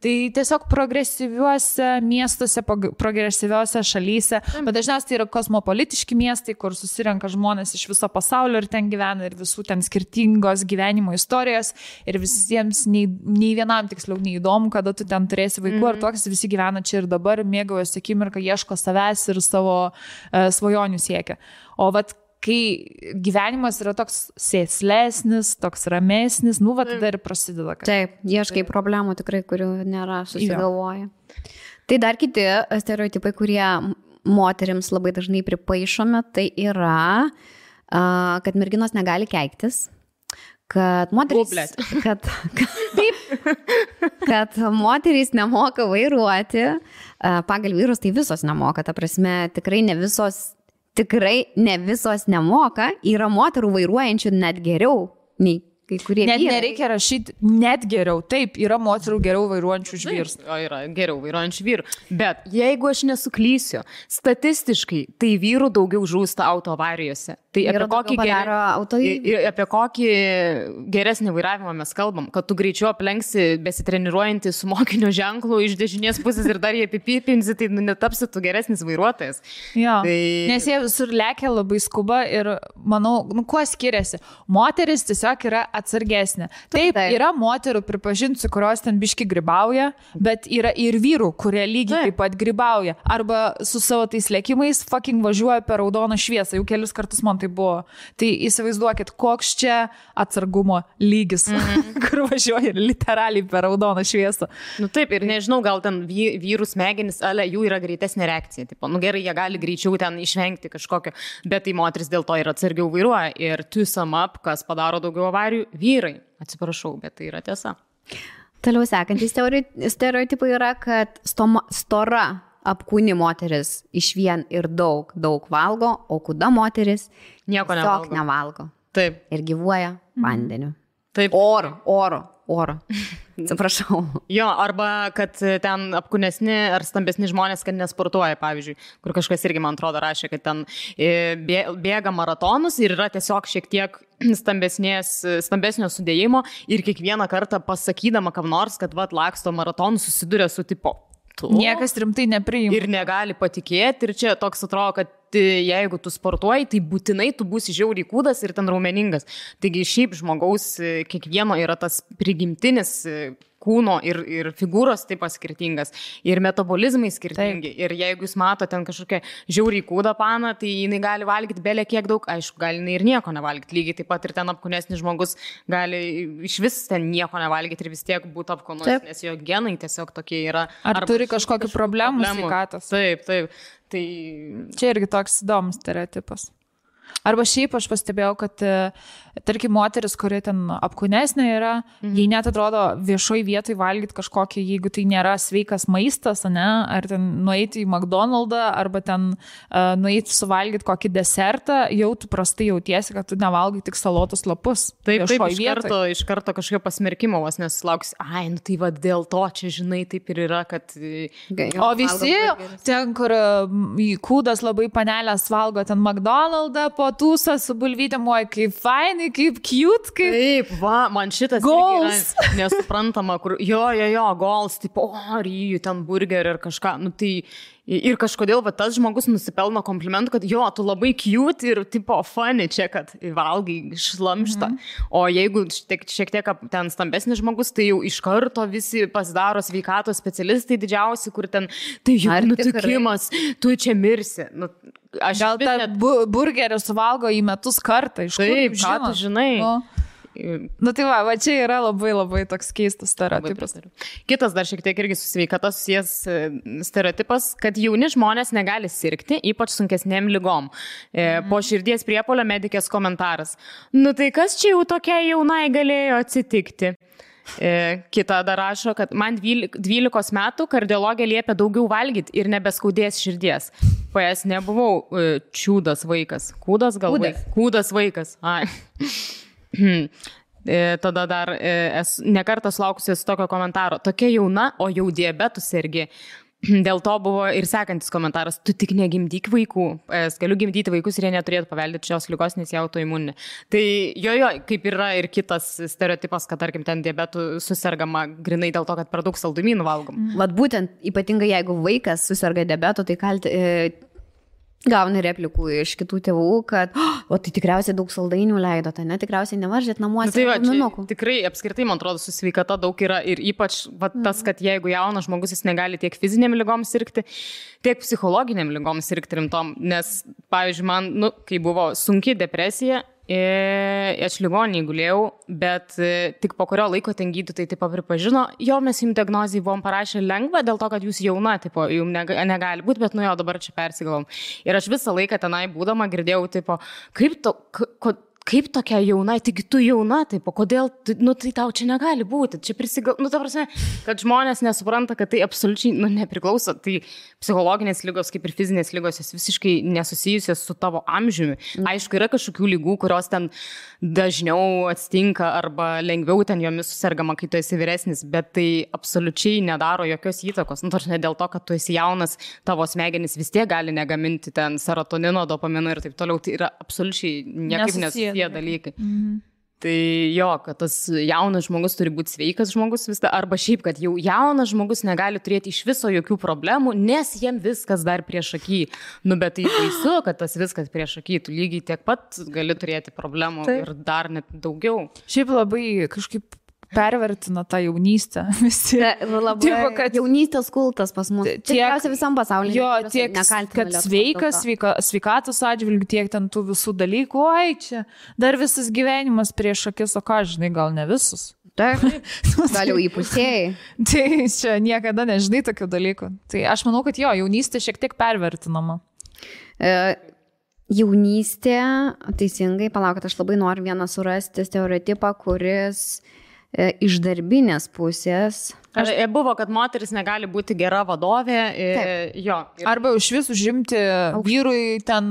Speaker 1: tai tiesiog progresyviuose miestuose, progresyviuose šalyse, bet dažniausiai tai yra kosmopolitiški miestai, kur susirenka žmonės iš viso pasaulio ir ten gyvena ir visų ten skirtingos gyvenimo istorijos ir visiems nei vienam tiksliau neįdomu, kada tu ten turėsi vaikų ar toks visi gyvena čia ir dabar, mėgaujasi akimirką, ieško savęs ir savo svajonių siekia. O kai gyvenimas yra toks sėslesnis, toks ramesnis, tada ir prasideda.
Speaker 3: Taip, ieškai problemų tikrai, kurių nėra, susigalvoja. Tai dar kiti stereotipai, kurie moterims labai dažnai pripaišomi, tai yra, kad merginos negali keiktis. Kad moterys, kad moterys nemoka vairuoti, pagal vyrus tai visos nemoka, ta prasme tikrai ne visos nemoka, yra moterų vairuojančių net geriau nei kai kurie
Speaker 1: net
Speaker 3: vyrai.
Speaker 1: Nereikia rašyti net geriau, taip, yra moterų geriau vairuojančių už vyrus.
Speaker 2: Yra geriau vairuojančių vyrų, bet jeigu aš nesuklysiu, statistiškai tai vyrų daugiau žūsta autoavarijose. Tai apie kokį geresnį vairavimą mes kalbam, kad tu greičiau aplenksi besitreniruojantį su mokinio ženklu iš dešinės pusės ir dar jie apipipinsi, tai netapsi tu geresnis vairuotojas.
Speaker 1: Jo, nes jie visur lekia labai skuba ir manau, kuo skiriasi. Moteris tiesiog yra atsargesnė. Taip, yra moterų, pripažinsiu, kurios ten biški grybauja, bet yra ir vyrų, kurie lygiai taip pat grybauja. Arba su savo tais lėkimais fucking važiuoja per raudoną šviesą. Jau kelis kartus man tai buvo. Tai įsivaizduokit, koks čia atsargumo lygis, kur važiuoja literaliai per raudoną šviesą.
Speaker 2: Taip, ir nežinau, gal ten vyrų smegenys, jų yra greitesnė reakcija. Tipo, gerai, jie gali greičiau ten išvengti kažkokio, bet tai moteris dėl to ir atsargiau vairuoja. Ir to sum up, kas padaro daugiau avarijų, vyrai. Atsiprašau, bet tai yra tiesa.
Speaker 3: Toliau sekantys stereotipai yra, kad stora apkūni moteris išvien ir daug valgo, o kuda moteris
Speaker 2: nieko
Speaker 3: nevalgo.
Speaker 2: Taip.
Speaker 3: Ir gyvuoja vandeniu.
Speaker 2: Taip.
Speaker 3: Oro. orą. Atsiprašau.
Speaker 2: Jo, arba kad ten apkūnesni ar stambesni žmonės, kad nesportuoja, pavyzdžiui, kur kažkas irgi, man atrodo, rašė, kad ten bėga maratonus ir yra tiesiog šiek tiek stambesnio sudėjimo ir kiekvieną kartą pasakydama kam nors, kad laksto maratonų susiduria su tipo.
Speaker 1: Niekas rimtai nepriima.
Speaker 2: Ir negali patikėti ir čia toks atrodo, kad jeigu tu sportuoji, tai būtinai tu būsi žiauriai kūdas ir ten raumeningas. Taigi šiaip žmogaus kiekvieno yra tas prigimtinis kūno ir figūros taip skirtingas, ir metabolizmai skirtingi. Taip. Ir jeigu jūs matote ten kažkokią žiauriai kūdą paną, tai jinai gali valgyti belė kiek daug, aišku, gali jinai ir nieko nevalgyti. Lygiai taip pat ir ten apkūnesnis žmogus gali iš vis ten nieko nevalgyti ir vis tiek būti apkūnus, nes jo genai tiesiog tokie yra.
Speaker 1: Ar turi kažkokių problemų sveikatos?
Speaker 2: Taip. Tai...
Speaker 1: Čia irgi toks įdomus stereotipas. Arba šiaip aš pastebėjau, kad, tarkim, moteris, kuri ten apkūnesnė yra, jai net atrodo viešoj vietoj valgyti kažkokį, jeigu tai nėra sveikas maistas, ne? Ar ten nueiti į McDonald'ą, arba ten nueiti suvalgyti kokį desertą, jau tu prastai jautiesi, kad tu nevalgai tik salotus lapus.
Speaker 2: Taip, iš karto kažkokio pasmerkimo vos nesulauks, nu tai va dėl to čia, žinai, taip ir yra, kad...
Speaker 1: O visi ten, kur kūdas labai panelės valgo ten McDonald'ą, po tūsą su bulvytėm, kaip fainai, kaip cute, kaip...
Speaker 2: Taip, va, man šitas
Speaker 1: goals.
Speaker 2: Nesuprantama, kur, jo, goals, tipo, ryjų, ten burgerį ir kažką, nu tai... Ir kažkodėl va, tas žmogus nusipelno komplimentų, kad jo, tu labai cute ir tipo funny čia, kad valgai šlamštą. O jeigu šiek tiek ten stambesnis žmogus, tai jau iš karto visi pasidaro sveikatos specialistai didžiausi, kur ten, tai jau nutikimas, tu čia mirsi. Nu,
Speaker 1: gal tą burgerį suvalgo į metus kartą, iš kur?
Speaker 2: Taip, ką tu žinai.
Speaker 1: Nu tai va, čia yra labai labai toks keistas stereotipas.
Speaker 2: Kitas dar šiek tiek irgi su sveikata susijęs stereotipas, kad jauni žmonės negali sirgti, ypač sunkesnėm ligom. Po širdies priepuolio medikės komentaras. Nu tai kas čia jau tokia jaunai galėjo atsitikti? Kita dar rašo, kad man 12 metų kardiologė liepia daugiau valgyti ir nebeskaudės širdies. PS nebuvau čiūdas vaikas. Kūdas gal vaikas? Kūdas vaikas. Ai. Tada dar nekartą sulaukusius tokio komentaro. Tokia jauna, o jau diabetų sergi. Dėl to buvo ir sekantis komentaras. Tu tik negimdyk vaikų. Galiu gimdyti vaikus ir jie neturėtų paveldėti šios ligos, nes jie autoimuninė. Tai kaip yra ir kitas stereotipas, kad tarkim ten diabetų susirgama grinai dėl to, kad per daug saldumynų valgom.
Speaker 3: Vat būtent, ypatingai jeigu vaikas susirga diabetu, tai gauni replikų iš kitų tėvų, kad tai tikriausiai daug saldainių leido, tai tikriausiai nevaržėt namuose.
Speaker 2: Tai va, tikrai apskritai, man atrodo, su sveikata daug yra ir ypač tas, kad jeigu jaunas žmogus jis negali tiek fizinėm ligom sirgti, tiek psichologiniam ligom sirgti rimtom, nes, pavyzdžiui, man, kai buvo sunki depresija, aš ligoninėje gulėjau, bet tik po kurio laiko ten gydytojai taip pripažino, mes jums diagnozijai buvom parašę lengva, dėl to, kad jūs jauna, jums negali būti, bet dabar čia persigalvom. Ir aš visą laiką tenai būdama girdėjau, kaip tokia jauna, tik tu jauna, kodėl, tai tau čia negali būti, čia ta prasme, kad žmonės nesupranta, kad tai absoliučiai, nepriklauso, tai psichologinės ligos, kaip ir fizinės ligos, jos visiškai nesusijusios su tavo amžiumi. Aišku, yra kažkokių ligų, kurios ten dažniau atsitinka arba lengviau ten jomis susirgama, kai tu esi vyresnis, bet tai absoliučiai nedaro jokios įtakos. Ne dėl to, kad tu esi jaunas, tavo smegenys vis tiek gali negaminti ten serotonino, dopamino ir taip toliau, tai yra absoliučiai niekaip nesusiję dalykai. Tai kad tas jaunas žmogus turi būti sveikas žmogus vis dar, arba šiaip, kad jau jaunas žmogus negali turėti iš viso jokių problemų, nes jiem viskas dar priešaky. Bet tai baisu, kad tas viskas priešaky, tu lygiai tiek pat gali turėti problemų. Taip. Ir dar net daugiau.
Speaker 1: Šiaip labai kažkaip pervertina tą jaunystę. Visi.
Speaker 3: Labai tipo, kad jaunystės kultas pas mus. Tikriausiai visam pasaulyje.
Speaker 1: Tiek, kad sveikatos atžvilgių, tiek ten tų visų dalykų. Čia dar visas gyvenimas prieš akis, o ką žinai, gal ne visus.
Speaker 3: Taip, gal jau įpusėjai.
Speaker 1: Tai čia niekada nežinai tokių dalykų. Tai aš manau, kad jaunystė šiek tiek pervertinama.
Speaker 3: Jaunystė, teisingai, palaukit, aš labai noriu vieną surasti stereotipą, kuris iš darbinės pusės.
Speaker 2: Buvo, kad moteris negali būti gera vadovė. Jo.
Speaker 1: Arba iš vis užimti vyrui ten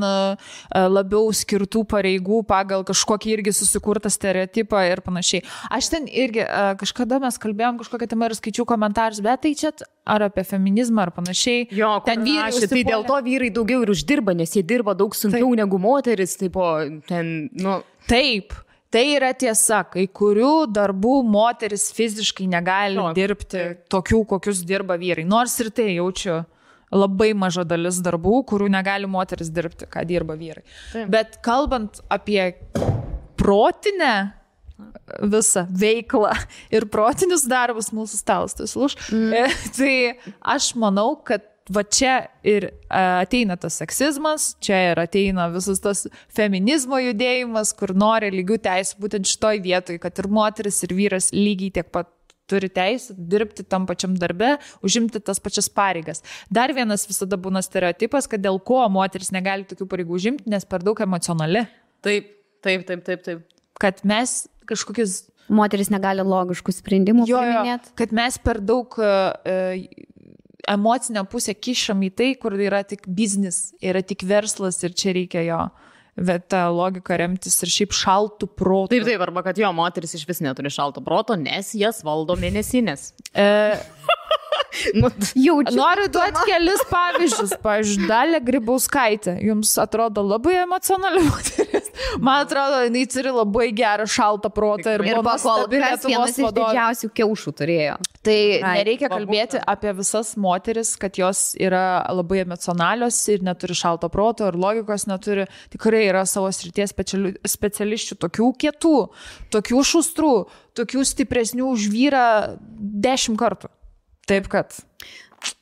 Speaker 1: labiau skirtų pareigų pagal kažkokį irgi susikurtą stereotipą ir panašiai. Aš ten irgi kažkada mes kalbėjom kažkokią temą ir skaičiau komentarus, bet tai čia ar apie feminizmą ar panašiai.
Speaker 2: Jo, ten vyrai. Tai dėl to vyrai daugiau ir uždirba, nes jie dirba daug sunkiau negu moteris.
Speaker 1: Taip. Tai yra tiesa, kai kurių darbų moteris fiziškai negali dirbti tokių, kokius dirba vyrai. Nors ir tai jaučiu labai maža dalis darbų, kurių negali moteris dirbti, ką dirba vyrai. Taip. Bet kalbant apie protinę visą veiklą ir protinius darbus mūsų stalas, tai aš manau, kad va čia ir ateina tas seksizmas, čia ir ateina visas tas feminizmo judėjimas, kur nori lygių teisų būtent šitoj vietoj, kad ir moteris, ir vyras lygiai tiek pat turi teisę dirbti tam pačiam darbe, užimti tas pačias pareigas. Dar vienas visada būna stereotipas, kad dėl ko moteris negali tokių pareigų užimti, nes per daug emocionali.
Speaker 2: Taip.
Speaker 1: Kad mes kažkokius...
Speaker 3: Moteris negali logiškų sprendimų priiminėti.
Speaker 1: Kad mes per daug... emocinę pusę kišam į tai, kur yra tik biznis, yra tik verslas ir čia reikia jo. Bet tą logiką remtis ir šiaip šaltų protų.
Speaker 2: Taip, arba kad jo moteris iš vis neturi šalto proto, nes jas valdo mėnesinės.
Speaker 1: Noriu duoti kelis pavyzdžius. Pavyzdžiui, Dalia Grybauskaitė. Jums atrodo labai emocionali moteris. Man atrodo, jinai turi labai gerą šaltą protą ir buvo nuostabi Lietuvos
Speaker 3: vadovė. Vienas iš didžiausių kiaušų turėjo.
Speaker 1: Tai nereikia kalbėti apie visas moteris, kad jos yra labai emocionalios ir neturi šalto proto ir logikos neturi. Tikrai yra savo srities specialisčių tokių kietų, tokių šustrų, tokių stipresnių už vyrą 10 kartų. Taip kad.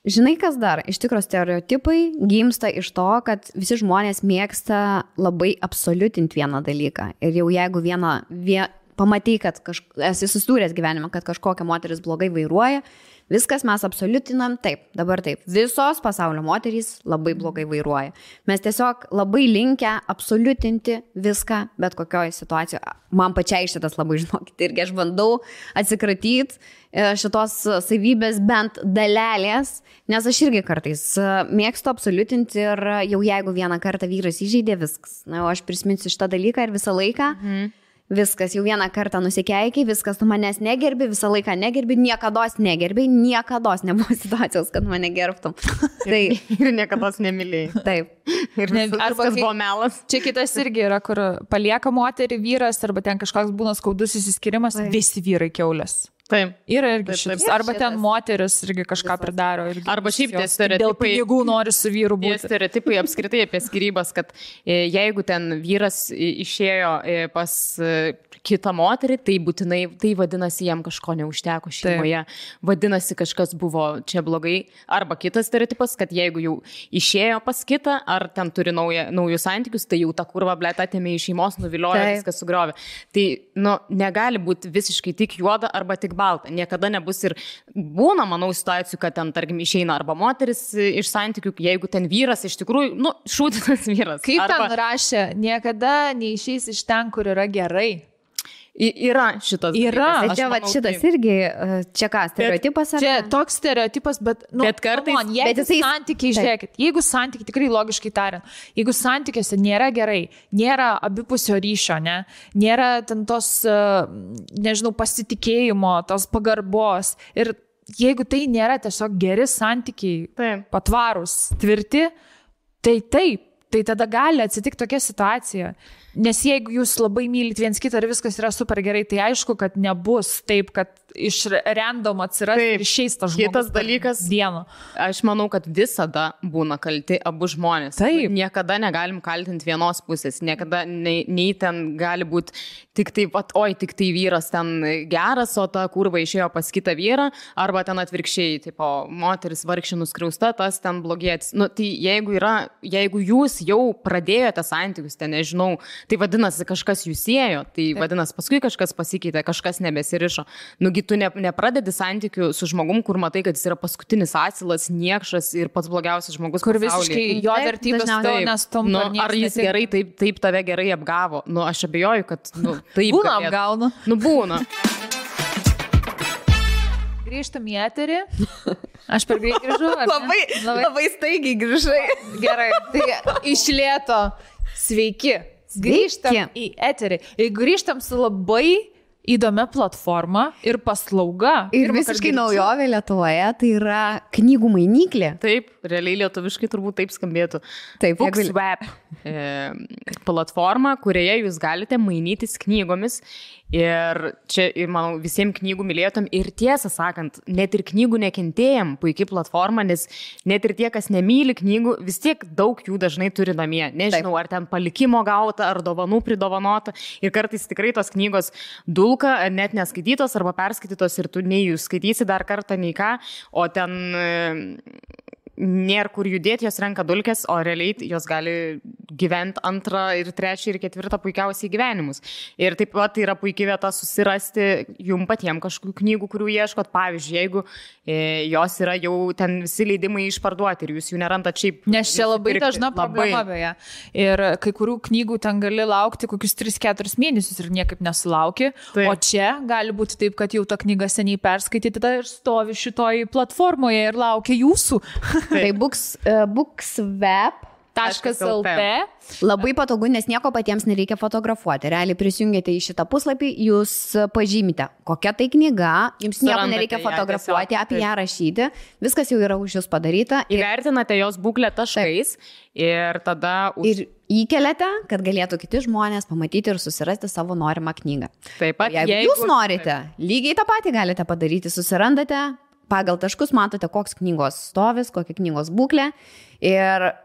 Speaker 3: Žinai, kas dar? Iš tikro stereotipai gimsta iš to, kad visi žmonės mėgsta labai absoliutinti vieną dalyką. Ir jau jeigu pamatai, kad esi susidūręs gyvenime, kad kažkokia moteris blogai vairuoja, viskas mes absoliutinam, dabar taip. Visos pasaulio moterys labai blogai vairuoja. Mes tiesiog labai linkę absoliutinti viską, bet kokioje situacijoje. Man pačiai šitas labai, žinokit, irgi aš bandau atsikratyti šitos savybės bent dalelės, nes aš irgi kartais mėgstu absoliutinti ir jau jeigu vieną kartą vyras įžeidė, viskas. Na, aš prisiminsiu šitą dalyką ir visą laiką. Viskas, jau vieną kartą nusikeikiai, viskas, tu manęs negerbi, visą laiką negerbi, niekados negerbi, niekados nebuvo situacijos, kad mane gerbtum. Tai
Speaker 2: ir niekados nemylėjai.
Speaker 3: Taip.
Speaker 2: Ir viskas buvo melas.
Speaker 1: Čia kitas irgi yra, kur palieka moterį vyras, arba ten kažkoks būna skaudus įsiskirimas, visi vyrai kiaulės.
Speaker 2: Taip.
Speaker 1: Yra irgi šitas. Arba ten moteris irgi kažką pridaro.
Speaker 2: Arba šiaip tie stereotipai.
Speaker 1: Dėl pinigų nori su vyru būti.
Speaker 2: Tie stereotipai apskritai apie skyrybas, kad jeigu ten vyras išėjo pas kitą moterį, tai būtinai, tai vadinasi, jam kažko neužteko šeimoje. Vadinasi, kažkas buvo čia blogai. Arba kitas stereotipas, kad jeigu jau išėjo pas kitą, ar ten turi naujus santykius, tai jau tą kurvą blėt atėmė iš šeimos, nuviliojo, viskas sugriovė. Tai, negali būti visiškai tik juoda arba tik balta. Niekada nebus ir būna, manau, situacijų, kad ten, tarkim, išeina arba moteris iš santykių, jeigu ten vyras iš tikrųjų, šūdinas vyras.
Speaker 1: Kaip ten rašė, niekada neišeis iš ten, kur yra gerai.
Speaker 2: Yra šitas.
Speaker 3: Yra. Čia šitas irgi, čia ką, stereotipas?
Speaker 1: Čia toks stereotipas, bet
Speaker 2: kartais,
Speaker 1: jeigu santykiai, žiūrėkit, jeigu santykiai, tikrai logiškai tariant, jeigu santykiuose nėra gerai, nėra abipusio ryšio, nėra ten tos, nežinau, pasitikėjimo, tos pagarbos ir jeigu tai nėra tiesiog geri santykiai, patvarūs, tvirti, tai taip. Tai tada gali atsitikti tokia situacija. Nes jeigu jūs labai mylit viens kitą ir viskas yra super gerai, tai aišku, kad nebus taip, kad iš random atsiras ir išeis tas žmogus.
Speaker 2: Kitas dalykas, aš manau, kad visada būna kalti abu žmonės.
Speaker 1: Taip.
Speaker 2: Niekada negalim kaltinti vienos pusės. Niekada nei ten gali būti tik taip, tik tai vyras ten geras, o ta kurva išėjo pas kitą vyrą, arba ten atvirkščiai, tipo, moteris vargšė nuskriausta, tas ten blogietis. Tai jeigu jūs jau pradėjote santykius, ten nežinau, tai vadinasi kažkas jūs siejo, tai vadinasi paskui kažkas pasikeitė, kažkas nebesirišo. Nugi tu nepradedi santykių su žmogum, kur matai, kad jis yra paskutinis asilas, niekšas ir pats blogiausias žmogus
Speaker 1: kur visiškai jo vertybės to nestumpa.
Speaker 2: Ar jis gerai, taip tave gerai apgavo? Aš abejoju, kad taip.
Speaker 1: Būna apgauna.
Speaker 2: Būna.
Speaker 1: Grįžtam į eterį. Aš per greit grįžau.
Speaker 3: Labai staigiai grįžai.
Speaker 1: Gerai, tai iš lėto. Sveiki. Grįžtam į eterį. Ir grįžtam su labai įdomia platforma ir paslauga.
Speaker 3: Ir visiškai naujovė Lietuvoje, tai yra knygų mainyklė.
Speaker 2: Taip, realiai lietuviškai turbūt taip skambėtų.
Speaker 3: Taip,
Speaker 2: BookSwap platforma, kurioje jūs galite mainytis knygomis. Ir čia, manau, visiems knygų mylėtom ir tiesą sakant, net ir knygų nekentėjim puikiai platforma, nes net ir tie, kas nemyli knygų, vis tiek daug jų dažnai turi namie. Nežinau, ar ten palikimo gauta, ar dovanų pridovanota. Ir kartais tikrai tos knygos dulka, net neskaitytos arba perskaitytos ir tu nei jų skaitysi dar kartą, nei ką, o ten nėra kur judėti, jos renka dulkės, o realiai jos gali gyventi antrą ir trečią ir ketvirtą puikiausiai gyvenimus. Ir taip pat tai yra puikiai vieta susirasti jum patiems kažkokių knygų, kurių ieškot. Pavyzdžiui, jeigu jos yra jau ten visi leidimai išparduoti ir jūs jų nerandat šiaip.
Speaker 1: Nes čia labai dažna problema beje. Ir kai kurių knygų ten gali laukti kokius 3-4 mėnesius ir niekaip nesulauki. Taip. O čia gali būti taip, kad jau ta knyga seniai perskaityta ir stovi šitoj platformoje ir laukia jūsų.
Speaker 3: Tai BookSwap.lt labai patogu, nes nieko patiems nereikia fotografuoti. Realiai prisijungėte į šitą puslapį, jūs pažymite, kokia tai knyga, jums nieko nereikia fotografuoti, apie ją rašyti, viskas jau yra už jūs padaryta.
Speaker 2: Įvertinate jos būklę taškais ir tada...
Speaker 3: Ir įkeliate, kad galėtų kiti žmonės pamatyti ir susirasti savo norimą knygą.
Speaker 2: Taip pat,
Speaker 3: jeigu jūs norite, lygiai tą patį galite padaryti, susirandate, pagal taškus matote, koks knygos stovis, kokia knygos būklė ir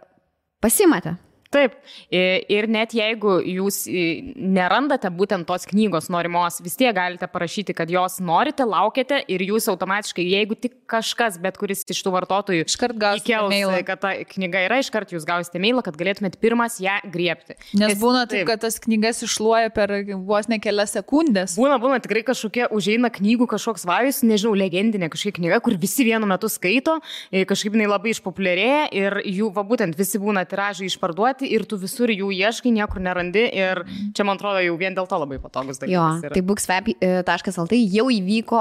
Speaker 3: pasimate.
Speaker 2: Taip, ir net jeigu jūs nerandate būtent tos knygos norimos, vis tiek galite parašyti, kad jos norite, laukiate ir jūs automatiškai, jeigu tik kažkas, bet kuris iš tų vartotojų
Speaker 1: iškart gausite mailą,
Speaker 2: kad ta knyga yra, iškart jūs gausite mailą, kad galėtumėt pirmas ją griebti.
Speaker 1: Nes būna taip, kad tas knygas iššluoja per vos ne kelias sekundės.
Speaker 2: Būna tikrai kažkokie užeina knygų kažkoks vajus, nežinau, legendinė kažkokia knyga, kur visi vienu metu skaito, kažkaip jinai labai išpopuliarėja ir jų, būtent visi būna tiražai išparduoti. Ir tu visur jų ieškai, niekur nerandi ir čia, man atrodo, jau vien dėl to labai patogus dalykas.
Speaker 3: Jo, tai BookSwap.lt jau įvyko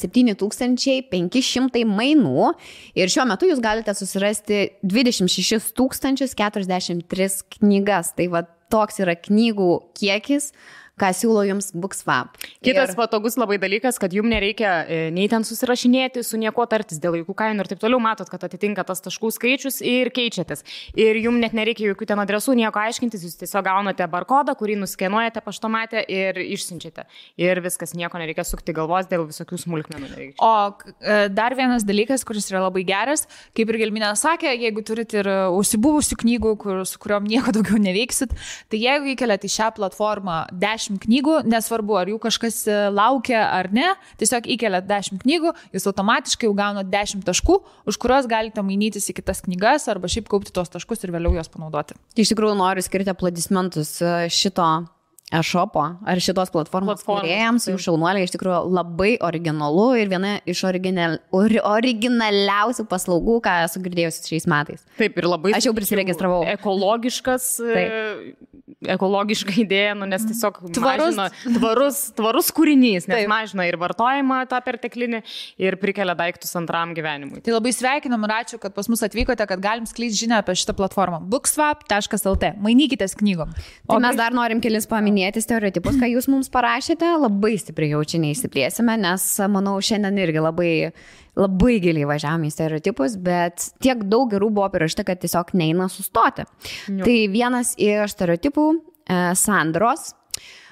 Speaker 3: 7500 mainų ir šiuo metu jūs galite susirasti 26 043 knygas. Tai va toks yra knygų kiekis, ką siūlo jums BookSwap.
Speaker 2: Kitas patogus labai dalykas, kad jums nereikia nei ten susirašinėti, su nieko tartis dėl jokių kainų ir taip toliau, matot, kad atitinka tas taškų skaičius ir keičiatės. Ir jums net nereikia jokių ten adresų, nieko aiškintis, jūs tiesiog gaunate barkodą, kurį nuskenuojate paštomate ir išsiunčiate. Ir viskas, nieko nereikia sukti galvos, dėl visokių smulkmenų nereikia.
Speaker 1: O dar vienas dalykas, kuris yra labai geras, kaip ir Gelminė sakė, jeigu turite ir užsibuvusių knygų, su kuriuom nieko daugiau neveiksit, tai jeigu įkeliate į šią platformą 10 knygų, nesvarbu, ar jų kažkas laukia ar ne, tiesiog įkeliat 10 knygų, jūs automatiškai jau gaunat 10 taškų, už kuriuos galite mainytis į kitas knygas arba šiaip kaupti tos taškus ir vėliau juos panaudoti.
Speaker 3: Iš tikrųjų noriu skirti aplodismentus šito e-shopo ar šitos platformos kūrėjams, jų šaunuoliai iš tikrųjų labai originalu ir viena iš originaliausių paslaugų, ką esu girdėjusi šiais metais.
Speaker 2: Taip, ir labai...
Speaker 3: Aš jau prisiregistravau.
Speaker 2: Ekologiška idėja, nes tiesiog tvarus kūrinys, nes mažina ir vartojimą tą perteklinį ir prikelia daiktus antram gyvenimui.
Speaker 1: Tai labai sveikinam ir ačiū, kad pas mus atvykote, kad galim skleisti žinią apie šitą platformą. BookSwap.lt. Mainykitės knygom.
Speaker 3: Tai mes dar norim kelis paminėti stereotipus, ką jūs mums parašėte. Labai stipriai jau čia neįsiplėsime, nes, manau, šiandien irgi labai giliai važiavome į stereotipus, bet tiek daug gerų buvo parašyta, kad tiesiog neina sustoti. Tai vienas iš stereotipų Sandros,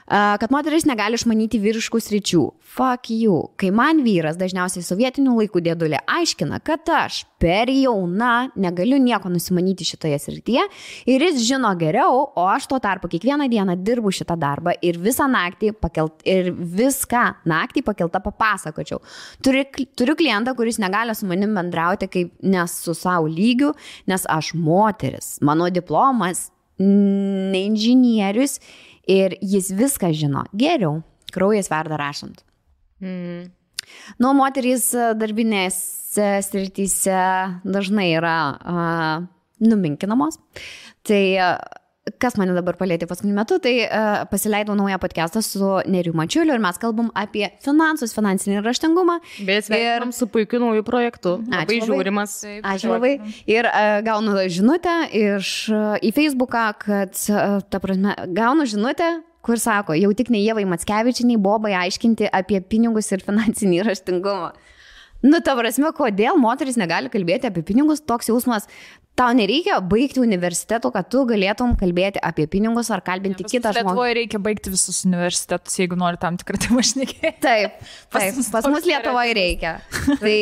Speaker 3: kad moteris negali išmanyti vyriškų sričių. Fuck you. Kai man vyras, dažniausiai sovietinių laikų dėdulė, aiškina, kad aš per jauna negaliu nieko nusimanyti šitoje srityje ir jis žino geriau, o aš tuo tarpu kiekvieną dieną dirbu šitą darbą ir visą naktį pakeltą papasakočiau. Turiu klientą, kuris negali su manim bendrauti kaip nes su savo lygiu, nes aš moteris. Mano diplomas ne inžinierius ir jis viską žino geriau. Kraujas verda rašant. Nu, moterys darbinėse srityse dažnai yra numinkinamos. Tai kas mane dabar palėtė paskutiniu metu, tai pasileidau naują podcastą su Neriu Mačiuliu ir mes kalbam apie finansus, finansinį raštingumą.
Speaker 2: Bet sveikinam su puikiu nauju projektu. Labai žiūrimas.
Speaker 3: Ačiū labai. Ir gaunu žinutę į Facebooką, kad, ta prasme, gaunu žinutę, kur sako, jau tik ne Ievai Mackevičiai, Bobai aiškinti apie pinigus ir finansinį raštingumą. Nu, ta prasme, kodėl moteris negali kalbėti apie pinigus, toks jausmas. Tau nereikia baigti universiteto, kad tu galėtum kalbėti apie pinigus ar kalbinti kitą žmogų.
Speaker 1: Lietuvoje reikia baigti visus universitetus, jeigu nori tam tikrą temą šnekėti.
Speaker 3: Taip, pas mus Lietuvoje reikia. Tai,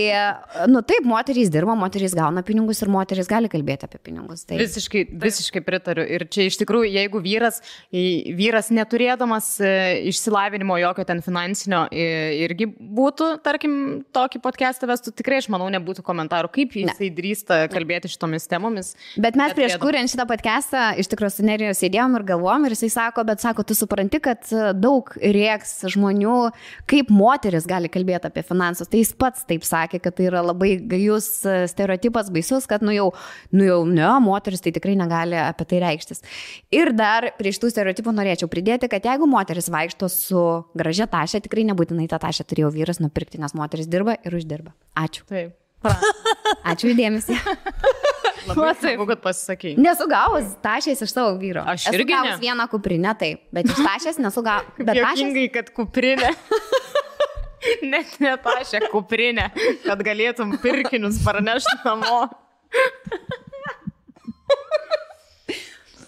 Speaker 3: taip, moterys dirba, moterys gauna pinigus ir moterys gali kalbėti apie pinigus. Tai.
Speaker 2: Visiškai pritariu. Ir čia iš tikrųjų, jeigu vyras neturėdamas išsilavinimo jokio ten finansinio irgi būtų, tarkim, tokį podcastą vestų, tikrai, aš manau, nebūtų komentarų, kaip jisai drįsta kalbėti šitomis temomis.
Speaker 3: Bet mes prieš kuriant šitą podcastą iš tikrųjų su Neriju sėdėjom ir galvom ir jisai sako, tu supranti, kad daug rėks žmonių, kaip moteris gali kalbėti apie finansus. Tai jis pats taip sakė, kad tai yra labai gajus stereotipas, baisus, kad ne, moteris tai tikrai negali apie tai reikštis. Ir dar prie šitų stereotipų norėčiau pridėti, kad jeigu moteris vaikšto su gražia tašė, tikrai nebūtinai tą tašę turėjo vyras nupirkti, nes moteris dirba ir uždirba. Ačiū.
Speaker 2: Taip.
Speaker 3: Ačiū įdėmesį.
Speaker 2: Labai smagu, kad pasisakei.
Speaker 3: Nesu gavus tašės iš savo vyro.
Speaker 2: Aš irgi
Speaker 3: esu gavus vieną kuprinę, taip, bet iš tašės nesu gavus.
Speaker 2: Juokingai, kad kuprinė. Net ne tašė, kuprinė, kad galėtum pirkinius parnešti namo.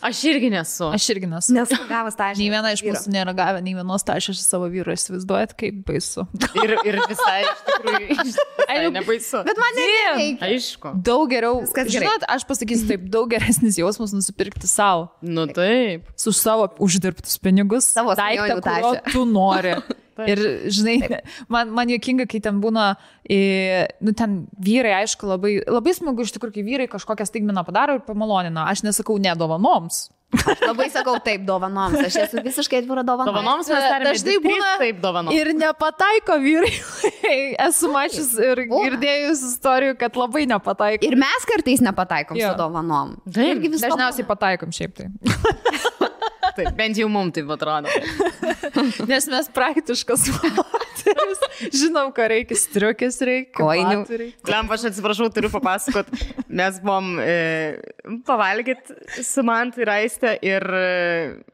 Speaker 2: Aš irgi nesu.
Speaker 3: Nesu gavus tašės.
Speaker 1: Nei viena iš mūsų nėra gavę, nei vienos tašės iš savo vyro. Įsivaizduojat, kaip baisu.
Speaker 2: Ir visai, iš tikrųjų, nebaisu.
Speaker 3: Bet man nereikia.
Speaker 2: Aišku.
Speaker 1: Daug geriau. Žinot, aš pasakysiu taip, daug geresnis jausmas nusipirkti savo.
Speaker 2: Nu taip.
Speaker 1: Su savo uždirbtus pinigus.
Speaker 3: Savo
Speaker 1: daiktą, kurio tu nori. Ir, žinai, man juokinga, kai ten būna, ten vyrai, aišku, labai smagu iš tikrųjų, kai vyrai kažkokią staigmeną padaro ir pamalonina. Aš nesakau ne dovanoms.
Speaker 3: Aš labai sakau taip dovanoms. Aš esu visiškai atvira dovanoms.
Speaker 2: Dovanoms mes tarėme,
Speaker 1: dažnai būna
Speaker 2: taip dovanoms.
Speaker 1: Ir nepataiko vyrai. Esu mačius ir girdėjus istorijų, kad labai nepataiko.
Speaker 3: Ir mes kartais nepataikom su dovanom.
Speaker 1: Dažniausiai pataikom šiaip tai.
Speaker 2: Taip, bent jau mums taip atrodo.
Speaker 1: Nes mes praktiškas moteris. Žinom, ką reikia, striukės reikia.
Speaker 3: Kojinių.
Speaker 2: Lemp, aš atsiprašau, turiu papasakot. Mes buvom pavalgyti su Mantu ir Aiste ir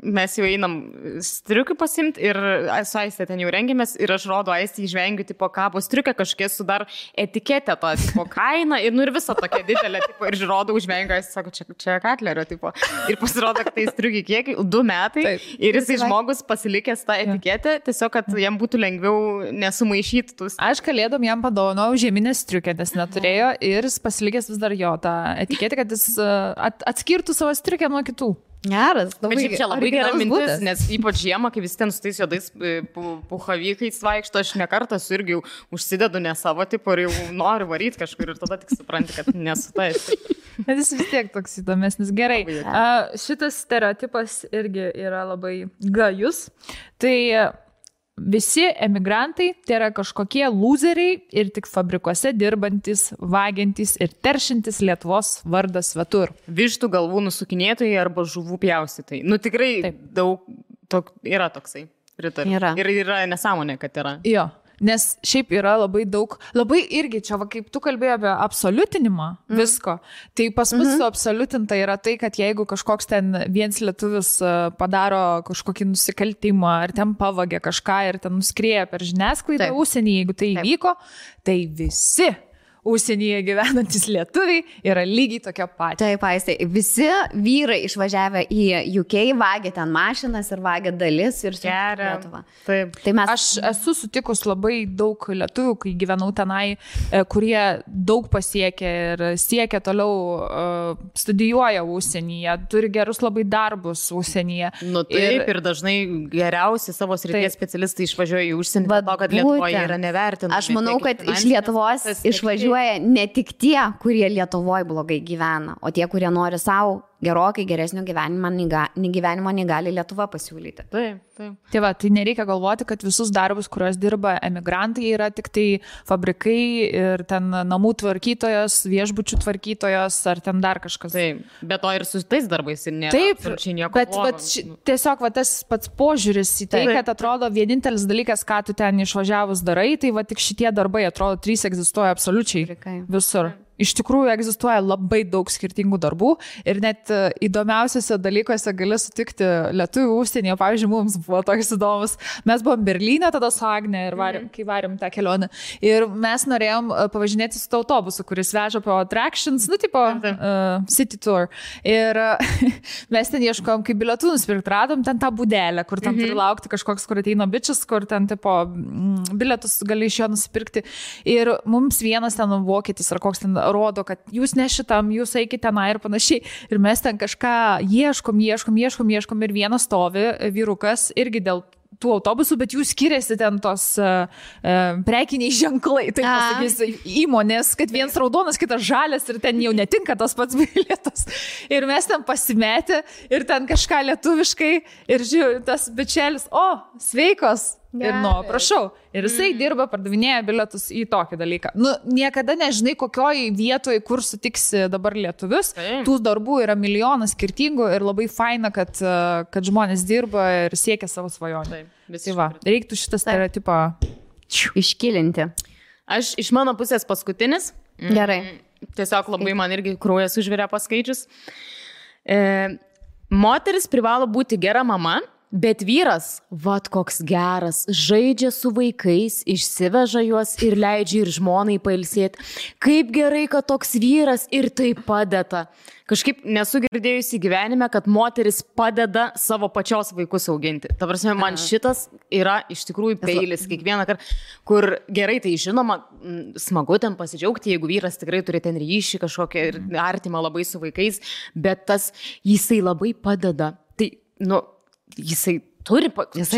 Speaker 2: mes jau einam striukių pasimti ir su Aiste ten jau rengėmės ir aš rodo Aiste įžvengiu, tipo, kabo striukę kažkiek su dar etiketę to, tipo, kainą ir, ir visą tokia didelė, tipo, ir rodo užvengiu, Aiste sako, čia Katlerio, tipo. Ir pasirodo, kad tai striukiai kiekiai, 2 metai. Taip. Ir jisai žmogus pasilikęs tą etiketę, tiesiog, kad jam būtų lengviau nesumaišyti tus.
Speaker 1: Aš kalėdom jam padovanojau žieminę striukę, nes neturėjo ir jis pasilikęs vis dar jo tą etiketę, kad jis atskirtų savo striukę nuo kitų.
Speaker 3: Geras,
Speaker 2: labai, čia labai gera mintis, nes ypač žiemą, kai visi ten su tais juodais puhavykais vaikšto, aš nekartą irgi užsidedu ne savo tipo ir jau noriu varyti kažkur ir tada tik supranti, kad nesu tais.
Speaker 1: Bet jis vis tiek toks įdomesnis. Gerai, šitas stereotipas irgi yra labai gajus. Tai visi emigrantai tai yra kažkokie lūzeriai ir tik fabrikuose dirbantis, vagiantis ir teršintis Lietuvos vardą svetur.
Speaker 2: Vištų galvų nusukinėtojai arba žuvų pjaustytojai. Nu tikrai taip. Daug yra toksai. Pritariu. Ir yra nesąmonė, kad yra.
Speaker 1: Jo. Nes šiaip yra labai daug, labai irgi čia, va, kaip tu kalbėjai apie absoliutinimą visko, tai pas mus absoliutinta yra tai, kad jeigu kažkoks ten vienas lietuvis padaro kažkokį nusikaltimą ar ten pavagė kažką ir ten nuskrieja per žiniasklaidą užsienį, jeigu tai įvyko, tai visi užsienyje gyvenantis lietuviai yra lygiai tokia pati.
Speaker 3: Taip, Aiste, visi vyrai išvažiavę į UK vagia ten mašinas ir vagia dalis ir
Speaker 2: geria Lietuvą. Taip.
Speaker 3: Tai mes...
Speaker 1: Aš esu sutikus labai daug lietuvių, kai gyvenau tenai, kurie daug pasiekė ir siekia toliau, studijuoja užsienyje, turi gerus labai darbus užsienyje.
Speaker 2: Nu taip, ir dažnai geriausi savo srities specialistai išvažiuoja į užsienį, dėl to, kad Lietuvoje yra nevertinami.
Speaker 3: Aš manau, kad iš Lietuvos išvažiuoja ne tik tie, kurie Lietuvoje blogai gyvena, o tie, kurie nori savo gerokai geresnio gyvenimo nei gali Lietuva pasiūlyti.
Speaker 2: Taip.
Speaker 1: Tai va, tai nereikia galvoti, kad visus darbus, kuriuos dirba emigrantai, yra tik tai fabrikai ir ten namų tvarkytojos, viešbučių tvarkytojos ar ten dar kažkas.
Speaker 2: Taip, bet to ir su tais darbais ir nėra.
Speaker 1: Taip, bet tiesiog va, tas pats požiūris į tai, kad atrodo vienintelis dalykas, ką tu ten išvažiavus darai, tai va tik šitie darbai, atrodo, 3 egzistuoja absoliučiai visur. Iš tikrųjų egzistuoja labai daug skirtingų darbų ir net įdomiausiuose dalykuose gali sutikti lietuvių užsienyje. Pavyzdžiui, mums buvo toks įdomus. Mes buvom Berlyne tada su Agne ir kai varėm tą kelionę. Ir mes norėjom pavažinėti su autobusu, kuris veža po attractions, tipo city tour. Ir mes ten ieškojom, kaip bilietų nusipirkti. Radom ten tą būdelę, kur ten turi laukti kažkoks, kur ateina bičias, kur ten bilietus gali iš jo nusipirkti. Ir mums vienas ten vokietis ar koks ten rodo, kad jūs ne šitam, jūs eikite tenai ir panašiai. Ir mes ten kažką ieškom ir vienas stovi vyrukas irgi dėl tų autobusų, bet jų skiriasi ten tos prekiniai ženklai, taip pasakys, įmonės, kad vienas raudonas, kitas žalias ir ten jau netinka tas pats bilietas. Ir mes ten pasimetę ir ten kažką lietuviškai ir žiūrėjau, tas bičelis, sveikos. Ir prašau. Ir jisai dirba, pardavinėja bilietus į tokį dalyką. Niekada nežinai, kokioj vietoje, kur sutiksi dabar lietuvius. Tų darbų yra milijonas skirtingų ir labai faina, kad žmonės dirba ir siekia savo svajonę. Tai va, reiktų šitą stereotipą
Speaker 3: iškilinti.
Speaker 2: Aš iš mano pusės paskutinis.
Speaker 3: Gerai.
Speaker 2: Tiesiog labai man irgi kraujas užvirė paskaičius. Moteris privalo būti gera mama. Bet vyras, vat koks geras, žaidžia su vaikais, išsiveža juos ir leidžia ir žmonai pailsėti. Kaip gerai, kad toks vyras ir tai padeda. Kažkaip nesu girdėjusi gyvenime, kad moteris padeda savo pačios vaikus auginti. Ta prasme, man šitas yra iš tikrųjų peilis kiekvieną kartą, kur gerai, tai žinoma, smagu ten pasidžiaugti, jeigu vyras tikrai turi ten ryšį kažkokią ir artimą labai su vaikais, bet tas jisai labai padeda. Tai, jisai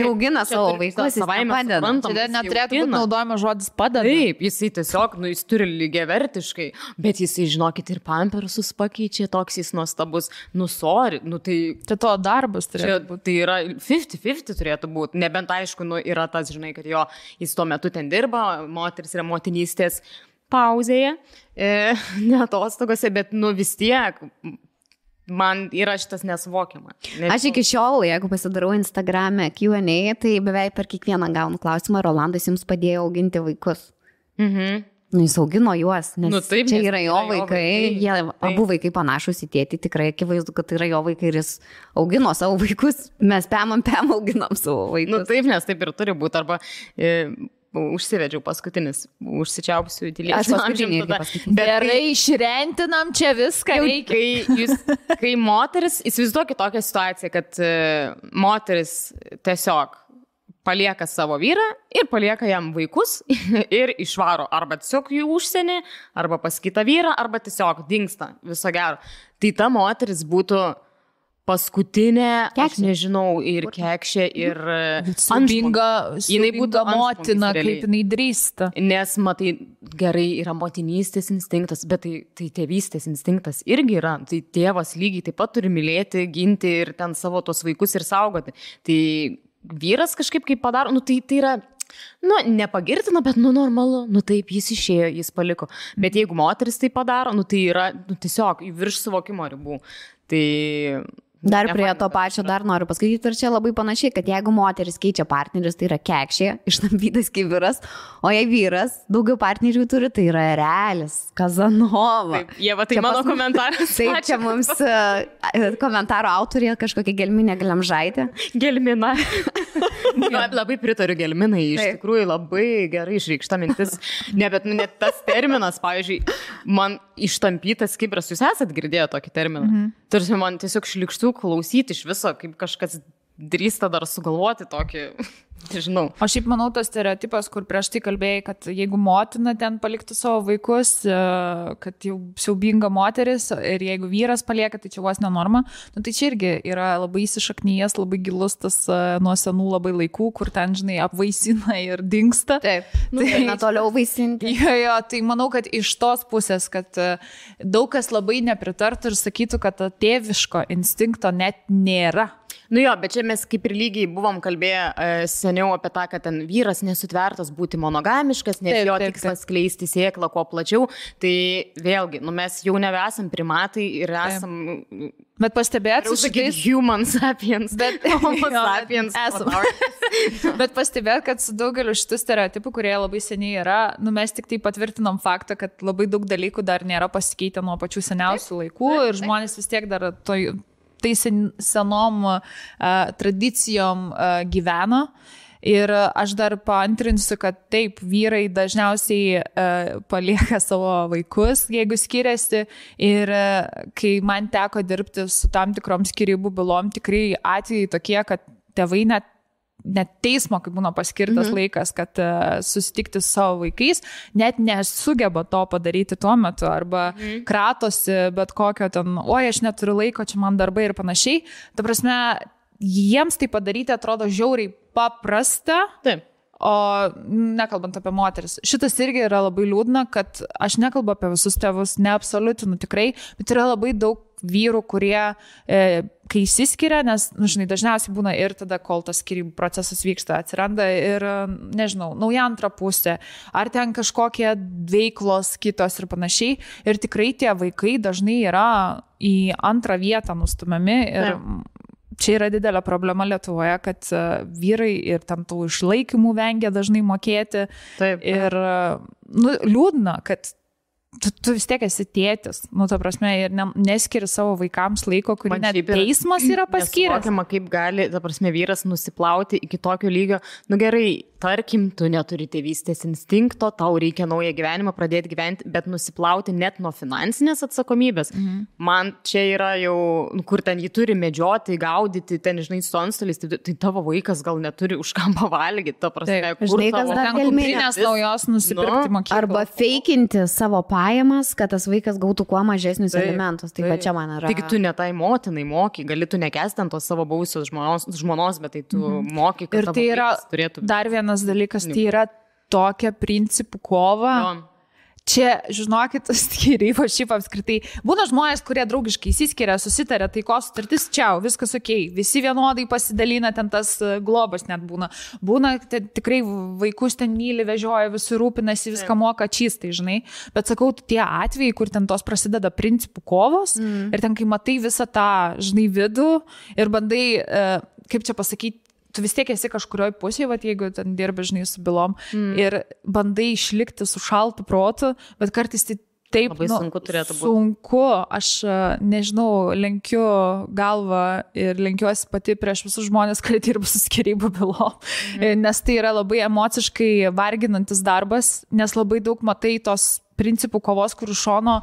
Speaker 3: augina savo vaikus, jis padeda.
Speaker 1: Čia neturėtų būti naudojama žodis padeda.
Speaker 2: Taip, jisai tiesiog, jis turi lygiavertiškai, bet jisai, žinokit, ir pampersus pakeičia, toks jis nuostabus. Sorry, tai...
Speaker 1: Tai to darbas turėtų būti.
Speaker 2: Tai yra 50-50 turėtų būti, nebent aišku, yra tas, žinai, kad jis tuo metu ten dirba, moteris yra motinystės pauzėje, ne atostogose, bet vis tiek... Man yra šitas nesuvokiama.
Speaker 3: Aš iki šiol, jeigu pasidarau Instagram'e Q&A, tai beveik per kiekvieną gaunu klausimą, Rolandas jums padėjo auginti vaikus. Jis augino juos, nes čia yra jo vaikai, jie abu vaikai panašus į tėtį, tikrai akivaizdu, kad tai yra jo vaikai ir jis augino savo vaikus, mes pem auginam savo vaikus.
Speaker 2: Taip, nes taip ir turi būti, arba... Užsivedžiau paskutinis, užsičiaupsiu į tylį.
Speaker 3: Aš paskutinį irgi paskutinį.
Speaker 1: Gerai, išrentinam čia viską reikia.
Speaker 2: Kai moteris, įsivaizduokit tokią situaciją, kad moteris tiesiog palieka savo vyrą ir palieka jam vaikus ir išvaro arba tiesiog jų užsienį, arba pas kitą vyrą, arba tiesiog dingsta viso gero. Tai ta moteris būtų paskutinė, aš nežinau, ir kekšė, ir
Speaker 1: siubinga motina, kaip jinai drįsta.
Speaker 2: Nes, matai, gerai yra motinystės instinktas, bet tai tėvystės instinktas irgi yra. Tai tėvas lygiai taip pat turi mylėti, ginti ir ten savo tos vaikus ir saugoti. Tai vyras kažkaip kaip padaro, tai yra... nepagirtina, bet normalu, taip, jis išėjo, jis paliko. Bet jeigu moteris tai padaro, tai yra tiesiog virš suvokimo ribų. Tai...
Speaker 3: Dar prie to pačio dar noriu pasakyti, ir čia labai panašiai, kad jeigu moteris keičia partnerius, tai yra kekšė, ištampytas kaip vyras, o jei vyras daugiau partnerių turi, tai yra realis, Kazanova.
Speaker 2: Taip, Ieva, tai čia mano komentaras.
Speaker 3: Taip, čia mums komentaro autorė kažkokia Gelminė Glemžaitė.
Speaker 2: Gelmina. Labai pritariu Gelminai, iš tikrųjų labai gerai išreikšta mintis. Bet net tas terminas, pavyzdžiui, man ištampytas kibras, jūs esat girdėję tokį terminą? Tarsi man tiesiog šlikštų klausyti iš viso, kaip kažkas drįsta dar sugalvoti tokį, nežinau.
Speaker 1: O šiaip manau, tas stereotipas, kur prieš tai kalbėjai, kad jeigu motina ten paliktų savo vaikus, kad jau siaubinga moteris ir jeigu vyras palieka, tai čia vos nenorma, nu, tai čia irgi yra labai įsišaknyjas, labai gilus tas nuo senų labai laikų, kur ten, žinai, apvaisina ir dingsta.
Speaker 3: Taip, tai toliau vaisinti.
Speaker 1: Jo, tai manau, kad iš tos pusės, kad daug kas labai nepritartų ir sakytų, kad tėviško instinkto net nėra.
Speaker 2: Nu jo, bet čia mes kaip ir lygiai buvom kalbėję seniau apie tą, kad ten vyras nesutvertas būti monogamiškas, nes jo tikslas skleisti sėklą kuo plačiau. Tai vėlgi, nu mes jau nebesam primatai ir esam...
Speaker 1: Bet pastebėt,
Speaker 2: human sapiens, homo sapiens.
Speaker 1: Bet pastebėt, kad su daugeliu šitų stereotipų, kurie labai seniai yra, nu mes tik tai patvirtinom faktą, kad labai daug dalykų dar nėra pasikeitę nuo pačių seniausių laikų ir žmonės vis tiek dar tai senom tradicijom gyveno. Ir aš dar paantrinsiu, kad taip, vyrai dažniausiai palieka savo vaikus, jeigu skiriasi. Ir kai man teko dirbti su tam tikrom skyrybų bylom, tikrai atvejai tokie, kad tėvai net teismo, kaip būna paskirtas laikas, kad susitikti su savo vaikais, net nesugeba to padaryti tuo metu, arba kratosi bet kokio ten, oi, aš neturiu laiko, čia man darbai ir panašiai. Ta prasme, jiems tai padaryti atrodo žiauriai paprasta.
Speaker 2: Taip.
Speaker 1: O nekalbant apie moteris. Šitas irgi yra labai liūdna, kad aš nekalbu apie visus tėvus, neabsoliutinu tikrai, bet yra labai daug vyrų, kurie, kai įsiskiria, nes, nu, žinai, dažniausiai būna ir tada, kol tas skyrybų procesas vyksta, atsiranda ir, nežinau, nauja antra pusė, ar ten kažkokie veiklos kitos ir panašiai. Ir tikrai tie vaikai dažnai yra į antrą vietą nustumiami ir čia yra didelė problema Lietuvoje, kad vyrai ir ten tų išlaikymų vengia dažnai mokėti.
Speaker 2: Taip.
Speaker 1: Ir nu, liūdna, kad tu vis tiek esi tėtis, nu, ta prasme, ir neskiri savo vaikams laiko, kurį net teismas yra paskyręs.
Speaker 2: Nesuvokiama, kaip gali, ta prasme, vyras nusiplauti iki tokio lygio. Nu gerai, tarkim, tu neturi tėvystės instinkto, tau reikia naują gyvenimą pradėti gyventi, bet nusiplauti net nuo finansinės atsakomybės. Man čia yra jau, kur ten jį turi medžioti, gaudyti, ten, žinai, su antstoliais, tai tavo vaikas gal neturi už ką pavalgyti, ta prasme,
Speaker 3: kur žinai, kas dar
Speaker 1: galimybės naujos nusipirkti mokyklą.
Speaker 3: Arba feikinti savo pajamas, kad tas vaikas gautų kuo mažesnius alimentus. Tai va čia man yra.
Speaker 2: Tik tu ne tai motinai moki, gali tu nekesti ant tos savo buvusios žmonos, bet tai tu moki, kad
Speaker 1: ir tai yra
Speaker 2: turėtų...
Speaker 1: Dar vienas dalykas, tai yra tokia principų kova. Čia, žinokit, skyrybos šiaip apskritai. Būna žmonės, kurie draugiškai įsiskiria, susitarė, taikos sutartis, čiau, viskas okei. Visi vienodai pasidalina, ten tas globas net būna. Būna, tikrai vaikus ten myli, vežioja, visi rūpinasi, viską moka čystai, žinai. Bet sakau, tie atvejai, kur ten tos prasideda principų kovos ir ten, kai matai visą tą, žinai, vidų ir bandai, kaip čia pasakyti, tu vis tiek esi kažkurioj pusėje, vat, jeigu ten dirbi, žinai, su bylom ir bandai išlikti su šaltu protu, bet kartais tai taip,
Speaker 2: labai sunku turėtų būti.
Speaker 1: Sunku, aš nežinau, lenkiu galvą ir lenkiuosi pati prieš visus žmonės, kurie dirba su skyrybų bylom, nes tai yra labai emociškai varginantis darbas, nes labai daug matai tos principų kovos, kur iš šono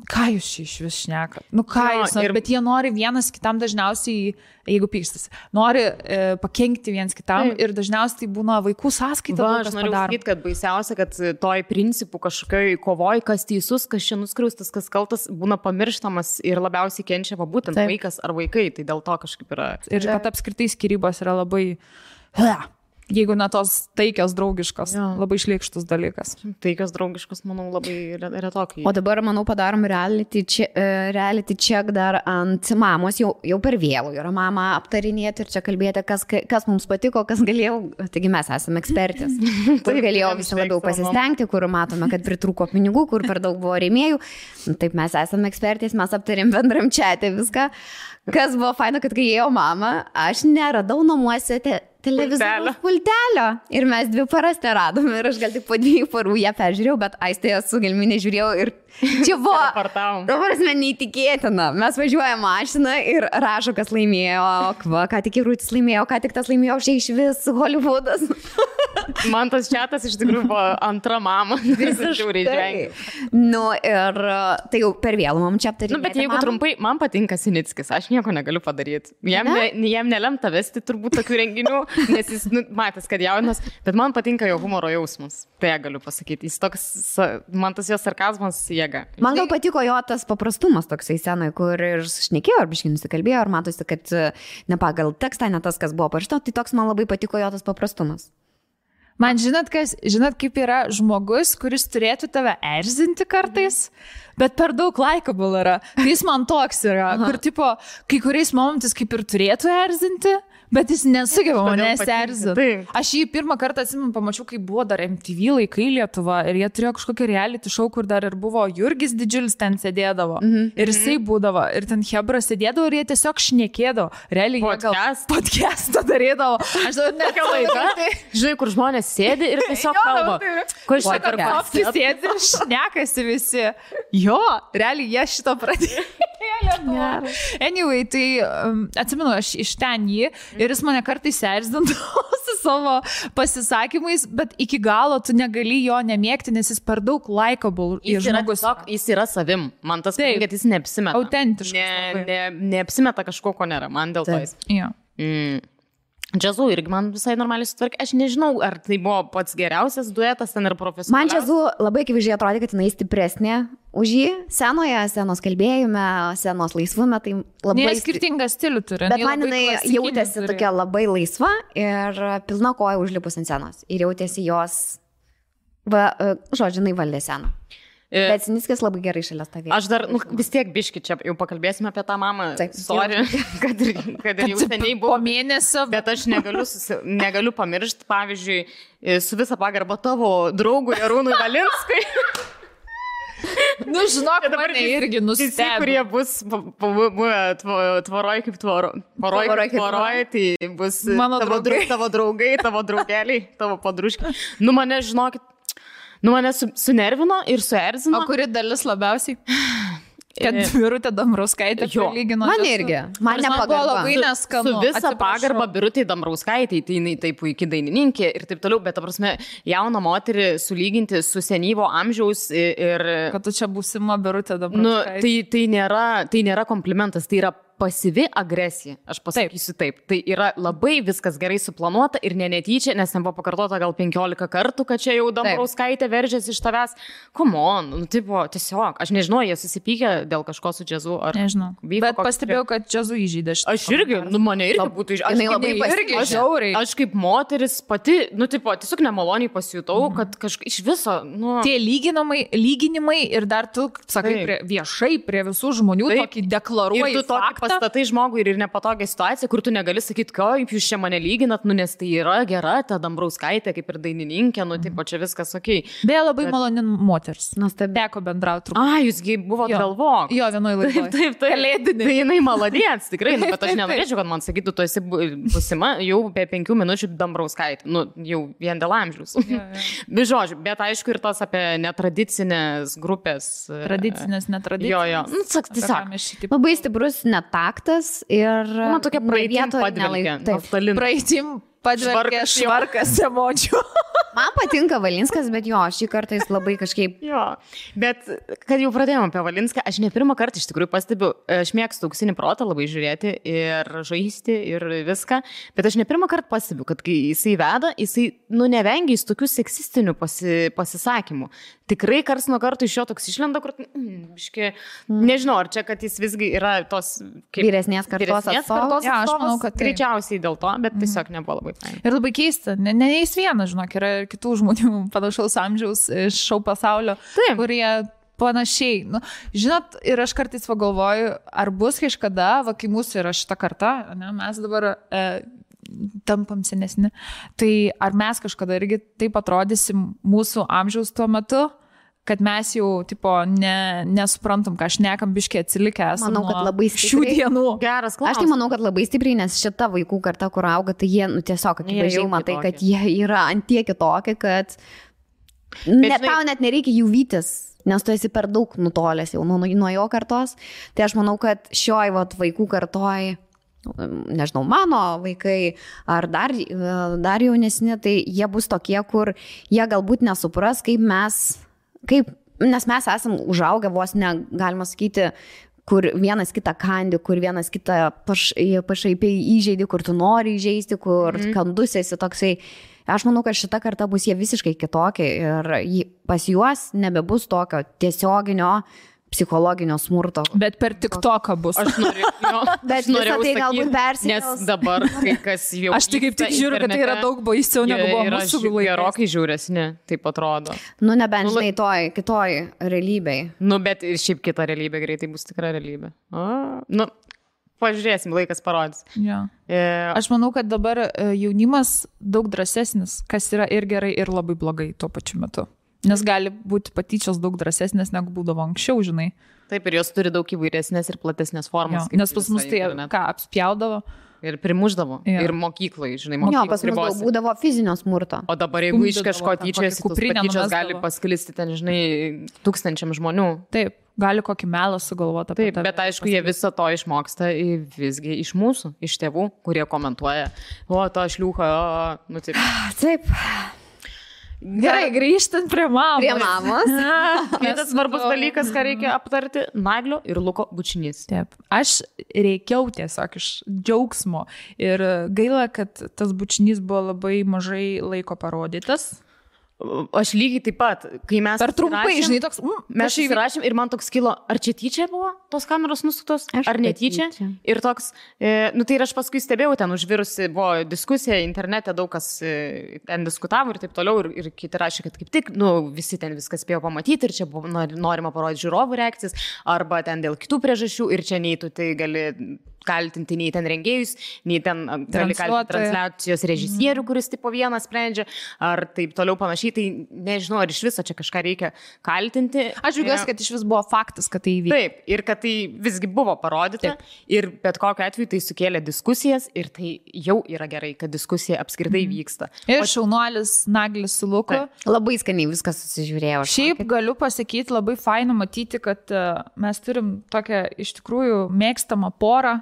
Speaker 1: ką jūs iš vis šnekat? Nu ką jūs, bet jie nori vienas kitam dažniausiai, jeigu pykstasi, nori pakenkti vienas kitam ir dažniausiai būna vaikų sąskaita.
Speaker 2: Aš noriu sakyti, kad baisiausia, kad toj principų kažkokioj kovoj, kas teisus, kas čia nuskriaustas, kas kaltas, būna pamirštamas ir labiausiai kenčia būtent vaikas ar vaikai, tai dėl to kažkaip yra.
Speaker 1: Ir kad apskritai skyrybos yra labai... Jeigu ne tos taikios draugiškos, labai šlykštus dalykas.
Speaker 2: Taikios draugiškos, manau, labai retokai.
Speaker 3: O dabar, manau, padarom reality check dar ant mamos, jau per vėlų yra mama aptarinėti ir čia kalbėti, kas mums patiko, kas galėjau, taigi mes esame ekspertės, kur galėjau visi labiau pasistengti, kur matome, kad pritrūko pinigų, kur per daug buvo rėmėjų. Taip, mes esame ekspertės, mes aptarėm bendram čiate viską. Kas buvo faina, kad kai ėjo mama, aš neradau namuose televizoriaus pultelio. Ir mes 2 paras neradome ir aš gal tik po 2 parų ją peržiūrėjau, bet Aistėje su Gelminė žiūrėjau ir čia buvo, dabar mes neįtikėtina. Mes važiuojame mašiną ir rašo, kas laimėjo, ką tik Rūtis laimėjo, ką tik tas laimėjo, šiai iš vis Hollywoodas.
Speaker 2: Man tas čiatas iš tikrųjų buvo antra mama.
Speaker 3: Visiškai. Nu ir tai jau per vėlų mums čia aptarėti.
Speaker 2: Nu, bet jeigu trumpai, man patinka Sinickis, aš nieko negaliu padaryti. Jam nelemta vesti turbūt tokių renginių, nes jis matęs, kad jaunas, bet man patinka jo humoro jausmas. Tai galiu pasakyti. Jis toks, man tas jo sarkazmas jėga.
Speaker 3: Man gal patiko jo tas paprastumas toksai senai, kur ir šnekėjo, ar biškai nusikalbėjo, ar matosi, kad ne pagal tekstą, ne tas, kas buvo parašyta, tai toks man labai patiko jo tas paprastumas.
Speaker 1: Man žinot, kaip yra žmogus, kuris turėtų tave erzinti kartais, bet per daug likeable yra. Jis man toks yra, kur tipo, kai kuriais momentais kaip ir turėtų erzinti, bet jis nesugeba manęs erzinti. Aš jį pirmą kartą atsimenu, pamačiau, kai buvo dar MTV laikai Lietuva ir jie turėjo kažkokį reality show, kur dar ir buvo Jurgis Didžiulis ten sėdėdavo. Ir jisai būdavo, ir ten Hebra sėdėdavo ir jie tiesiog šnekėdavo. Realiai jie gal podcastą darydavo. Aš dabar nekia laida.
Speaker 2: Žinai, kur žmonės sėdi ir tiesiog kalba.
Speaker 1: Kur šitą sėdi ir šnekasi visi. Jo, realiai jie šito pradėjo. Anyway, tai atsimenu, aš iš ten jį ir jis mane kartais erzindavo su savo pasisakymais, bet iki galo tu negali jo nemėgti, nes jis per daug likeable.
Speaker 2: Jis yra savim. Man tas patinka, kad jis neapsimeta.
Speaker 1: Autentiškas.
Speaker 2: Neapsimeta kažko, ko nėra. Man dėl to jis. Džiazu irgi man visai normaliai sutvarkė. Aš nežinau, ar tai buvo pats geriausias duetas ten ir profesionaliausias.
Speaker 3: Man Džiazu labai akivaizdžiai atrodė, kad jinai stipresnė už jį scenos kalbėjime, scenos laisvume. Tai labai
Speaker 1: skirtingą stilių turi.
Speaker 3: Bet man jinai jautėsi tokia labai laisva ir pilna koja užlipus ant scenos. Ir jautėsi jos, žodžiu, jinai valdė sceną. Bet Sinickis labai gerai šalia stovėjo.
Speaker 2: Aš dar, vis tiek biški čia, jau pakalbėsime apie tą mamą. Sorry, kad ir jau seniai buvo.
Speaker 1: Po mėnesio.
Speaker 2: Bet aš negaliu pamiršti, pavyzdžiui, su visa pagarba tavo draugui Arūnui Valinskui.
Speaker 1: Nu, žinok, mane irgi nustebino.
Speaker 2: Visi, kurie bus tvoroj kaip tvoroj, tai bus tavo draugai, tavo draugeliai, tavo padruškiai. Mane, žinokit, mane sunervino ir suerzino.
Speaker 1: O kuri dalis labiausiai? Kad Birutė Dambrauskaitė prilygino.
Speaker 3: Man irgi. Man nepagarba.
Speaker 1: Labai neskanu.
Speaker 2: Su visa pagarba Birutė Dambrauskaitė, tai jinai taip puikiai dainininkė ir taip toliau, bet ta prasme, jauną moterį sulyginti su senyvo amžiaus ir...
Speaker 1: Kad tu čia būsima Birutė Dambrauskaitė.
Speaker 2: Tai nėra komplimentas, tai yra pasyvi agresija, aš pasakysiu taip. Tai yra labai viskas gerai suplanuota ir netyčia, nes ten buvo pakartota gal 15 kartų, kad čia jau Dambrauskaitė veržėsi iš tavęs. Come on, tiesiog, aš nežinau, jie susipykė dėl kažko su Džiazu.
Speaker 1: Nežinau, bet pastebėjau, kad Džiazu įžydė šitą.
Speaker 2: Aš irgi, mane irgi būtų įžydė. Aš kaip moteris pati, tiesiog nemaloniai pasijutau, kad kažkaip iš viso,
Speaker 1: Tie lyginimai ir dar tu, sakai, viešai prie visų žmonių tokį deklaruoji faktą.
Speaker 2: Pastatai žmogui ir nepatogią situaciją, kur tu negali sakyti, kaip jūs čia mane lyginat, nes tai yra gera, ta Dambrauskaitė kaip ir dainininkė, čia viskas okei.
Speaker 1: Beje, labai maloni moters. Teko bendrauti truputį.
Speaker 2: Jūsgi buvo Galvok.
Speaker 1: Jo, vienoj laidoje.
Speaker 2: Taip. Kalėdinė. Tai jinai maladėts, tikrai, bet aš nenorėčiau, kad man sakytų, tu esi būsima jau be 5 minučių Dambrauskaitė. Jau vien dėl amžiaus. Žodžiu, bet aišku ir tas apie netradicinės grupės.
Speaker 1: Tradicinės, netradicinės.
Speaker 2: Tiesiog.
Speaker 3: Labai stiprus netaktas ir...
Speaker 2: Man tokia praeitim padvelkė.
Speaker 1: Praeitim padvelkė švarkas emocijų.
Speaker 3: Man patinka Valinskas, bet šį kartą jis labai kažkaip...
Speaker 2: Bet kad jau pradėjome apie Valinską, aš ne pirmą kartą iš tikrųjų pastebiu, aš mėgstu Auksinį protą labai žiūrėti ir žaisti ir viską, bet aš ne pirmą kartą pastebiu, kad kai jisai veda, jisai, nevengia jis tokių seksistinių pasisakymų. Tikrai kars nuo karto iš jo toks išlenda, kur, nežinau, ar čia, kad jis visgi yra tos...
Speaker 3: Vyresnės kartos atstovas.
Speaker 1: Aš manau, kad
Speaker 2: greičiausiai dėl to, bet tiesiog nebuvo labai fain.
Speaker 1: Ir labai keista, ne jis vienas, žinok, yra kitų žmonių panašaus amžiaus iš šou pasaulio, kurie panašiai. Žinot, ir aš kartais pagalvoju, ar bus kažkada, kai mūsų yra šita karta, mes dabar tampam senesni, tai ar mes kažkada irgi taip atrodysim mūsų amžiaus tuo metu, kad mes jau, tipo, nesuprantam, ką šnekam, biškiai atsilikę esame.
Speaker 3: Manau, kad labai
Speaker 1: šių dienų.
Speaker 2: Geras klausimas.
Speaker 3: Aš tai manau, kad labai stipriai, nes šita vaikų karta, kur auga, tai jie, tiesiog, akivaizdžiai matai, kad jie yra ant tiek kitokie, kad tau net nereikia jų vytis, nes tu esi per daug nutolęs jau nuo jo kartos. Tai aš manau, kad šioj vaikų kartoj, nežinau, mano vaikai ar dar jaunesni, tai jie bus tokie, kur jie galbūt nesupras, nes mes esam užaugę vos negalima sakyti, kur vienas kitą kandi, kur vienas kitą pašaipiai įžeidi, kur tu nori įžeisti, kur kandus esi toksai. Aš manau, kad šita karta bus jie visiškai kitokie ir pas juos nebebus tokio tiesioginio psichologinio smurto.
Speaker 1: Bet per TikToką bus.
Speaker 2: Aš norėjau
Speaker 3: tai galbūt persikels.
Speaker 2: Nes dabar kai kas jau...
Speaker 1: Aš tik kaip tik žiūriu, kad tai yra daug baisiau negu buvo mūsų laikais.
Speaker 2: Gerokai žiūresni, taip atrodo.
Speaker 3: Nebent žinai kitoj realybėj.
Speaker 2: Bet ir šiaip kita realybė greitai bus tikra realybė. Pažiūrėsim, laikas parodys.
Speaker 1: Ja. Aš manau, kad dabar jaunimas daug drąsesnis, kas yra ir gerai, ir labai blogai tuo pačiu metu. Nes gali būti patyčios daug drąsesnės, negu būdavo anksčiau, žinai.
Speaker 2: Taip, ir jos turi daug įvairesnės ir platesnės formas.
Speaker 1: Ja, nes pas mus tai apspjaudavo.
Speaker 2: Ir primuždavo. Ja. Ir mokyklai, žinai,
Speaker 3: pas mus daug būdavo fizinio smurto.
Speaker 2: O dabar, jeigu iš kažko tyčiasi, tos patyčios gali pasklisti ten, žinai, 1000 žmonių.
Speaker 1: Taip, gali kokį melą sugalvoti.
Speaker 2: Taip, bet aišku, jie visą to išmoksta visgi iš mūsų, iš tėvų, kurie komentuoja, to šliūcha, taip.
Speaker 3: Taip.
Speaker 1: Gerai, grįžtant prie mamos.
Speaker 3: Prie mamos.
Speaker 2: Kitas svarbus dalykas, ką reikia aptarti, Naglio ir Luko bučinys.
Speaker 1: Taip, aš reikiau tiesiog iš džiaugsmo ir gaila, kad tas bučinys buvo labai mažai laiko parodytas.
Speaker 2: Aš lygiai taip pat, kai mes...
Speaker 1: Per trumpai, žinai, toks...
Speaker 2: Mes įsirašėm ir man toks kilo, ar čia tyčia buvo tos kameros nusuktos, ar netyčia. Ir toks, tai ir aš paskui stebėjau, ten užvirusi buvo diskusija internete, daug kas ten diskutavo ir taip toliau, ir kiti rašė, kad kaip tik, visi ten viskas spėjo pamatyti ir čia buvo norima parodyti žiūrovų reakcijas, arba ten dėl kitų priežasčių ir čia nei tu tai gali kaltinti nei ten rengėjus, nei ten gali kaltinti transliacijos režisierių, kuris tipo vienas sprendžia, ar taip toliau panašiai, tai nežinau, ar iš viso čia kažką reikia kaltinti.
Speaker 1: Aš džiaugiuosi, kad iš vis buvo faktas, kad tai įvyko.
Speaker 2: Taip, ir kad tai visgi buvo parodyta, ir bet kokiu atveju tai sukėlė diskusijas, ir tai jau yra gerai, kad diskusija apskritai vyksta.
Speaker 1: Ir šaunuolis Naglis su Luku.
Speaker 3: Labai skaniai viskas susižiūrėjo.
Speaker 1: Šiaip galiu pasakyti, labai faina matyti, kad mes turim tokią iš tikrųjų mėgstamą porą.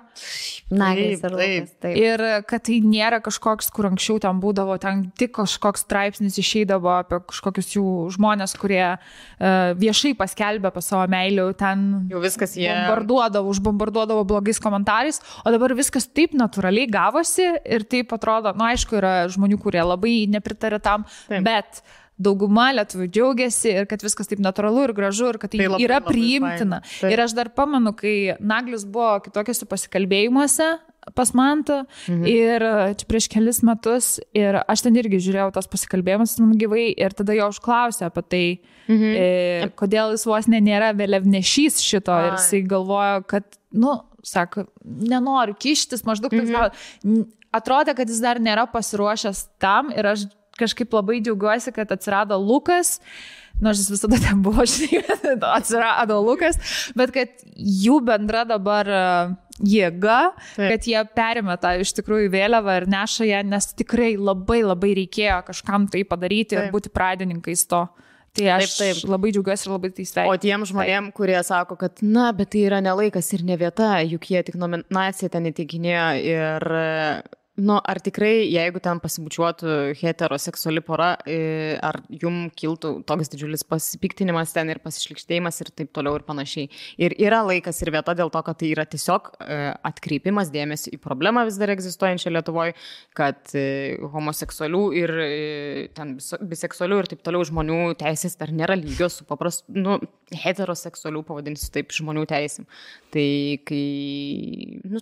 Speaker 3: Naglis ir Lukas. Taip.
Speaker 1: Ir kad tai nėra kažkoks, kur anksčiau ten būdavo, ten tik kažkoks straipsnis išeidavo apie kažkokius jų žmonės, kurie viešai paskelbė apie savo meilę, ten
Speaker 2: jau viskas jie
Speaker 1: užbombarduodavo blogais komentarais, o dabar viskas taip natūraliai gavosi ir taip atrodo, aišku, yra žmonių, kurie labai nepritarė tam, bet dauguma lietuvių džiaugiasi ir kad viskas taip natūralu ir gražu ir kad tai yra priimtina. Ir aš dar pamenu, kai Naglis buvo kitokiuose pasikalbėjimuose pas Mantą ir čia prieš kelis metus ir aš ten irgi žiūrėjau tos pasikalbėjimus gyvai ir tada jo užklausė apie tai, kodėl jis vos nėra vėliavnešys šito ir jisai galvojo, kad, sako, nenoriu kištis, maždaug atrodė, kad jis dar nėra pasiruošęs tam ir aš kažkaip labai džiaugiuosi, kad atsirado Lukas, nors jis visada ten buvo, atsirado Lukas, bet kad jų bendra dabar jėga, kad jie perėmė tą iš tikrųjų vėliavą ir neša ją, nes tikrai labai labai reikėjo kažkam tai padaryti ir būti pradininkais to. Tai aš labai džiaugiuosi ir labai tai sveikinu.
Speaker 2: O tiem žmonėm, kurie sako, kad bet tai yra ne laikas ir ne vieta, juk jie tik nominaciją ten įteikinėjo ir... ar tikrai, jeigu ten pasibučiuotų heteroseksuali pora, ar jum kiltų toks didžiulis pasipiktinimas ten ir pasišlikštėjimas ir taip toliau ir panašiai. Ir yra laikas ir vieta dėl to, kad tai yra tiesiog atkreipimas dėmesį į problemą vis dar egzistuojančią Lietuvoje, kad homoseksualių ir ten biseksualių ir taip toliau žmonių teisės dar nėra lygios su paprastu, heteroseksualių, pavadinsiu taip, žmonių teisėm. Tai kai,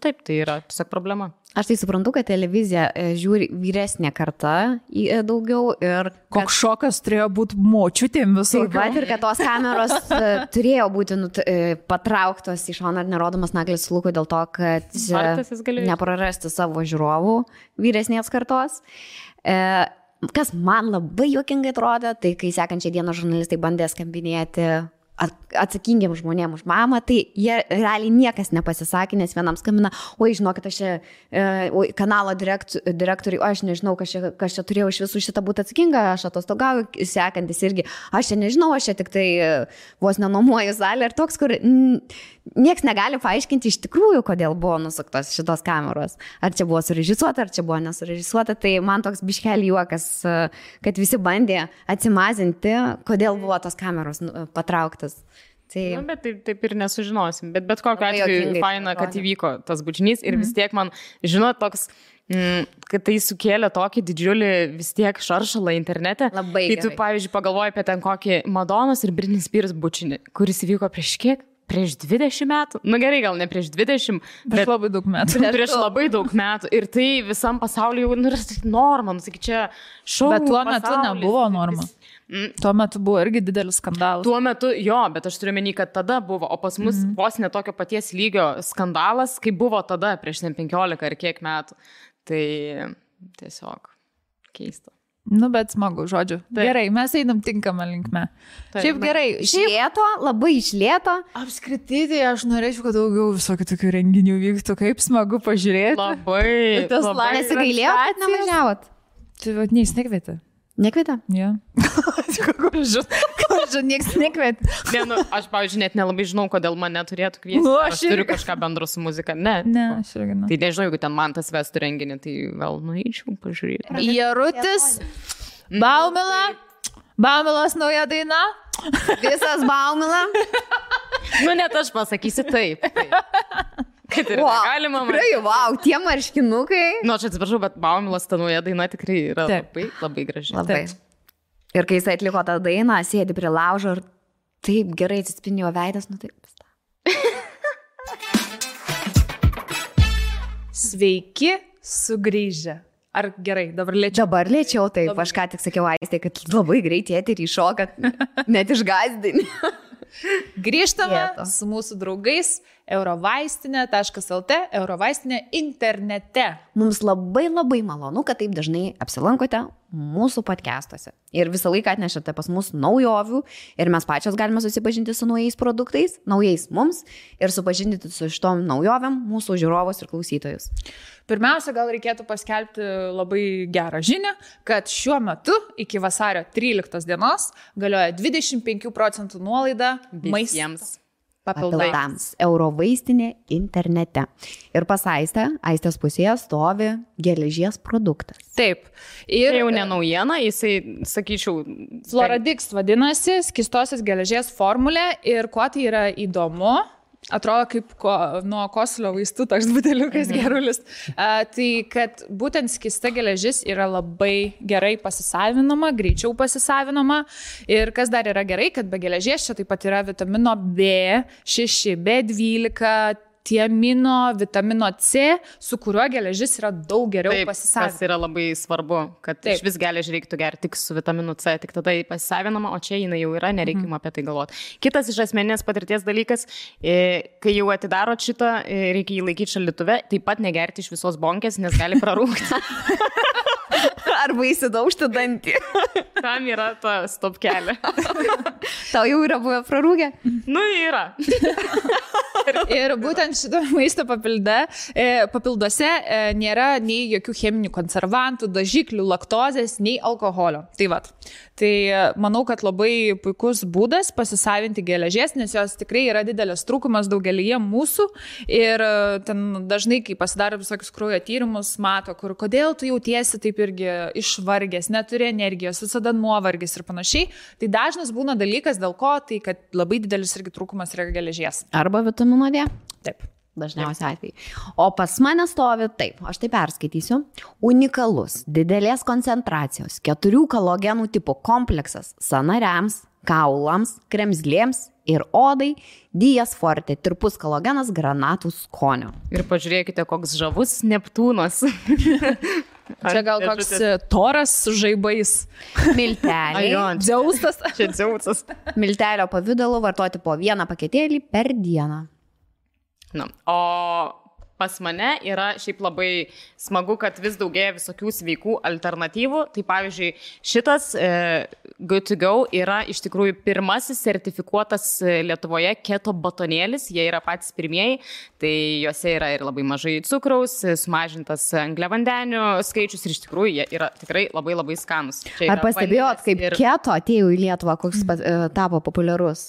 Speaker 2: taip, tai yra tiesiog problema.
Speaker 3: Aš tai suprantu, kad televizija žiūri vyresnė karta daugiau ir...
Speaker 1: Koks šokas turėjo būti močiutėm visų.
Speaker 3: Taip pat ir kad tos kameros turėjo būti patrauktos į šoną ir nerodomas Naglis su Luku dėl to, kad neprarasti savo žiūrovų vyresnės kartos. kas man labai juokingai atrodė, tai kai sekančią dieną žurnalistai bandė skambinėti atsakingiam žmonėm už mamą, tai jie realiai niekas nepasisakė, nes vienam skambina, oi, žinokit, aš čia kanalo direktoriui, aš nežinau, kas čia turėjau iš visų šitą būti atsakinga, aš atostogauju, sekantis irgi, aš čia nežinau, aš čia tik tai vos nenuomuoju salę ir toks, kur nieks negali paaiškinti iš tikrųjų, kodėl buvo nusuktos šitos kameros. Ar čia buvo surežisuota, ar čia buvo nesurežisuota, tai man toks biškelį juokas, kad visi bandė atsimazinti, kodėl buvo tos kameros patrauktas. Tai...
Speaker 2: Nu, bet taip ir nesužinosim. Bet kokiu atveju faina, kad įvyko tas bučinys ir vis tiek man, žinot, toks, kad tai sukėlė tokį didžiulį vis tiek šaršalą internete.
Speaker 3: Labai
Speaker 2: gerai. Kai tu, pavyzdžiui, pagalvoji apie ten kokį Madonos ir Britney Spears bučinį, kuris įvyko prieš kiek? Prieš 20 metų? Nu gerai, gal ne prieš 20, bet
Speaker 1: labai daug metų.
Speaker 2: Prieš labai daug metų. Ir tai visam pasauliu jau yra norma, nu sakyk, čia šou.
Speaker 1: Bet tuo metu nebuvo norma. Tuo metu buvo irgi didelis skandalas.
Speaker 2: Tuo metu jo, bet aš turiu menį, kad tada buvo, o pas mus vos netokio paties lygio skandalas, kaip buvo tada prieš 15 ar kiek metų. Tai tiesiog keista.
Speaker 1: Nu, bet smagu, žodžiu. Taip. Gerai, mes einam tinkamą linkme. Taip, šiaip gerai.
Speaker 3: Išlėto, labai išlėto.
Speaker 1: Apskritai, tai aš norėčiau, kad daugiau visokių tokių renginių vyktų, kaip smagu pažiūrėti.
Speaker 2: Labai.
Speaker 3: Labai nesigailėjau, kad nevažiavot.
Speaker 1: Tai vat neįsnekvietė.
Speaker 3: Nekvietė?
Speaker 1: Ja. Kažkaip nieks nekvietė.
Speaker 2: Ne, nu, aš, pavyzdžiui, net nelabai žinau, kodėl mane turėtų kviesti.
Speaker 1: Nu,
Speaker 2: aš turiu kažką bendro su muzika. Ne,
Speaker 1: aš irgi ne.
Speaker 2: Tai nežinau, jeigu ten man tas vestų renginį, tai gal nueičiau pažiūrėti.
Speaker 1: Jarutis, Baumilas nauja daina.
Speaker 3: Visas Baumila.
Speaker 2: Nu, net aš pasakysiu taip. Kad ir galima.
Speaker 3: Tikrai, wow, tie marškinukai.
Speaker 2: Nu, aš atsiprašau, bet Baumilas ta nauja daina tikrai yra labai, labai graži.
Speaker 3: Labai. Ir kai jis atliko tą dainą, sėdi prie laužo ir taip gerai atsispindėjo veidas, nu taip.
Speaker 1: Sveiki sugrįžę. Ar gerai, dabar lėčiau?
Speaker 3: Dabar lėčiau, taip. Aš ką tik sakiau Aistei, kad labai greit eterį šoka, net išgąsdini.
Speaker 1: Grįžtame su mūsų draugais eurovaistinė.lt, eurovaistinė internete.
Speaker 3: Mums labai malonu, kad taip dažnai apsilankote mūsų podcastuose. Ir visą laiką atnešate pas mus naujovių ir mes pačios galime susipažinti su naujais produktais, naujais mums ir supažindinti su šitom naujovėm mūsų žiūrovus ir klausytojus.
Speaker 1: Pirmiausia, gal reikėtų paskelbti labai gerą žinią, kad šiuo metu iki vasario 13 dienos galioja 25% nuolaida
Speaker 2: visiems
Speaker 3: papildams eurovaistinė internete. Ir pas Aistės pusėje stovi geležies produktas.
Speaker 1: Taip. Ir
Speaker 2: jau ne naujiena, jisai, sakyčiau,
Speaker 1: Floradix vadinasi, skystosios geležies formulė ir kuo tai yra įdomu, atrodo kaip nuo kosulio vaistų toks buteliukas gerulis. Tai kad būtent skysta geležis yra labai gerai pasisavinama, greičiau pasisavinama. Ir kas dar yra gerai, kad be geležies čia taip pat yra vitamino B6, B12, tiamino, vitamino C, su kuriuo geležis yra daug geriau pasisavinama.
Speaker 2: Tas yra labai svarbu, kad iš vis geležį reiktų gerti tik su vitaminu C, tik tada pasisavinama, o čia jinai jau yra, nereikima apie tai galvoti. Kitas iš asmeninės patirties dalykas, kai jau atidarot šitą, reikia jį laikyti šaldytuve, taip pat negerti iš visos bonkės, nes gali prarūkti.
Speaker 3: Arba įsidaužti dantį.
Speaker 2: Tam yra ta stopkelė.
Speaker 3: Tau jau yra buvę prarūkę?
Speaker 2: Nu, yra.
Speaker 1: Ir būtent šito maisto papilduose nėra nei jokių cheminių konservantų, dažiklių, laktozės, nei alkoholio. Tai vat. Tai manau, kad labai puikus būdas pasisavinti geležies, nes jos tikrai yra didelis trūkumas daugelyje mūsų. Ir ten dažnai, kai pasidaro visokius kraujo tyrimus, mato, kodėl tu jautiesi taip irgi išvargęs, neturi energijos, visada nuovargis ir panašiai. Tai dažnas būna dalykas, dėl ko, tai kad labai didelis irgi trūkumas yra geležies.
Speaker 3: Arba vitamino D.
Speaker 1: Taip.
Speaker 3: Dažniausiai atvejai. O pas mane stovi taip, aš tai perskaitysiu, unikalus, didelės koncentracijos, 4 kalogenų tipų kompleksas sąnariams, kaulams, kremzlėms ir odai, Dias Forte, tirpus kalogenas granatų skonio.
Speaker 2: Ir pažiūrėkite, koks žavus Neptūnas.
Speaker 1: Čia gal koks toras su žaibais.
Speaker 3: Milteliai.
Speaker 1: Dzeusas.
Speaker 2: Čia Dzeusas.
Speaker 3: Miltelio pavidalu vartoti po 1 paketėlį per dieną.
Speaker 2: Na, o pas mane yra šiaip labai smagu, kad vis daugėja visokių sveikų alternatyvų. Tai pavyzdžiui, šitas Good to Go yra iš tikrųjų pirmasis sertifikuotas Lietuvoje keto batonėlis. Jie yra patys pirmieji. Tai juose yra ir labai mažai cukraus, sumažintas angliavandenių skaičius ir iš tikrųjų jie yra tikrai labai labai skanus.
Speaker 3: Ar pastebėjot, kaip keto atėjo į Lietuvą, koks tapo populiarus?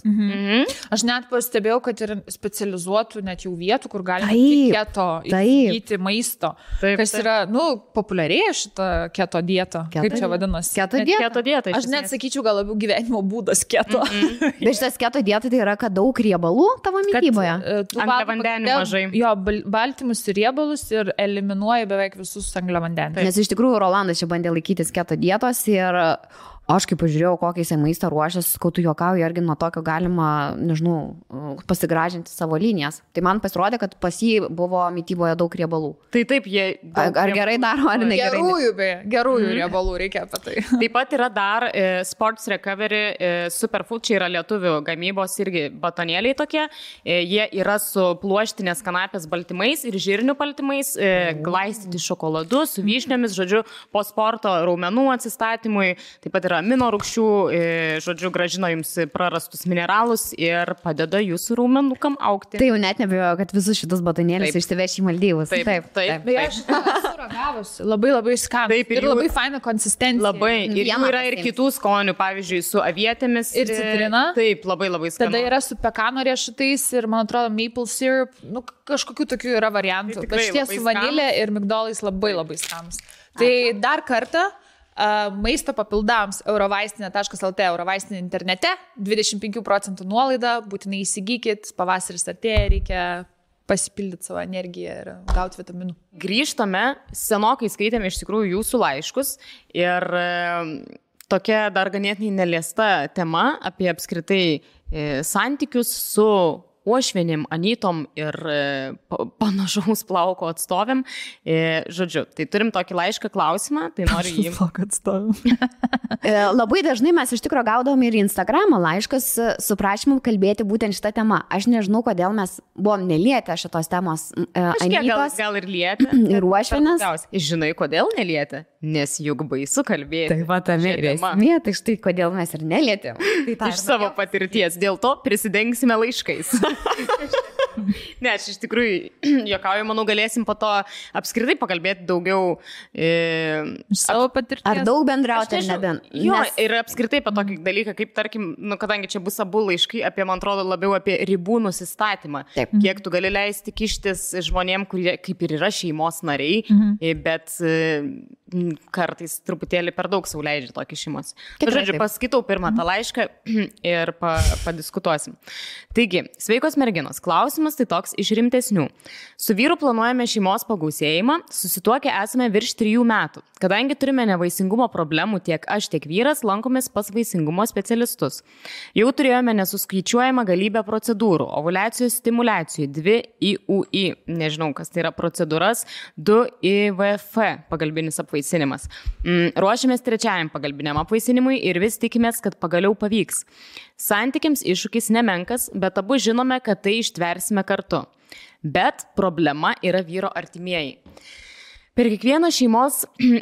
Speaker 1: Aš net pastebėjau, kad ir specializuotų net jau vietų, kur galima keto įsigyti maisto. Kas yra, populiarėja šitą keto dietą. Kaip čia vadinasi?
Speaker 2: Keto dieta.
Speaker 1: Aš net sakyčiau, gal labiau gyvenimo būdas keto.
Speaker 3: Bet šitas keto dieta tai yra, kad daug riebalų tavo mityboje.
Speaker 2: Angliavandenių mažai.
Speaker 1: Jo, baltymus ir riebalus ir eliminuoja beveik visus angliavandenius.
Speaker 3: Nes iš tikrųjų Rolandas čia bandė laikytis keto dietos ir aš kaip pažiūrėjau, kokį jisai maistą ruošęs, kai tu juokauji, argi nuo tokio galima, nežinau, pasigražinti savo linijas. Tai man pasirodė, kad pas jį buvo mityboje daug riebalų.
Speaker 2: Tai taip, jie...
Speaker 3: Ar gerai daro, ar negerai?
Speaker 1: Gerųjų riebalų reikia apie tai.
Speaker 2: Taip pat yra dar Sports Recovery Superfood, čia yra lietuvių gamybos irgi batonėliai tokie. Jie yra su pluoštinės kanapės baltymais ir žirnių baltymais, glaistyti šokoladu, su vyšniomis, žodžiu, po sporto raumenų atsistatymui. Taip pat yra amino rūgščių, žodžiu, gražino jums prarastus mineralus ir padeda jūsų raumenukam augti.
Speaker 3: Tai jau net nebejoju, kad visus šitus batonėlius išsiveš į Maldyvus.
Speaker 2: Taip.
Speaker 1: Beje, aš esu ragavusi. Labai skanus. Ir labai faina konsistencija.
Speaker 2: Labai. Ir jų yra ir kitų skonių, pavyzdžiui, su avietėmis.
Speaker 1: Ir citrina.
Speaker 2: Taip, labai skanu.
Speaker 1: Tada yra su pekano riešutais ir, man atrodo, maple syrup. Kažkokių tokių yra variantų. Bet šitie su vanilė ir migdolais labai skanus. Tai dar kartą maisto papildams eurovaistinė.lt, eurovaistinė internete, 25% nuolaida, būtinai įsigykit, pavasaris artėja, reikia pasipildyti savo energiją ir gauti vitaminų.
Speaker 2: Grįžtame, senokai skaitėme iš tikrųjų jūsų laiškus ir tokia dar ganėtinai neliesta tema apie apskritai santykius su uošvienim, anytom ir panašaus plauko atstovėm. Žodžiu, tai turim tokį laišką klausimą, tai noriu jį...
Speaker 1: Plauko atstovėm.
Speaker 3: Labai dažnai mes iš tikrųjų gaudom ir Instagramo laiškas su prašymu kalbėti būtent šitą temą. Aš nežinau, kodėl mes buvom nelietę šitos temos anytos.
Speaker 2: Gal ir lietę.
Speaker 3: Ir uošvienės.
Speaker 2: Žinai, kodėl nelietę? Nes juk baisu kalbėti.
Speaker 3: Taip pat esmė, tai štai kodėl mes ir nelietėm.
Speaker 2: Iš savo patirties. Dėl to prisidengsime laiškais. Ne, aš iš tikrųjų juokauju, manau, galėsim po to apskritai pakalbėti daugiau
Speaker 1: savo patirties.
Speaker 3: Ar daug bendrauti, ar nebent.
Speaker 2: Jo, ir apskritai apie tokį dalyką, kaip tarkim, kadangi čia bus abu laiškai apie, man atrodo, labiau apie ribų nusistatymą. Taip. Kiek tu gali leisti kištis žmonėm, kurie kaip ir yra šeimos nariai, bet kartais truputėlį per daug sau leidžia tokį šeimos. Žodžiu, paskaitau pirmą tą laišką ir padiskutuosim. Taigi, sveikos merginos, klausimas tai toks iš rimtesnių. Su vyru planuojame šeimos pagausėjimą, susituokę esame virš 3 metų. Kadangi turime nevaisingumo problemų, tiek aš, tiek vyras lankomės pas vaisingumo specialistus. Jau turėjome nesuskaičiuojamą galybę procedūrų, ovuliacijos stimuliacijų, 2 IUI, nežinau, kas tai yra procedūras, 2 IVF, pagalbinis apvaisinimas. Ruošiamės 3 pagalbiniam apvaisinimui ir vis tikimės, kad pagaliau pavyks. Santykiams iššūkis nemenkas, bet abu žinome, kad tai ištversime kartu. Bet problema yra vyro artimieji. Per kiekvieną šeimos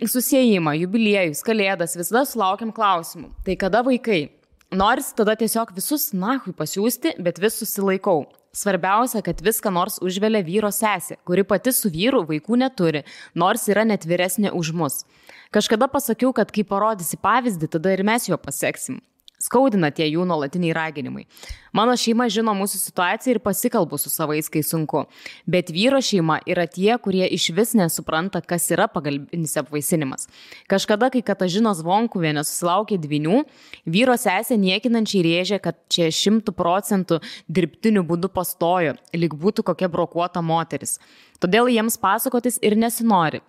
Speaker 2: susiejimą, jubiliejus, kalėdas visada sulaukiam klausimų. Tai kada vaikai? Noris tada tiesiog visus nahui pasiųsti, bet vis susilaikau. Svarbiausia, kad viską nors užvelia vyro sesė, kuri pati su vyru vaikų neturi, nors yra net vyresnė už mus. Kažkada pasakiau, kad kai parodysi pavyzdį, tada ir mes jo paseksim. Skaudina tie jų nuolatiniai raginimai. Mano šeima žino mūsų situaciją ir pasikalbu su savais, kai sunku. Bet vyro šeima yra tie, kurie iš vis nesupranta, kas yra pagalbinis apvaisinimas. Kažkada, kai Katažinos Vonkuvienė susilaukė 2, vyro sesė niekinančiai rėžė, kad čia 100% dirbtiniu būdu pastojo, lyg būtų kokia brokuota moteris. Todėl jiems pasakotis ir nesinori.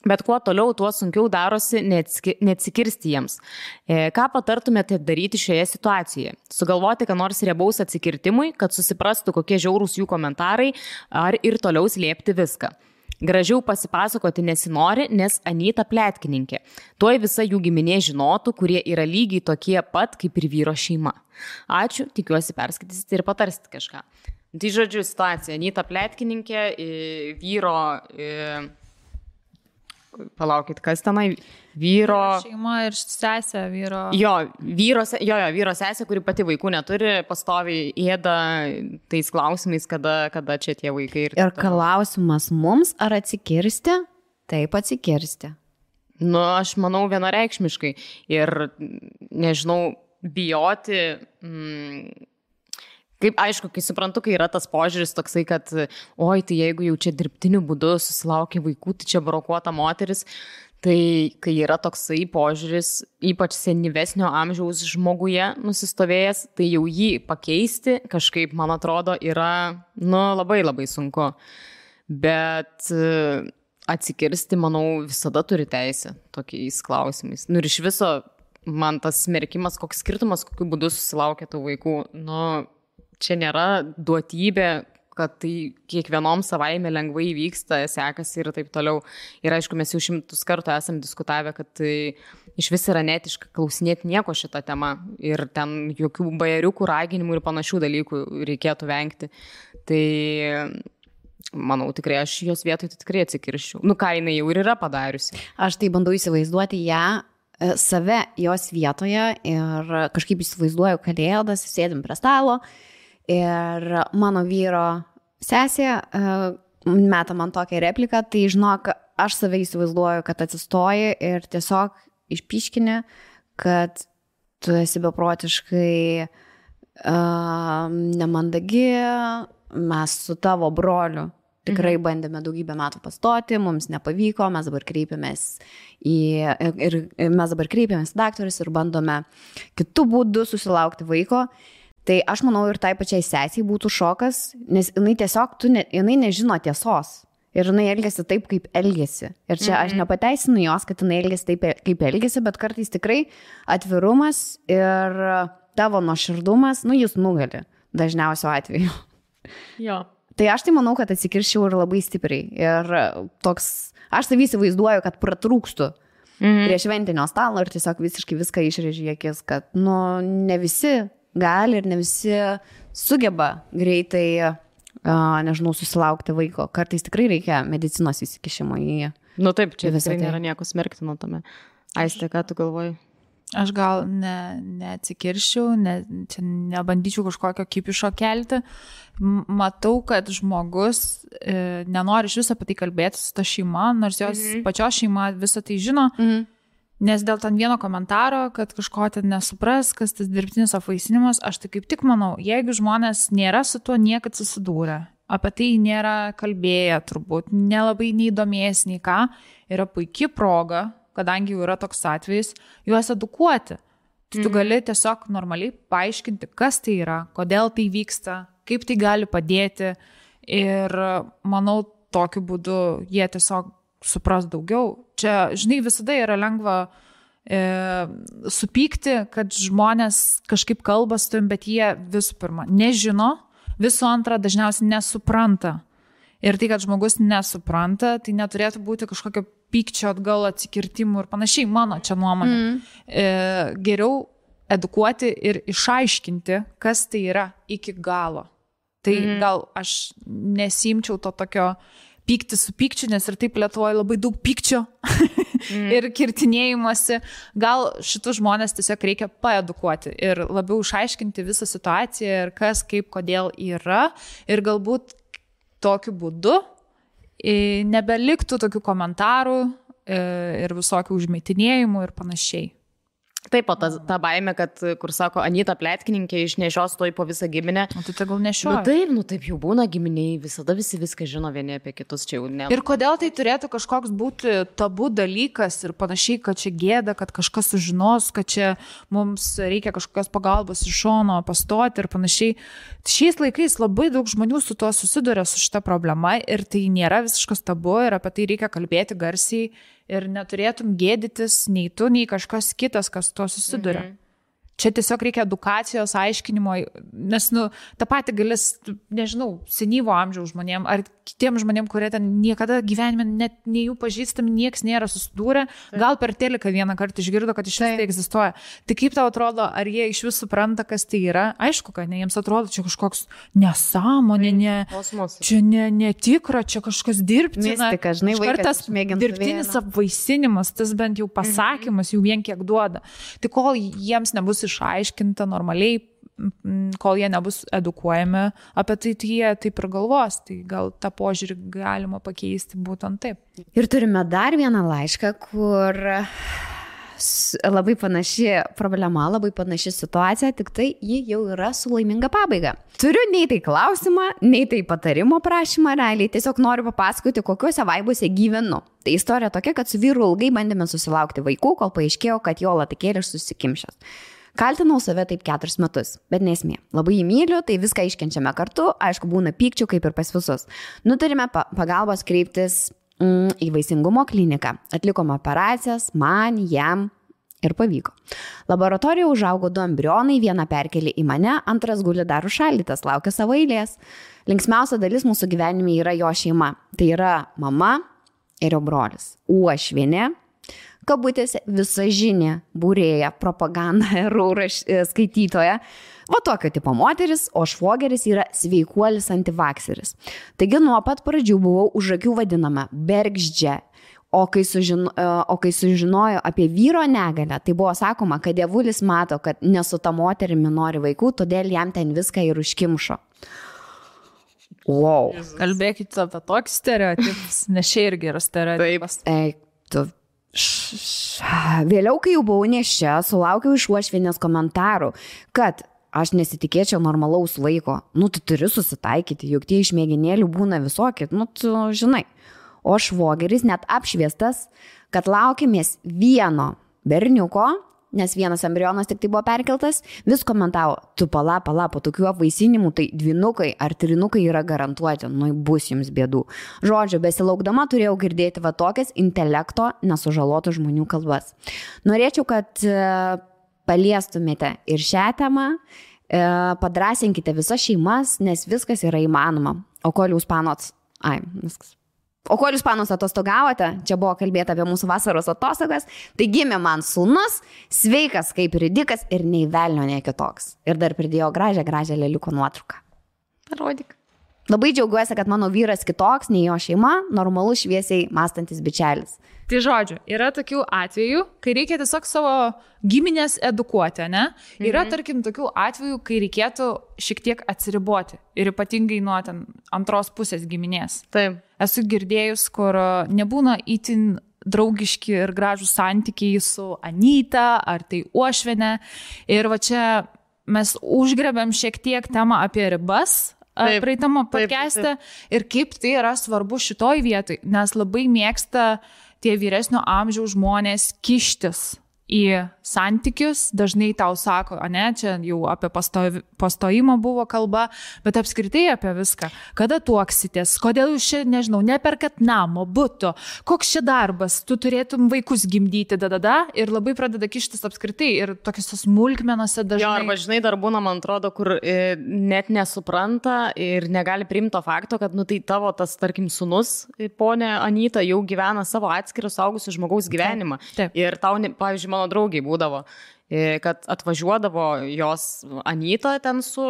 Speaker 2: Bet kuo toliau, tuo sunkiau darosi neatsikirsti jiems. Ką patartumėte daryti šioje situacijoje? Sugalvoti, ką nors riebaus atsikirtimui, kad susiprastų, kokie žiaurūs jų komentarai, ar ir toliau slėpti viską? Gražiau pasipasakoti nesinori, nes Anyta pletkininkė. Tuoj visa jų giminė žinotų, kurie yra lygiai tokie pat kaip ir vyro šeima. Ačiū, tikiuosi perskaitysite ir patarsite kažką. Tai žodžiu situacija. Anyta pletkininkė, vyro... Palaukit, kas tenai? Vyro...
Speaker 1: Šeima ir sesė vyro...
Speaker 2: vyro sesė, kuri pati vaikų neturi, pastoviai ėda tais klausimais, kada čia tie vaikai.
Speaker 3: Ir klausimas mums, ar atsikirsti? Taip, atsikirsti.
Speaker 2: Nu, aš manau vienareikšmiškai. Ir, nežinau, bijoti... Kaip, aišku, kai suprantu, kai yra tas požiūris toksai, kad oi, tai jeigu jau čia dirbtiniu būdu susilaukia vaikų, tai čia brokuota moteris, tai kai yra toksai požiūris, ypač senyvesnio amžiaus žmoguje nusistovėjęs, tai jau jį pakeisti kažkaip, man atrodo, yra, labai labai sunku. Bet atsikirsti, manau, visada turi teisę tokiais klausimais. Ir iš viso man tas smerkimas, koks skirtumas, kokiu būdu susilaukia tų vaikų, čia nėra duotybė, kad tai kiekvienom savaime lengvai vyksta, sekasi ir taip toliau. Ir aišku, mes jau 100 kartų esam diskutavę, kad tai iš vis yra netiška klausinėti nieko šitą temą. Ir ten jokių bajeriukų, raginimų ir panašių dalykų reikėtų vengti. Tai manau, tikrai aš jos vietoj tikrai atsikirščiau. Ką jinai jau ir yra padariusi.
Speaker 3: Aš tai bandau įsivaizduoti ją, save jos vietoje ir kažkaip įsivaizduoju kalėdas, sėdim prie stalo. Ir mano vyro sesė meta man tokią repliką, tai žinok, aš save įsivaizduoju, kad atsistoji ir tiesiog išpiškini, kad tu esi beprotiškai nemandagi, mes su tavo broliu tikrai bandėme daugybę metų pastoti, mums nepavyko, mes dabar kreipiamės į daktarus ir bandome kitų būdų susilaukti vaiko. Tai aš manau ir tai pačiai sesiai būtų šokas, nes jinai tiesiog, jinai nežino tiesos ir jinai elgiasi taip, kaip elgiasi. Ir čia aš nepateisinu jos, kad jinai elgiasi taip, kaip elgiasi, bet kartais tikrai atvirumas ir tavo nuoširdumas, jis nugali dažniausiu atveju.
Speaker 2: Jo.
Speaker 3: Tai aš tai manau, kad atsikirščiau ir labai stipriai. Ir toks, aš savį įsivaizduoju, kad pratrūkstu prie šventinio stalo ir tiesiog visiškai viską išrėžiu į akis, kad ne visi gali ir ne visi sugeba greitai, nežinau, susilaukti vaiko. Kartais tikrai reikia medicinos įsikišimo į jį.
Speaker 2: Taip, čia visai nėra nieko smerktino tame. Aiste, ką tu galvoji?
Speaker 1: Aš gal neatsikirščiau, čia nebandyčiau kažkokio kipišo kelti. Matau, kad žmogus nenori iš viso apie tai kalbėti su ta šeima, nors jos pačios šeima visą tai žino. Nes dėl ten vieno komentaro, kad kažko ten nesupras, kas tas dirbtinis apvaisinimas, aš tai kaip tik manau, jeigu žmonės nėra su tuo niekad susidūrę, apie tai nėra kalbėję turbūt, nelabai neįdomės nei ką, yra puikia proga, kadangi jau yra toks atvejis, juos edukuoti. Tai tu gali tiesiog normaliai paaiškinti, kas tai yra, kodėl tai vyksta, kaip tai gali padėti ir manau, tokiu būdu jie tiesiog supras daugiau. Čia, žinai, visada yra lengva supykti, kad žmonės kažkaip kalba su tavim, bet jie visų pirma nežino, visų antra dažniausiai nesupranta. Ir tai, kad žmogus nesupranta, tai neturėtų būti kažkokio pykčio atgal atsikirtimų ir panašiai, mano čia nuomonė. Geriau edukuoti ir išaiškinti, kas tai yra iki galo. Tai gal aš nesimčiau to tokio pykti su pykčiu, nes ir taip Lietuvoje labai daug pykčio ir kirtinėjimuose. Gal šitus žmonės tiesiog reikia paedukuoti ir labiau išaiškinti visą situaciją ir kas, kaip, kodėl yra. Ir galbūt tokiu būdu nebeliktų tokių komentarų ir visokių užmetinėjimų ir panašiai.
Speaker 2: Taip, o ta baimė, kad, kur sako, Anyta pletkininkė išnešios toj po visą giminę.
Speaker 1: O tai gal nešioja.
Speaker 2: Taip jau būna giminiai, visada visi viską žino vieni apie kitus, čia jau ne.
Speaker 1: Ir kodėl tai turėtų kažkoks būti tabu dalykas ir panašiai, kad čia gėda, kad kažkas sužinos, kad čia mums reikia kažkokios pagalbos iš šono pastoti ir panašiai. Šiais laikais labai daug žmonių su tuo susiduria su šita problema ir tai nėra visiškas tabu ir apie tai reikia kalbėti garsiai. Ir neturėtum gėdytis nei tu, nei kažkas kitas, kas tuo susiduria. Čia tiesiog reikia edukacijos, aiškinimo, nes, tą patį galės, nežinau, senyvo amžiaus žmonėm, ar kitiems žmonėm, kurie ten niekada gyvenime net nei jų pažįstami, nieks nėra susidūrę, gal per teliką vieną kartą išgirdo, kad iš vis tai egzistuoja. Tai kaip tau atrodo, ar jie iš vis supranta, kas tai yra? Aišku, kad ne, jiems atrodo, čia kažkoks nesąmonė, čia netikra, čia kažkas dirbtina.
Speaker 3: Mistika, žinai,
Speaker 1: vaikas dirbtinis apvaisinimas, tas bent jau pasakymas jau vien kiek duoda. Tai kol jiems nebus išaiškinta normaliai, kol jie nebus edukuojami apie tai, jie taip ir galvos, tai gal tą požiūrį galima pakeisti būtent taip.
Speaker 3: Ir turime dar vieną laišką, kur labai panaši problema, labai panaši situacija, tik tai ji jau yra su laiminga pabaiga. Turiu nei tai klausimą, nei tai patarimo prašymą realiai, tiesiog noriu papasakoti, kokiuose vaibuose gyvenu. Tai istorija tokia, kad su vyru ilgai bandėme susilaukti vaikų, kol paaiškėjo, kad jo latikėlis susikimšęs. Kaltinau save taip 4 metus, bet nesmė. Labai jį myliu, tai viską iškenčiame kartu, aišku, būna pykčių kaip ir pas visus. Nutarėme pagalbos kreiptis į vaisingumo kliniką. Atlikome operacijas, man, jam ir pavyko. Laboratorijoje užaugo 2 embrionai, vieną perkelė į mane, antras guli dar užšaldytas, laukia savo eilės. Linksmiausia dalis mūsų gyvenime yra jo šeima. Tai yra mama ir jo brolis. Uošvienė, kabutėse visažinė, būrėja, propaganda ir skaitytoja. Va tokio tipo moteris, o švogeris yra sveikuolis antivakseris. Taigi nuo pat pradžių buvau už akių vadinama bergždžia. O kai sužinojo apie vyro negalę, tai buvo sakoma, kad dievulis mato, kad nesu ta moterimi nori vaikų, todėl jam ten viską ir užkimšo. Wow.
Speaker 1: Kalbėkite apie tokį stereotipus, nes čia irgi yra stereotipas.
Speaker 3: Vėliau, kai jau buvau nėščia, sulaukiau iš uošvienės komentarų, kad aš nesitikėčiau normalaus vaiko. Tu turi susitaikyti, juk tie išmėginėlių būna visokie, tu žinai. O švogeris net apšviestas, kad laukimės vieno berniuko, nes vienas embrionas tik tai buvo perkeltas, vis komentavo, tu pala, po tokių apvaisinimų, tai 2 ar 3 yra garantuoti, bus jums bėdų. Žodžiu, besilaukdama turėjau girdėti va tokias intelekto nesužalotų žmonių kalbas. Norėčiau, kad paliestumėte ir šią temą, padrasinkite visas šeimas, nes viskas yra įmanoma. O kol jūs panus atostogavote, čia buvo kalbėta apie mūsų vasaros atostogas, tai gimė man sūnus, sveikas kaip ridikas ir nei velnio, nei kitoks. Ir dar pridėjo gražią leliuko nuotrauką.
Speaker 2: Parodyk.
Speaker 3: Labai džiaugiuosi, kad mano vyras kitoks, nei jo šeima, normalus šviesiai mąstantis bičelis.
Speaker 1: Tai žodžiu, yra tokių atvejų, kai reikia tiesiog savo giminės edukuoti, ne? Yra, tarkim, tokių atvejų, kai reikėtų šiek tiek atsiriboti. Ir ypatingai nuo ten antros pusės giminės.
Speaker 2: Taip.
Speaker 1: Esu girdėjus, kur nebūna itin draugiški ir gražūs santykiai su Anyta ar tai uošvienė. Ir va čia mes užgrebėm šiek tiek temą apie ribas. Praeitamo podcast'e ir kaip tai yra svarbu šitoj vietoj, nes labai mėgsta tie vyresnio amžiaus žmonės kištis į santykius, dažnai tau sako, čia jau apie pastojimą buvo kalba, bet apskritai apie viską. Kada tuoksitės, kodėl jūs čia, nežinau, neperkat namo, buto, koks čia darbas, tu turėtum vaikus gimdyti, ir labai pradeda kištis apskritai ir tokiuose smulkmenose dažnai.
Speaker 2: Jo, arba žinai, dar būna, man atrodo, kur net nesupranta ir negali priimti to fakto, kad, tai tavo tas, tarkim, sūnus, ponė Anyta, jau gyvena savo atskirą suaugusių žmogaus gyvenimą.
Speaker 1: Taip.
Speaker 2: Ir tau, pavyzdžiui, mano draugiai būdavo, kad atvažiuodavo jos Anyta ten su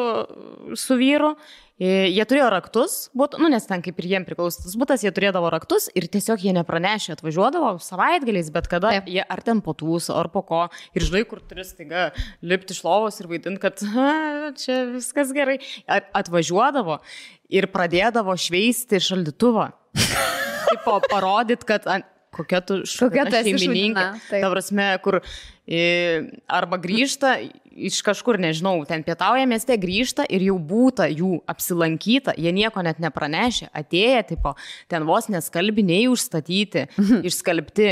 Speaker 2: vyru, jie turėjo raktus, nes ten kaip ir jiem priklausytas butas, jie turėdavo raktus ir tiesiog jie nepranešė, atvažiuodavo savaitgaliais, bet kada jie ar ten po tūso, ar po ko, ir žinai, kur turi staiga lipti iš lovos ir vaidinti, kad čia viskas gerai, atvažiuodavo ir pradėdavo šveisti šaldytuvą. Taip parodyt, kad kokia tu šeimininkė. Ta prasme, kur arba grįžta iš kažkur, nežinau, ten pietauja mieste, grįžta ir jau būta jų apsilankyta, jie nieko net nepranešė, atėję, tipo, ten vos neskalbiniai užstatyti, išskalbti,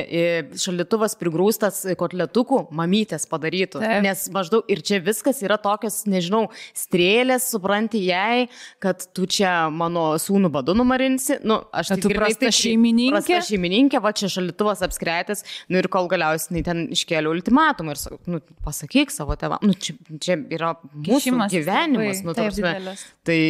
Speaker 2: šaldytuvas prigrūstas kotletukų, mamytės padarytų. Taip. Nes maždaug ir čia viskas yra tokios, nežinau, strėlės, supranti jai, kad tu čia mano sūnų badu numarinsi, aš
Speaker 1: tai girdai,
Speaker 2: prasta šeimininkė, va čia šaldytuvas apskretęs, ir kol galiausiai ten iškėliau ultimatumą. nematoma ir nu, pasakyk savo tėvams, čia yra mūsų gyvenimas. Nu, tai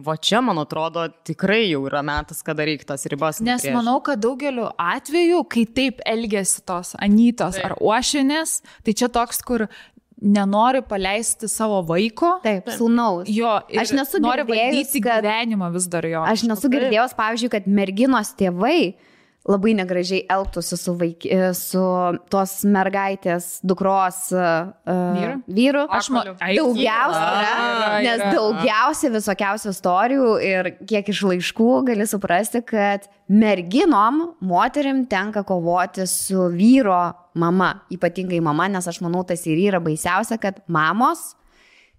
Speaker 2: va čia, man atrodo, tikrai jau yra metas, kada reikia tas ribas.
Speaker 1: Nes manau, kad daugeliu atveju, kai taip elgiasi tos anytos ar uošinės, tai čia toks, kur nenori paleisti savo vaiko.
Speaker 3: Taip, sūnaus.
Speaker 1: Jo, aš nesu nori valdyti gyvenimą vis dar jo.
Speaker 3: Aš nesu girdėjęs, pavyzdžiui, kad merginos tėvai labai negražiai elgtųsi su tos mergaitės dukros vyru. Nes daugiausia visokiausių istorijų ir kiek iš laiškų gali suprasti, kad merginom, moterim tenka kovoti su vyro mama, ypatingai mama, nes aš manau, tas ir yra baisiausia, kad mamos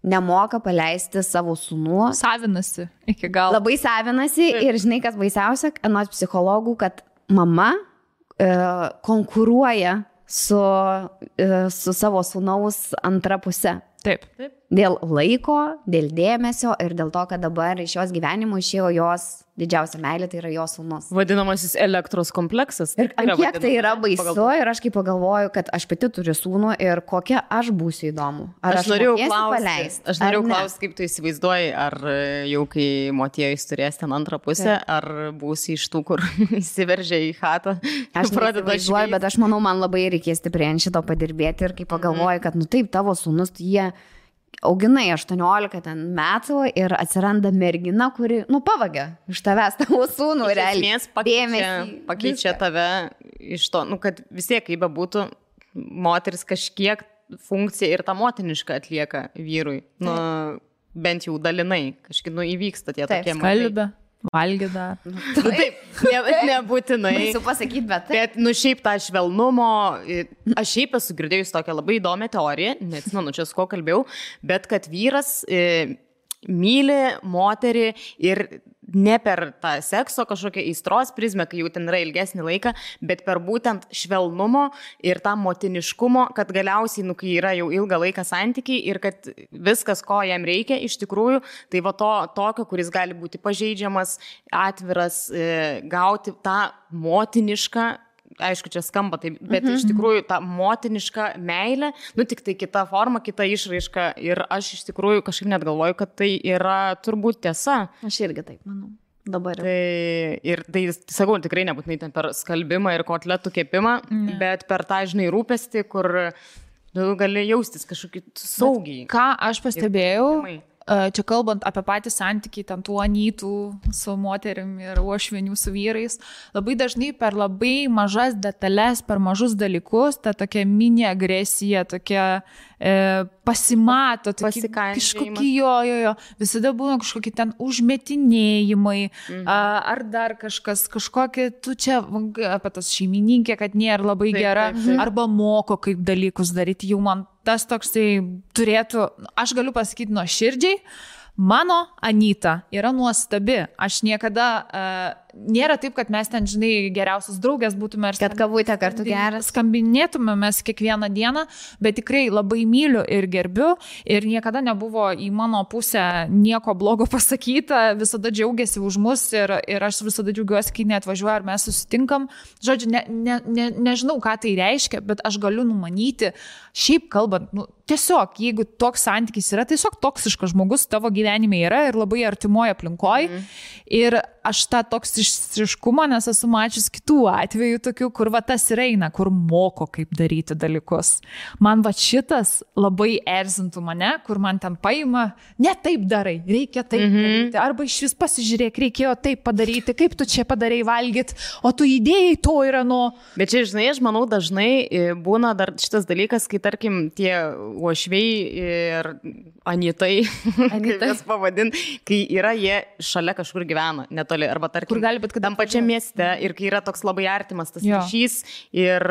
Speaker 3: nemoka paleisti savo sūnų.
Speaker 1: Savinasi iki galo.
Speaker 3: Labai savinasi ir žinai, kas baisiausia, anot psichologų, kad mama konkuruoja su savo sūnaus antra puse.
Speaker 1: Taip.
Speaker 3: Dėl laiko, dėl dėmesio ir dėl to, kad dabar iš jos gyvenimo išėjo jos didžiausia meilė, tai yra jos sūnus.
Speaker 2: Vadinamasis elektros kompleksas.
Speaker 3: Ir kiek tai yra baisu ir aš kaip pagalvoju, kad aš pati turiu sūnų ir kokia aš būsiu įdomu. Ar aš norėjau
Speaker 2: klausti, kaip tu įsivaizduoji, ar jau kai motiejus turės ten antrą pusę, ar būsi iš tų, kur įsiveržia į chatą.
Speaker 3: Aš neįsivaizduoju, bet aš manau, man labai reikės stipriai ant šito padirbėti ir kai pagalvoju, kad nu taip, tavo sūnus, jie auginai 18 metų ir atsiranda mergina, kuri, pavagia iš tavęs tavo sūnų realiai.
Speaker 2: Pakeičia tave iš to, kad vis tiek, kaip bebūtų, moteris kažkiek funkciją ir tą motinišką atlieka vyrui. Bent jau dalinai, kažkaip įvyksta tie tokie
Speaker 1: skalbė. Valgė dar.
Speaker 2: Taip, nebūtinai.
Speaker 3: Baisu pasakyti, bet
Speaker 2: taip. Bet, šiaip tą švelnumo, aš šiaip esu girdėjus tokią labai įdomią teoriją, neatsimenu, čia su ko kalbėjau, bet kad vyras myli moterį ir ne per tą sekso kažkokią aistros prizmę, kai jau ten yra ilgesnį laiką, bet per būtent švelnumo ir tą motiniškumo, kad galiausiai, kai yra jau ilgą laiką santykiai ir kad viskas, ko jam reikia iš tikrųjų, tai va tokio, kuris gali būti pažeidžiamas, atviras, gauti tą motinišką, aišku, čia skamba taip, bet iš tikrųjų tą motinišką meilę, tik tai kita forma, kita išraiška ir aš iš tikrųjų kažkaip net galvoju, kad tai yra turbūt tiesa.
Speaker 3: Aš irgi taip manau. Dabar.
Speaker 2: Tai sakau, tikrai nebūtinai ten per skalbimą ir kotletų kepimą, bet per tą, žinai, rūpestį, kur gali jaustis kažkokį saugiai.
Speaker 1: Ką aš pastebėjau, čia kalbant apie patį santykį, ten tų anytų su moterim ir uošvienių su vyrais, labai dažnai per labai mažas detalės, per mažus dalykus, ta tokia mini agresija, tokia pasimato, kažkokie jo, visada būna kažkokie ten užmetinėjimai, ar dar kažkokie, tu čia apie tas šeimininkė, kad nėra labai gera, arba moko kaip dalykus daryti, jau man tas toksai turėtų, aš galiu pasakyti nuoširdžiai, mano Anyta yra nuostabi. Aš niekada, nėra taip, kad mes ten, žinai, geriausios draugės būtume ir
Speaker 3: kad kavutė kartu geras.
Speaker 1: Skambinėtume mes kiekvieną dieną, bet tikrai labai myliu ir gerbiu ir niekada nebuvo į mano pusę nieko blogo pasakyta, visada džiaugiasi už mus ir aš visada džiaugiuosi, kai neatvažiuoju ar mes susitinkam. Žodžiu, nežinau, ką tai reiškia, bet aš galiu numanyti, šiaip kalbant, tiesiog, jeigu toks santykis yra, tiesiog toksiškas žmogus tavo gyvenime yra ir labai artimoje aplinkoje. Ir aš tą toksiškumą, nes esu mačius kitų atvejų tokių, kur va tas ir eina, kur moko kaip daryti dalykus. Man va šitas labai erzintų mane, kur man ten paima, ne taip darai, reikia taip daryti, arba iš vis pasižiūrėk, reikėjo taip padaryti, kaip tu čia padarei valgyti, o tu idėjai to yra
Speaker 2: Bet čia, žinai, aš manau, dažnai būna dar šitas dalykas, kai tarkim tie uošviai ir anytai, kaip jas pavadint, kai yra jie šalia kažkur gyvena, netoli, arba tarkim, tam pačiam mieste ir kai yra toks labai artimas tas ryšys ir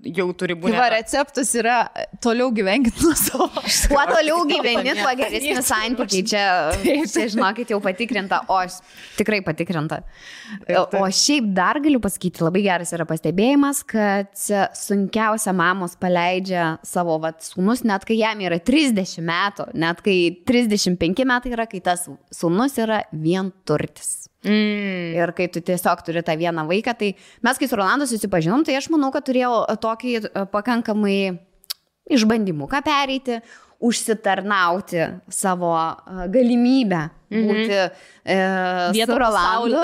Speaker 2: jau turi būti.
Speaker 1: Va, receptas yra toliau gyvenkit nuo savo.
Speaker 3: Kuo toliau gyveni, tuo geresni santykiai. Čia, žinokit, jau patikrinta, tikrai patikrinta. O šiaip dar galiu pasakyti, labai geras yra pastebėjimas, kad sunkiausia mamos paleidžia savo sūnus, net kai jam yra 30 metų, net kai 35 metai yra, kai tas sūnus yra vienturtis. Ir kai tu tiesiog turi tą vieną vaiką, tai mes kai su Rolandu susipažinom, tai aš manau, kad turėjau tokį pakankamai išbandymuką pereiti, užsitarnauti savo galimybę būti su Rolandu.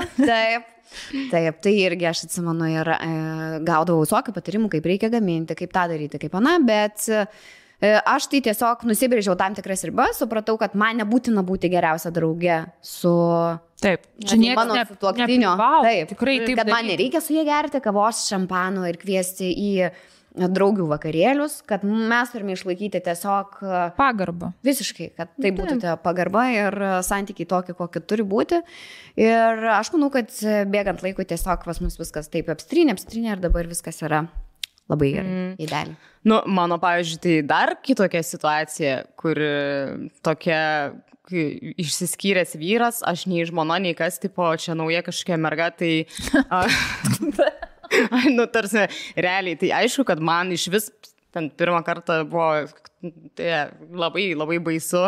Speaker 3: Taip, tai irgi aš atsimenu ir gaudavau visokių patarimų, kaip reikia gaminti, kaip tą daryti, kaip ana, bet aš tai tiesiog nusibrėžiau tam tikras ribas, supratau, kad man nebūtina būti geriausia drauge su...
Speaker 1: Taip, čia
Speaker 3: mano sutuoktinio. Taip,
Speaker 1: tikrai taip.
Speaker 3: Kad man nereikia su jie gerti kavos, šampano ir kviesti į draugių vakarėlius, kad mes turime išlaikyti tiesiog
Speaker 1: pagarbą.
Speaker 3: Visiškai, kad tai būtų pagarba ir santykiai tokie, kokie turi būti. Ir aš manau, kad bėgant laikui tiesiog pas mus viskas taip apstrynė ir dabar viskas yra labai gerai, idealiai.
Speaker 2: Nu, mano, pavyzdžiui, tai dar kitokia situacija, kur tokia išsiskyręs vyras, aš nei žmona, nei kas, tipo, čia nauja kažkokia merga, tai... Nu, tarsi, realiai, tai aišku, kad man iš vis ten pirmą kartą buvo labai, labai baisu.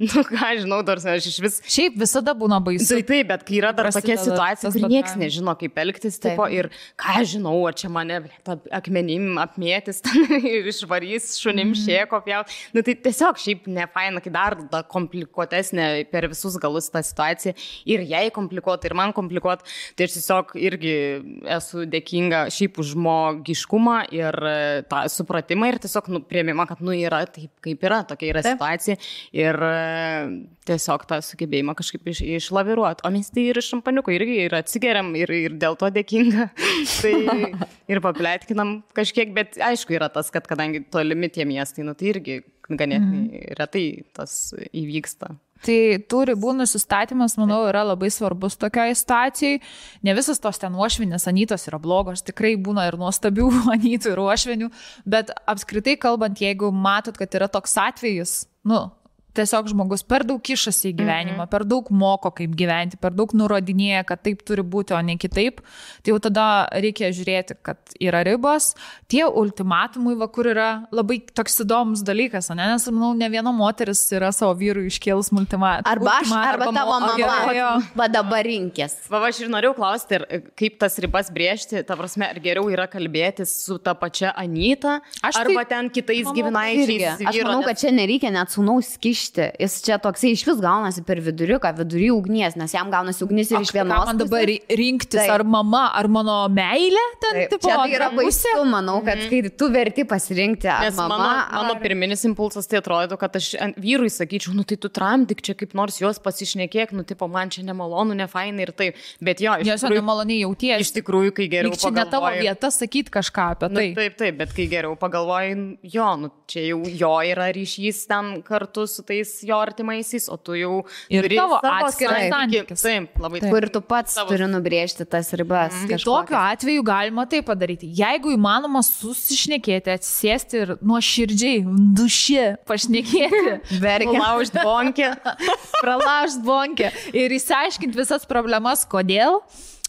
Speaker 2: Nu, ką žinau, tarsi, aš iš vis...
Speaker 1: Šiaip visada būna baisu.
Speaker 2: Taip, bet kai yra dar tokia situacija, kur nieks nežino, kaip elgtis, tipo, ir ką žinau, ar čia mane akmenim apmėtis, ir išvarys šunim šėko pjaut. Nu, tai tiesiog šiaip nefaina, kai dar komplikuotesnė per visus galus tą situaciją. Ir jai komplikuota, ir man komplikuota. Tai aš tiesiog irgi esu dėkinga šiaip už žmogiškumą ir tą supratimą ir tiesiog priėmimą, kad yra taip, kaip yra, tokia yra situacija ir tiesiog tą sugebėjimą kažkaip išlaviruoti. O mes tai ir iš šampaniuko irgi ir atsigeriam ir dėl to dėkinga. Tai ir papletkinam kažkiek, bet aišku yra tas, kad kadangi tolimi tie miestai, nu tai irgi ganėtinai retai tas įvyksta.
Speaker 1: Tai tų ribų nusistatymas, manau, yra labai svarbus tokiai situacijai. Ne visas tos ten uošvinės Anytos yra blogos, tikrai būna ir nuostabių Anytų ir uošvinių, bet apskritai kalbant, jeigu matot, kad yra toks atvejis, tiesiog žmogus per daug kišasi į gyvenimą, per daug moko, kaip gyventi, per daug nurodinėja, kad taip turi būti, o ne kitaip, tai jau tada reikia žiūrėti, kad yra ribos. Tie ultimatumai, kur yra labai toks įdomus dalykas, nes, manau, ne viena moteris yra savo vyrui iškėlus ultimatumą.
Speaker 3: Arba tavo mama, va dabar rinkės.
Speaker 2: Aš ir norėjau klausti, kaip tas ribas brėžti, ta prasme, ar geriau yra kalbėtis su ta pačia Anyta, arba ten kitais giminaičiais.
Speaker 3: Aš manau, kad čia nereikia net sūnaus kišti. Jis čia toksai iš vis gaunasi per viduriuką, vidury ugnies, nes jam gaunasi ugnis ir iš vienos.
Speaker 1: Man dabar rinktis, ar mama, ar mano meilė ten, tipo,
Speaker 3: čia tai yra baisu, manau, kad kai tu verti pasirinkti, ar
Speaker 2: nes
Speaker 3: mama.
Speaker 2: Mano pirminis impulsas tai atrodo, kad aš vyrui sakyčiau, nu tai tu tramdyk čia kaip nors jos pasišnekėk, nu tipo, man čia nemalonu, nefainai ir taip. Bet jo,
Speaker 1: iš tikrųjų, nemaloniai jauties.
Speaker 2: Iš tikrųjų, kai geriau pagalvoji.
Speaker 1: Čia ne tavo vieta sakyti kažką apie tai.
Speaker 2: Taip, bet kai geriau pagalvoji, jo, nu čia jau jo yra ryšys ten kartu su jo artimaisiais, o tu jau
Speaker 1: ir tavo atskiras santykis.
Speaker 2: Taip, labai taip.
Speaker 3: Kur tu pats turi nubrėžti tas ribas.
Speaker 1: Tai tokiu atveju galima tai padaryti. Jeigu įmanoma susišnekėti, atsisėsti ir nuoširdžiai, duši pašnekėti, pralaužt bonkę ir išsiaiškinti visas problemas, kodėl,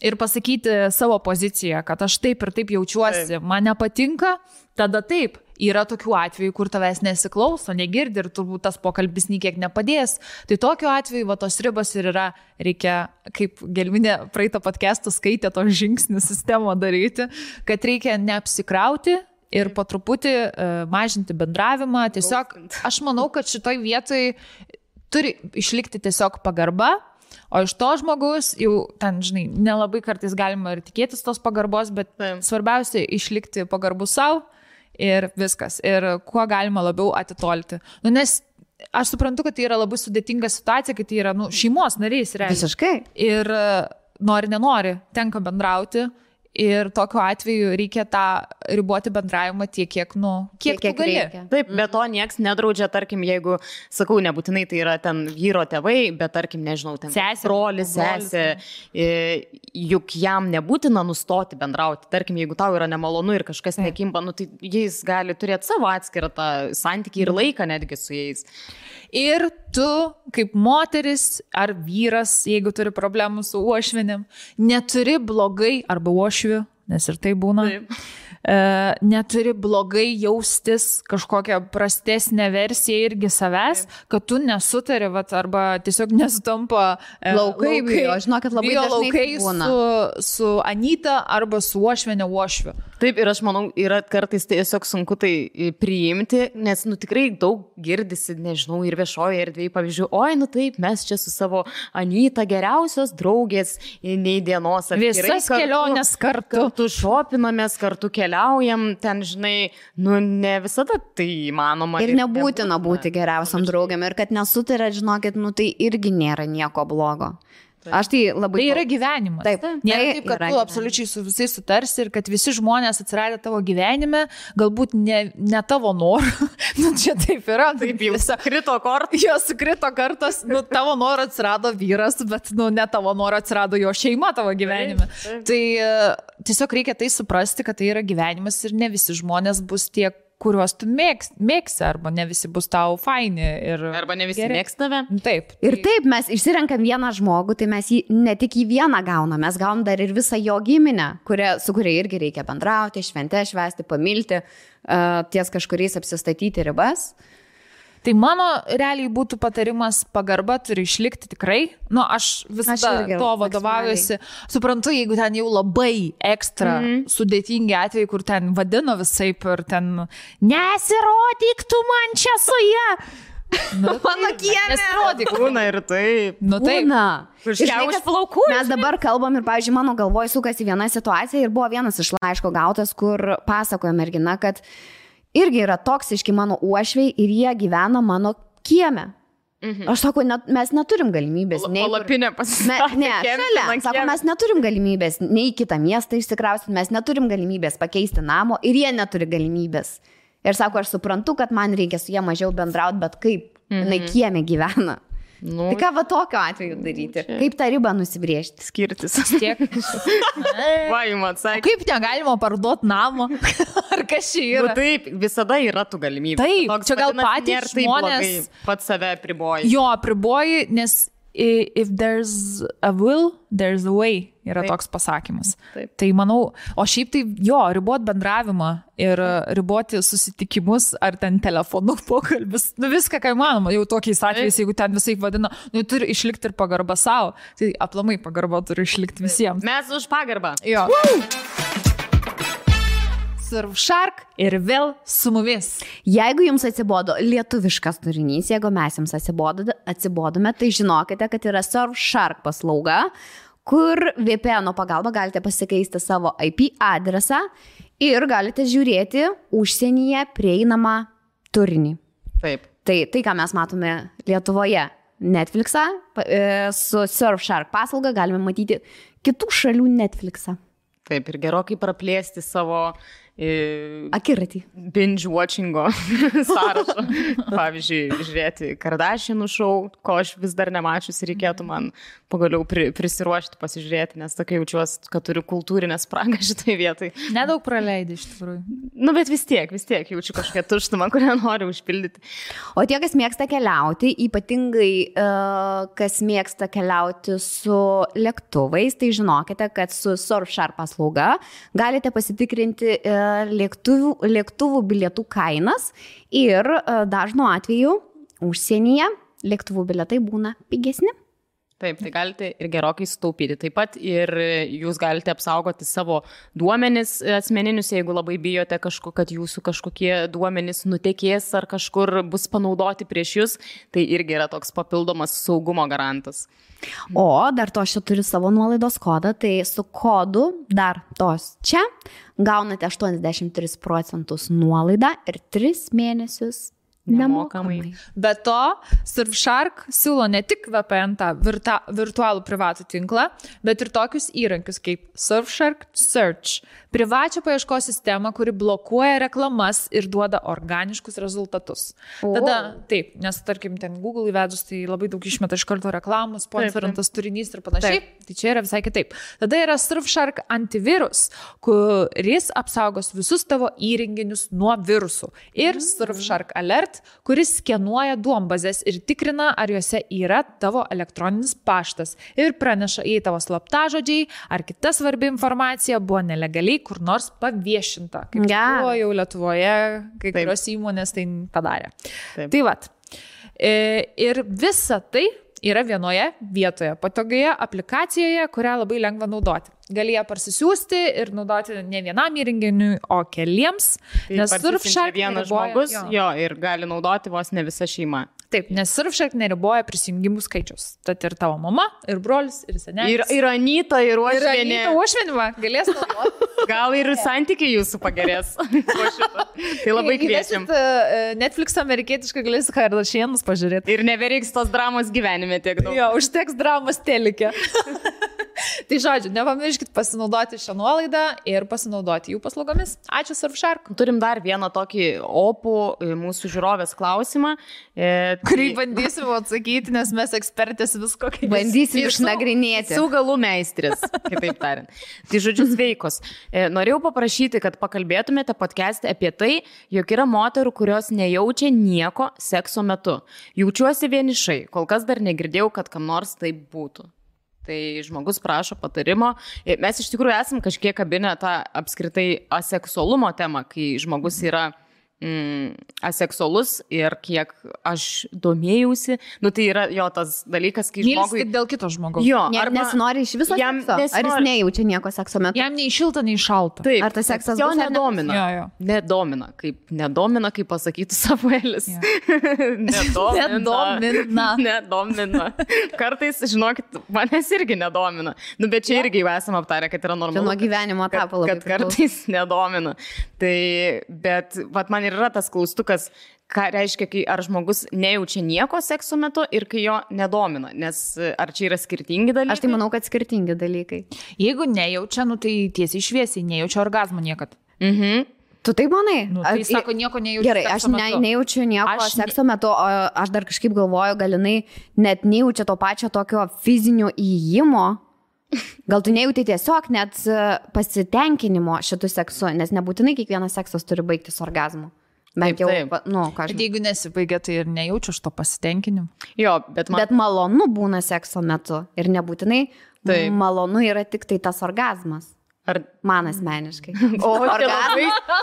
Speaker 1: ir pasakyti savo poziciją, kad aš taip ir taip jaučiuosi, man nepatinka, tada taip. Yra tokių atvejų, kur tavęs nesiklauso, negirdi ir turbūt tas pokalbis nikiek nepadės. Tai tokiu atveju tos ribos ir yra, reikia, kaip Gelminė praeitą podcastą skaitė, to žingsnių sistemą daryti, kad reikia neapsikrauti ir po truputį mažinti bendravimą. Tiesiog aš manau, kad šitoj vietoj turi išlikti tiesiog pagarba. O iš to žmogus jau ten, žinai, nelabai kartais galima ir tikėtis tos pagarbos, bet svarbiausia išlikti pagarbu savo. Ir viskas. Ir kuo galima labiau atitolti. Nes aš suprantu, kad tai yra labai sudėtinga situacija, kai tai yra šeimos narys.
Speaker 3: Visiškai.
Speaker 1: Ir nori, nenori, tenka bendrauti. Ir tokiu atveju reikia tą riboti bendravimą tiek, kiek tu gali.
Speaker 2: Taip, bet to nieks nedraudžia, tarkim, jeigu, sakau, nebūtinai tai yra ten vyro tėvai, bet tarkim, nežinau, ten brolis, sesė, juk jam nebūtina nustoti bendrauti. Tarkim, jeigu tau yra nemalonu ir kažkas nekimba, tai jis gali turėti savo atskirą tą santykį ir laiką netgi su jais.
Speaker 1: Ir tu, kaip moteris ar vyras, jeigu turi problemų su uošvinim, neturi blogai arba uošviu, nes ir tai būna, neturi blogai jaustis kažkokią prastesnę versiją irgi savęs, kad tu nesutari, arba tiesiog nesutampa
Speaker 3: laukai, žinokit, labai dažnai
Speaker 1: laukai su Anyta arba su Uošve, ne Uošve.
Speaker 2: Taip, ir aš manau, yra kartais tiesiog sunku tai priimti, nes, tikrai daug girdisi, nežinau, ir viešoje erdvėje, pavyzdžiui, taip, mes čia su savo Anyta geriausios draugės nei dienos.
Speaker 1: Visas kelionės
Speaker 2: kartu šopinamės, kartu keliaujam, ten, žinai, ne visada tai įmanoma.
Speaker 3: Ir nebūtina būti geriausiam draugiam, ir kad nesutarėt, žinokit, tai irgi nėra nieko blogo. Aš tai labai...
Speaker 1: Tai yra gyvenimas.
Speaker 3: Taip.
Speaker 1: Nėra taip, kad tu absoliučiai su visais sutarsi ir kad visi žmonės atsiradę tavo gyvenime, galbūt ne tavo norų. Čia taip yra.
Speaker 2: Taip, jau sukrito kortas.
Speaker 1: Jo sukrito kartas, tavo norų atsirado vyras, bet ne tavo norų atsirado jo šeima tavo gyvenime. Taip. Tai tiesiog reikia tai suprasti, kad tai yra gyvenimas ir ne visi žmonės bus tiek, kuriuos tu mėgsi, arba ne visi bus tau faini.
Speaker 2: Arba ne visi mėgsta tave.
Speaker 1: Taip.
Speaker 3: Ir taip, mes išsirenkam vieną žmogų, tai mes jį ne tik į vieną gaunam, mes gaunam dar ir visą jo giminę, su kuria irgi reikia bendrauti, šventę švęsti, pamilti, ties kažkuriais apsistatyti ribas.
Speaker 1: Tai mano realiai būtų patarimas, pagarba turi išlikti tikrai. Aš visada to vadovaujuosi. Suprantu, jeigu ten jau labai ekstra sudėtingi atvejai, kur ten vadino visaip ir ten nesirodyk tu man čia su ja.
Speaker 3: Mano kiemė.
Speaker 1: Nesirodyk.
Speaker 2: Būna ir taip.
Speaker 3: Būna.
Speaker 2: Iš plaukų.
Speaker 3: Mes dabar kalbam ir, pavyzdžiui, mano galvoj sukasi viena situacija ir buvo vienas iš laiško gautas, kur pasakoja mergina, kad irgi yra toksiški mano uošviai ir jie gyvena mano kieme. Aš sakau, mes neturim galimybės.
Speaker 2: Palapinė pasistatė.
Speaker 3: Ne, šalia. Sako, mes neturim galimybės nei į kitą miestą išsikrausti, mes neturim galimybės pakeisti namo ir jie neturi galimybės. Ir sako, aš suprantu, kad man reikia su jie mažiau bendrauti, bet kaip jinai kieme gyvena. Tai ką tokio atveju daryti? Kaip tą ribą nusibrėžti?
Speaker 2: Skirtis.
Speaker 1: Tiek.
Speaker 2: Atsakė.
Speaker 1: Kaip negalima parduoti namo? Ar kas čia yra?
Speaker 2: Taip, visada yra tų galimybių.
Speaker 1: Taip, čia gal patys žmonės
Speaker 2: pats save apriboji.
Speaker 1: Jo, apriboji, nes if there's a will, there's a way, yra toks pasakymas.
Speaker 2: Taip.
Speaker 1: Tai manau, o šiaip tai ribot bendravimą ir riboti susitikimus ar ten telefonų pokalbis, viską, ką įmanoma, jau tokiais atvejais, jeigu ten visai vadina, turi išlikti ir pagarba savo, tai aplamai pagarba turi išlikti visiems.
Speaker 2: Mes už pagarbą.
Speaker 1: Jo. Surfshark ir vėl su mumis.
Speaker 3: Jeigu jums atsibodo lietuviškas turinys, jeigu mes jums atsibodome, tai žinokite, kad yra Surfshark paslauga, kur VPN pagalba galite pasikeisti savo IP adresą ir galite žiūrėti užsienyje prieinamą turinį.
Speaker 2: Taip.
Speaker 3: Tai, ką mes matome Lietuvoje, Netflixą, su Surfshark paslauga galime matyti kitų šalių Netflixą.
Speaker 2: Taip, ir gerokai praplėsti savo
Speaker 3: akiratį.
Speaker 2: Binge watchingo sąrašą. Pavyzdžiui, žiūrėti Kardashianų šou, ko aš vis dar nemačius ir reikėtų man pagaliau prisiruošti, pasižiūrėti, nes tokia jaučiuosi, kad turiu kultūrinę spragą šitai vietai.
Speaker 1: Nedaug praleidai iš tikrųjų.
Speaker 2: Bet vis tiek jaučiu kažkokią tuštumą, kurią noriu užpildyti.
Speaker 3: O tie, kas mėgsta keliauti, ypatingai kas mėgsta keliauti su lėktuvais, tai žinokite, kad su Surfshark paslauga galite pasitikrinti lėktuvų bilietų kainas ir dažnu atveju užsienyje lėktuvų bilietai būna pigesni.
Speaker 2: Taip, tai galite ir gerokai sutaupyti. Taip pat ir jūs galite apsaugoti savo duomenis asmeninius, jeigu labai bijote, kad jūsų kažkokie duomenis nutekės ar kažkur bus panaudoti prieš jūs, tai irgi yra toks papildomas saugumo garantas.
Speaker 3: O dar to aš turiu savo nuolaidos kodą, tai su kodu dar tos čia gaunate 83% nuolaidą ir 3 mėnesius nemokamai.
Speaker 1: Be to, Surfshark siūlo ne tik VPN tą virtualų privatų tinklą, bet ir tokius įrankius kaip Surfshark Search, privačią paieškos sistemą, kuri blokuoja reklamas ir duoda organiškus rezultatus. Tada, taip, nes tarkim ten Google įvedus, tai labai daug išmeta iš karto reklamų, sponsorintas turinys ir panašiai, tai čia yra visai kitaip. Tada yra Surfshark antivirus, kuris apsaugos visus tavo įrenginius nuo virusų. Ir Surfshark Alert, kuris skenuoja duombazės ir tikrina, ar juose yra tavo elektroninis paštas ir praneša, jei tavo slaptažodžiai ar kita svarbi informacija buvo nelegaliai kur nors paviešinta. Kaip buvo jau Lietuvoje, kai kurios įmonės tai padarė. Taip. Tai vat. Ir visa tai yra vienoje vietoje, patogioje aplikacijoje, kurią labai lengva naudoti. Gali ją parsisiųsti ir naudoti ne vienam įrenginiui, o keliems.
Speaker 2: Tai nes Surfshark vienas žmogus ir gali naudoti vos ne visa šeima.
Speaker 1: Taip, nes Surfshark neriboja prisijungimų skaičius. Tad ir tavo mama, ir brolis, ir senelis.
Speaker 2: Ir Anyta, ir Uošvienė.
Speaker 1: Ir Anyta Uošvienė galės naudoti.
Speaker 2: Gal ir santykiai jūsų pagerės. Tai labai kviečiam.
Speaker 1: Netflix amerikietiškai galės Kardashianus pažiūrėti.
Speaker 2: Ir nebereiks tos dramos gyvenime tiek daug.
Speaker 1: Jo, užteks dramos telike. Tai žodžiu, nepamirškit pasinaudoti šią nuolaidą ir pasinaudoti jų paslaugomis. Ačiū Surfshark.
Speaker 2: Turim dar vieną tokį opų mūsų žiūrovės klausimą.
Speaker 1: Kurį bandysim atsakyti, nes mes ekspertės visko kaip.
Speaker 3: Bandysim išnagrinėti.
Speaker 2: Su galų meistris, kitaip tariant. Tai žodžiu sveikos. Norėjau paprašyti, kad pakalbėtumėte podcast'e apie tai, jog yra moterų, kurios nejaučia nieko sekso metu. Jaučiuosi vienišai, kol kas dar negirdėjau, kad kam nors taip būtų. Tai žmogus prašo patarimo. Mes iš tikrųjų esam kažkiek kabinę tą apskritai aseksualumo temą, kai žmogus yra aseksualus ir kiek aš domėjausi, tai yra jo tas dalykas, kai žmogui...
Speaker 1: Mylsti dėl kito žmogaus.
Speaker 2: Jo,
Speaker 3: nesinori iš viso sekso? Ar jis nejaučia nieko sekso metu?
Speaker 1: Jam nei šilta, nei šalta.
Speaker 2: Taip,
Speaker 3: ar tas seksas
Speaker 2: jo
Speaker 3: bus
Speaker 2: nedomina.
Speaker 1: Jo.
Speaker 2: Nedomina, kaip pasakytų Samuelis. Nedomina. Kartais, žinokit, manęs irgi nedomina. Bet čia irgi jau esame aptarę, kad yra normalu.
Speaker 3: Čia nuo gyvenimo etapo labai.
Speaker 2: Kad kartais nedomina. Tai, bet man ir yra tas klaustukas, ką reiškia, kai ar žmogus nejaučia nieko sekso metu ir kai jo nedomina, nes ar čia yra skirtingi dalykai?
Speaker 3: Aš tai manau, kad skirtingi dalykai.
Speaker 1: Jeigu nejaučia, tai tiesiai šviesiai, nejaučia orgazmo niekad.
Speaker 3: Tu taip manai?
Speaker 1: Tai sako, nieko nejaučiu.
Speaker 3: Gerai, aš nejaučiu nieko sekso metu, o aš dar kažkaip galvoju, gal jinai net nejaučia to pačio tokio fizinio įėjimo. Gal tu nejauti tiesiog net pasitenkinimo šitų seksu, nes nebūtinai kiekvienas seksas turi baigtis orgazmu. Bent jau,
Speaker 1: Bet jeigu nesibaigia, tai ir nejaučiu aš to pasitenkinimo.
Speaker 2: Jo, bet
Speaker 3: malonu būna sekso metu ir nebūtinai malonu yra tik tai tas orgazmas. Man asmeniškai.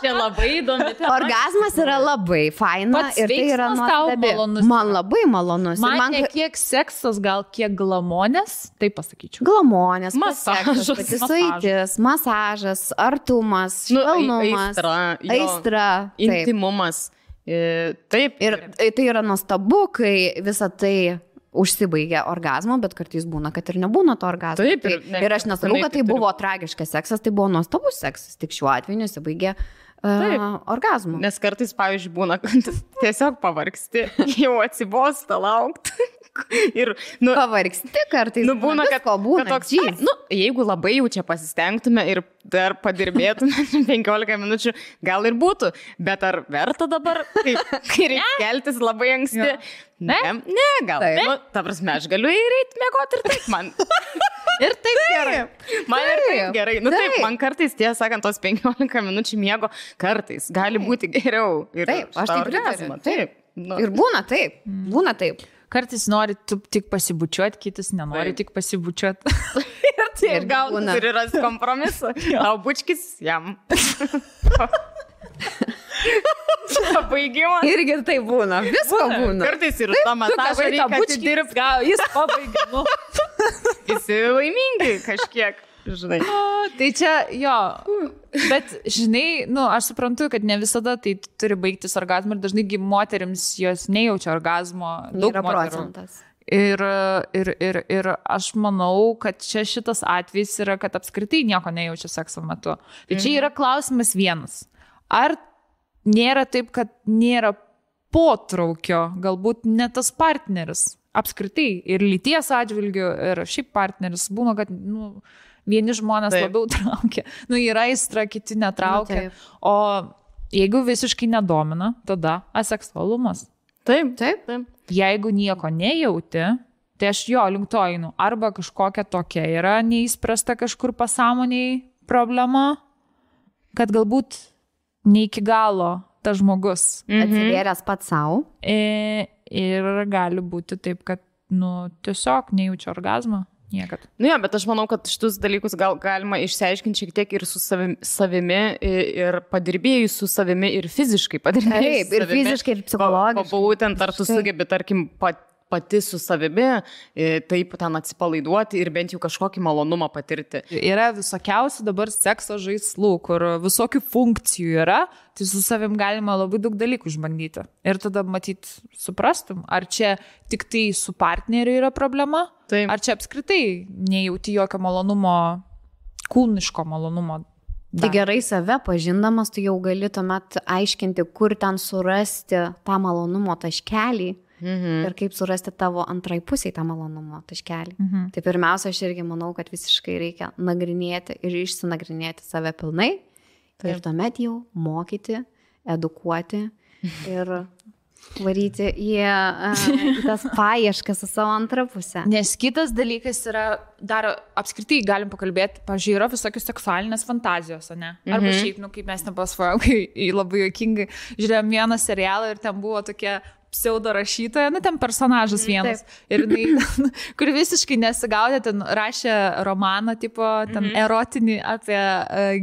Speaker 2: Čia labai įdomi.
Speaker 3: Orgazmas yra labai faina ir tai yra nuostabi. Man labai malonus.
Speaker 1: Man ne kiek seksas, gal kiek glamonės, tai pasakyčiau.
Speaker 3: Glamonės, pasisuitis, masažas, artumas, švelnumas, aistra,
Speaker 2: intimumas. Taip.
Speaker 3: Ir tai yra nuostabu, kai visa tai užsibaigia orgazmo, bet kartais būna, kad ir nebūna to orgazmo.
Speaker 2: Taip,
Speaker 3: ir aš nesakau, kad tai buvo tragiškas seksas, tai buvo nuostabus seksas, tik šiuo atveju nesibaigia orgazmo.
Speaker 2: Nes kartais, pavyzdžiui, būna, kad tiesiog pavargsti, jau atsibosta laukti. Ir,
Speaker 3: pavargsti kartais,
Speaker 2: būna, kad toks, jeigu labai jau čia pasistengtume ir dar padirbėtume 15 minučių, gal ir būtų, bet ar verta dabar, kai reikia keltis labai anksti? Ne, gal. Ta prasme, aš galiu ir eiti mėgoti ir taip man.
Speaker 1: Ir taip gerai.
Speaker 2: Man ir taip gerai. Taip, man kartais, tiesą sakant, tos 15 minučių miego kartais gali būti geriau.
Speaker 3: Taip, aš taip pritariu. Taip. Ir būna taip.
Speaker 1: Kartais nori tik pasibučiuoti, kitas nenori tik pasibučiuoti.
Speaker 2: Ir gal turi rasti kompromisą. Tau bučkis jam. Pabaigimą.
Speaker 3: Irgi tai būna. Visko būna.
Speaker 2: Kartais ir tą masažą reikia atidirbti.
Speaker 1: Gal jis pabaigia.
Speaker 2: Visi laimingi kažkiek. Žinai.
Speaker 1: Tai čia, jo, bet žinai, aš suprantu, kad ne visada tai turi baigtis orgazmu ir dažnai moterims jos nejaučia orgazmo. Daug procentas. Ir aš manau, kad čia šitas atvejis yra, kad apskritai nieko nejaučia sekso metu. Tai čia yra klausimas vienas. Ar nėra taip, kad nėra potraukio, galbūt ne tas partneris, apskritai ir lyties atžvilgių, ir šiaip partneris būna, kad, vieni žmonės labiau traukia. Yra aistra, kiti netraukia. O jeigu visiškai nedomina, tada aseksualumas.
Speaker 2: Taip.
Speaker 1: Jeigu nieko nejauti, tai aš link to einu. Arba kažkokia tokia yra neįspręsta kažkur pasąmoniai problema, kad galbūt ne iki galo tas žmogus.
Speaker 3: Atsivėręs pats savo.
Speaker 1: Ir gali būti taip, kad, tiesiog nejaučia orgazmo. Niekad.
Speaker 2: Jo, bet aš manau, kad šitus dalykus galima išsiaiškinti šiek tiek ir su savimi, ir padirbėjus su savimi, ir fiziškai padirbėjus.
Speaker 3: Taip, ir fiziškai, ir psichologiškai.
Speaker 2: Būtent ar tu sugebi, tarkim, pati su savimi, taip ten atsipalaiduoti ir bent jau kažkokį malonumą patirti.
Speaker 1: Yra visokiausių dabar sekso žaislų, kur visokių funkcijų yra, tai su savim galima labai daug dalykų išbandyti. Ir tada matyt, suprastum, ar čia tik tai su partneriu yra problema, taip. Ar čia apskritai nejauti jokio malonumo, kūniško malonumo.
Speaker 3: Tai gerai save pažindamas, tu jau gali tuomet aiškinti, kur ten surasti tą malonumo taškelį. Ir kaip surasti tavo antrai pusiai tą malonumo taškelį. Tai pirmiausia, aš irgi manau, kad visiškai reikia nagrinėti ir išsinagrinėti save pilnai. Taip. Ir tuomet jau mokyti, edukuoti ir varyti į tas paieškas su savo antrą pusę.
Speaker 1: Nes kitas dalykas yra, dar apskritai galim pakalbėti, pavyzdžiui, yra visokios seksualinės fantazijos, ne? Arba šiaip, kaip mes nepasvojom, kai labai juokingai žiūrėjom vieną serialą ir ten buvo tokia pseudo rašytoja, ten personažas vienas. Taip. Ir jinai, kur visiškai nesigaudė, ten rašė romaną, tipo, ten erotinį apie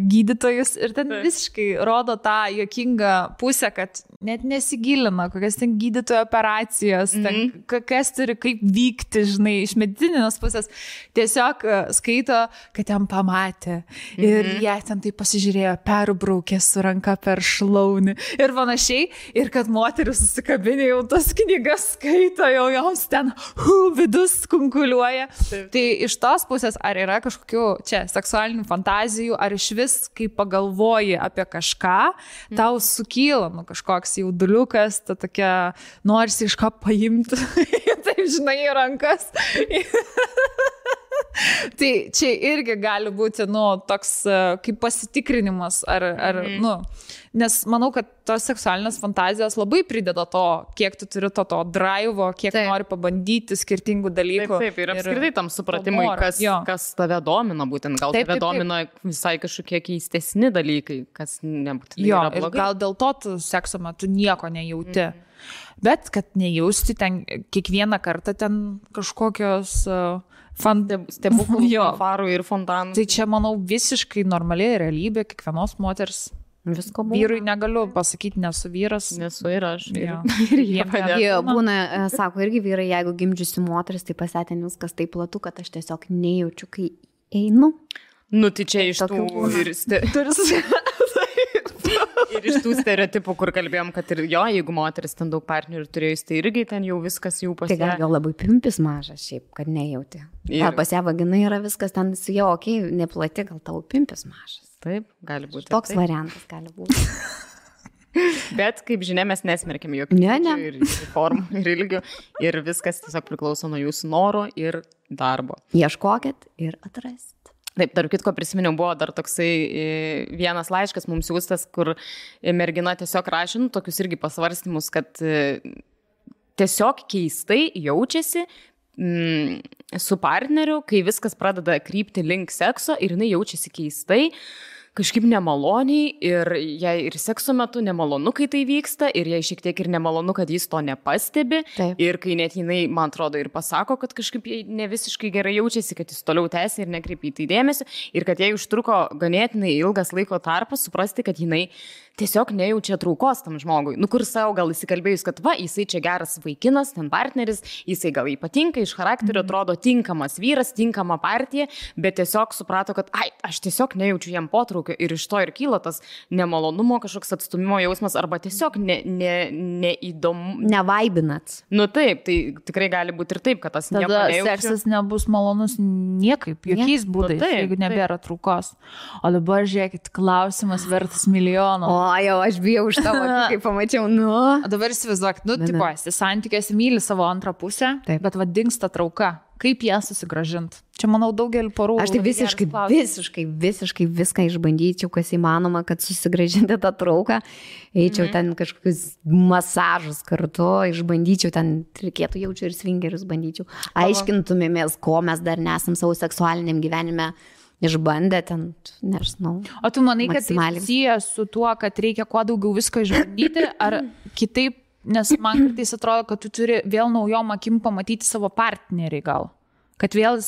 Speaker 1: gydytojus ir ten visiškai rodo tą juokingą pusę, kad net nesigilina, kokias ten gydytojo operacijos, ten, kas turi kaip vykti, žinai, iš medicininės pusės. Tiesiog skaito, kad ten pamatė ir jie ten tai pasižiūrėjo, perbraukė su ranka per šlaunį ir panašiai. Ir kad moteris susikabinė jau tas knygas skaito, jau joms ten vidus kunkuliuoja. Taip. Tai iš tos pusės, ar yra kažkokių čia seksualinių fantazijų, ar iš vis, kai pagalvoji apie kažką, tau sukyla kažkoks jauduliukas, ta tokia, norisi iš ką paimti, taip žinai, į rankas. Tai čia irgi gali būti, toks kaip pasitikrinimas, nes manau, kad tos seksualinės fantazijos labai prideda to, kiek tu turi to drivo, kiek nori pabandyti skirtingų dalykų.
Speaker 2: Taip, ir apskritai tam supratimui, kas tave domina, būtent gal tave domina visai kažkokie keistesni dalykai, kas nebūtinai yra blogai.
Speaker 1: Ir gal dėl to tu sekso metu nieko nejauti. Bet kad nejausti ten kiekvieną kartą ten kažkokios
Speaker 2: stebuklų, fanfarų ir fontanų.
Speaker 1: Tai čia, manau, visiškai normaliai realybė kiekvienos moters.
Speaker 3: Visko būna.
Speaker 1: Vyrui negaliu pasakyti, nesu vyras.
Speaker 2: Nesu ir aš.
Speaker 3: Ir jie būna, sako irgi vyrai, jeigu gimdžiusi moteris, tai pasėtė viskas taip platu, kad aš tiesiog nejaučiu, kai einu.
Speaker 2: Tai čia iš tų ir iš tų stereotipų, kur kalbėjom, kad ir jeigu moteris ten daug partnerių turėjus, tai irgi ten jau viskas jau pasė.
Speaker 3: Tai gal labai pimpis mažas šiaip, kad nejauti. Ar pas ją vagina yra viskas ten jau, neplati, gal tavo pimpis mažas.
Speaker 2: Taip, gali būti.
Speaker 3: Toks variantas gali būti.
Speaker 2: Bet, kaip žinia, mes nesmerkiam jokių ir formų, ir ilgių. Ir viskas tiesiog priklauso nuo jūsų noro ir darbo.
Speaker 3: Ieškokit ir atrasit.
Speaker 2: Taip, tarp kitko prisiminiau, buvo dar toksai vienas laiškas mums siūstas, kur mergina tiesiog rašė, tokius irgi pasvarstymus, kad tiesiog keistai jaučiasi su partneriu, kai viskas pradeda krypti link sekso ir jinai jaučiasi keistai, kažkaip nemaloniai ir jai ir sekso metu nemalonu, kai tai vyksta ir jai šiek tiek ir nemalonu, kad jis to nepastebi. Taip. Ir kai net jinai, man atrodo, ir pasako, kad kažkaip jai ne visiškai gerai jaučiasi, kad jis toliau tęsia ir nekreipia į tai dėmesį ir kad jai užtruko ganėtinai ilgas laiko tarpas suprasti, kad jinai tiesiog nejaučia traukos tam žmogui. Kur savo gal įsikalbėjus, kad jisai čia geras vaikinas, ten partneris, jisai gal ypatingai iš charakterio atrodo tinkamas vyras, tinkama partija, bet tiesiog suprato, kad aš tiesiog nejaučiu jam potraukio ir iš to ir kyla tas nemalonumo, kažkoks atstumimo jausmas arba tiesiog neįdomu.
Speaker 3: Nevaibinat.
Speaker 2: Taip, tai tikrai gali būti ir taip, kad tas nieko nejaučiu.
Speaker 1: Tada seksas nebus malonus niekaip, jokiais būdais, jeigu nebėra traukos. O dabar žiūrėkit, klausimas vertas milijono.
Speaker 3: Jau aš bijau už tavo, kai pamačiau,
Speaker 1: Dabar įsivaizduok, tipo, esi santykiuose, myli savo antrą pusę, taip. Bet dingsta trauka. Kaip ją susigrąžinti? Čia, manau, daugelį porų.
Speaker 3: Aš tai visiškai viską išbandyčiau, kas įmanoma, kad susigrąžinti tą trauką. Eičiau ten kažkokius masažus kartu, išbandyčiau, ten reikėtų jaučiu ir svingerius bandyčiau. Aiškintumėmės, ko mes dar nesam savo seksualiniam gyvenime išbandę ten, nežinau.
Speaker 1: O tu manai, kad tai susijęs su tuo, kad reikia kuo daugiau visko išbandyti, ar kitaip, nes man kartais atrodo, kad tu turi vėl naujom akim pamatyti savo partnerį gal. Kad vėl,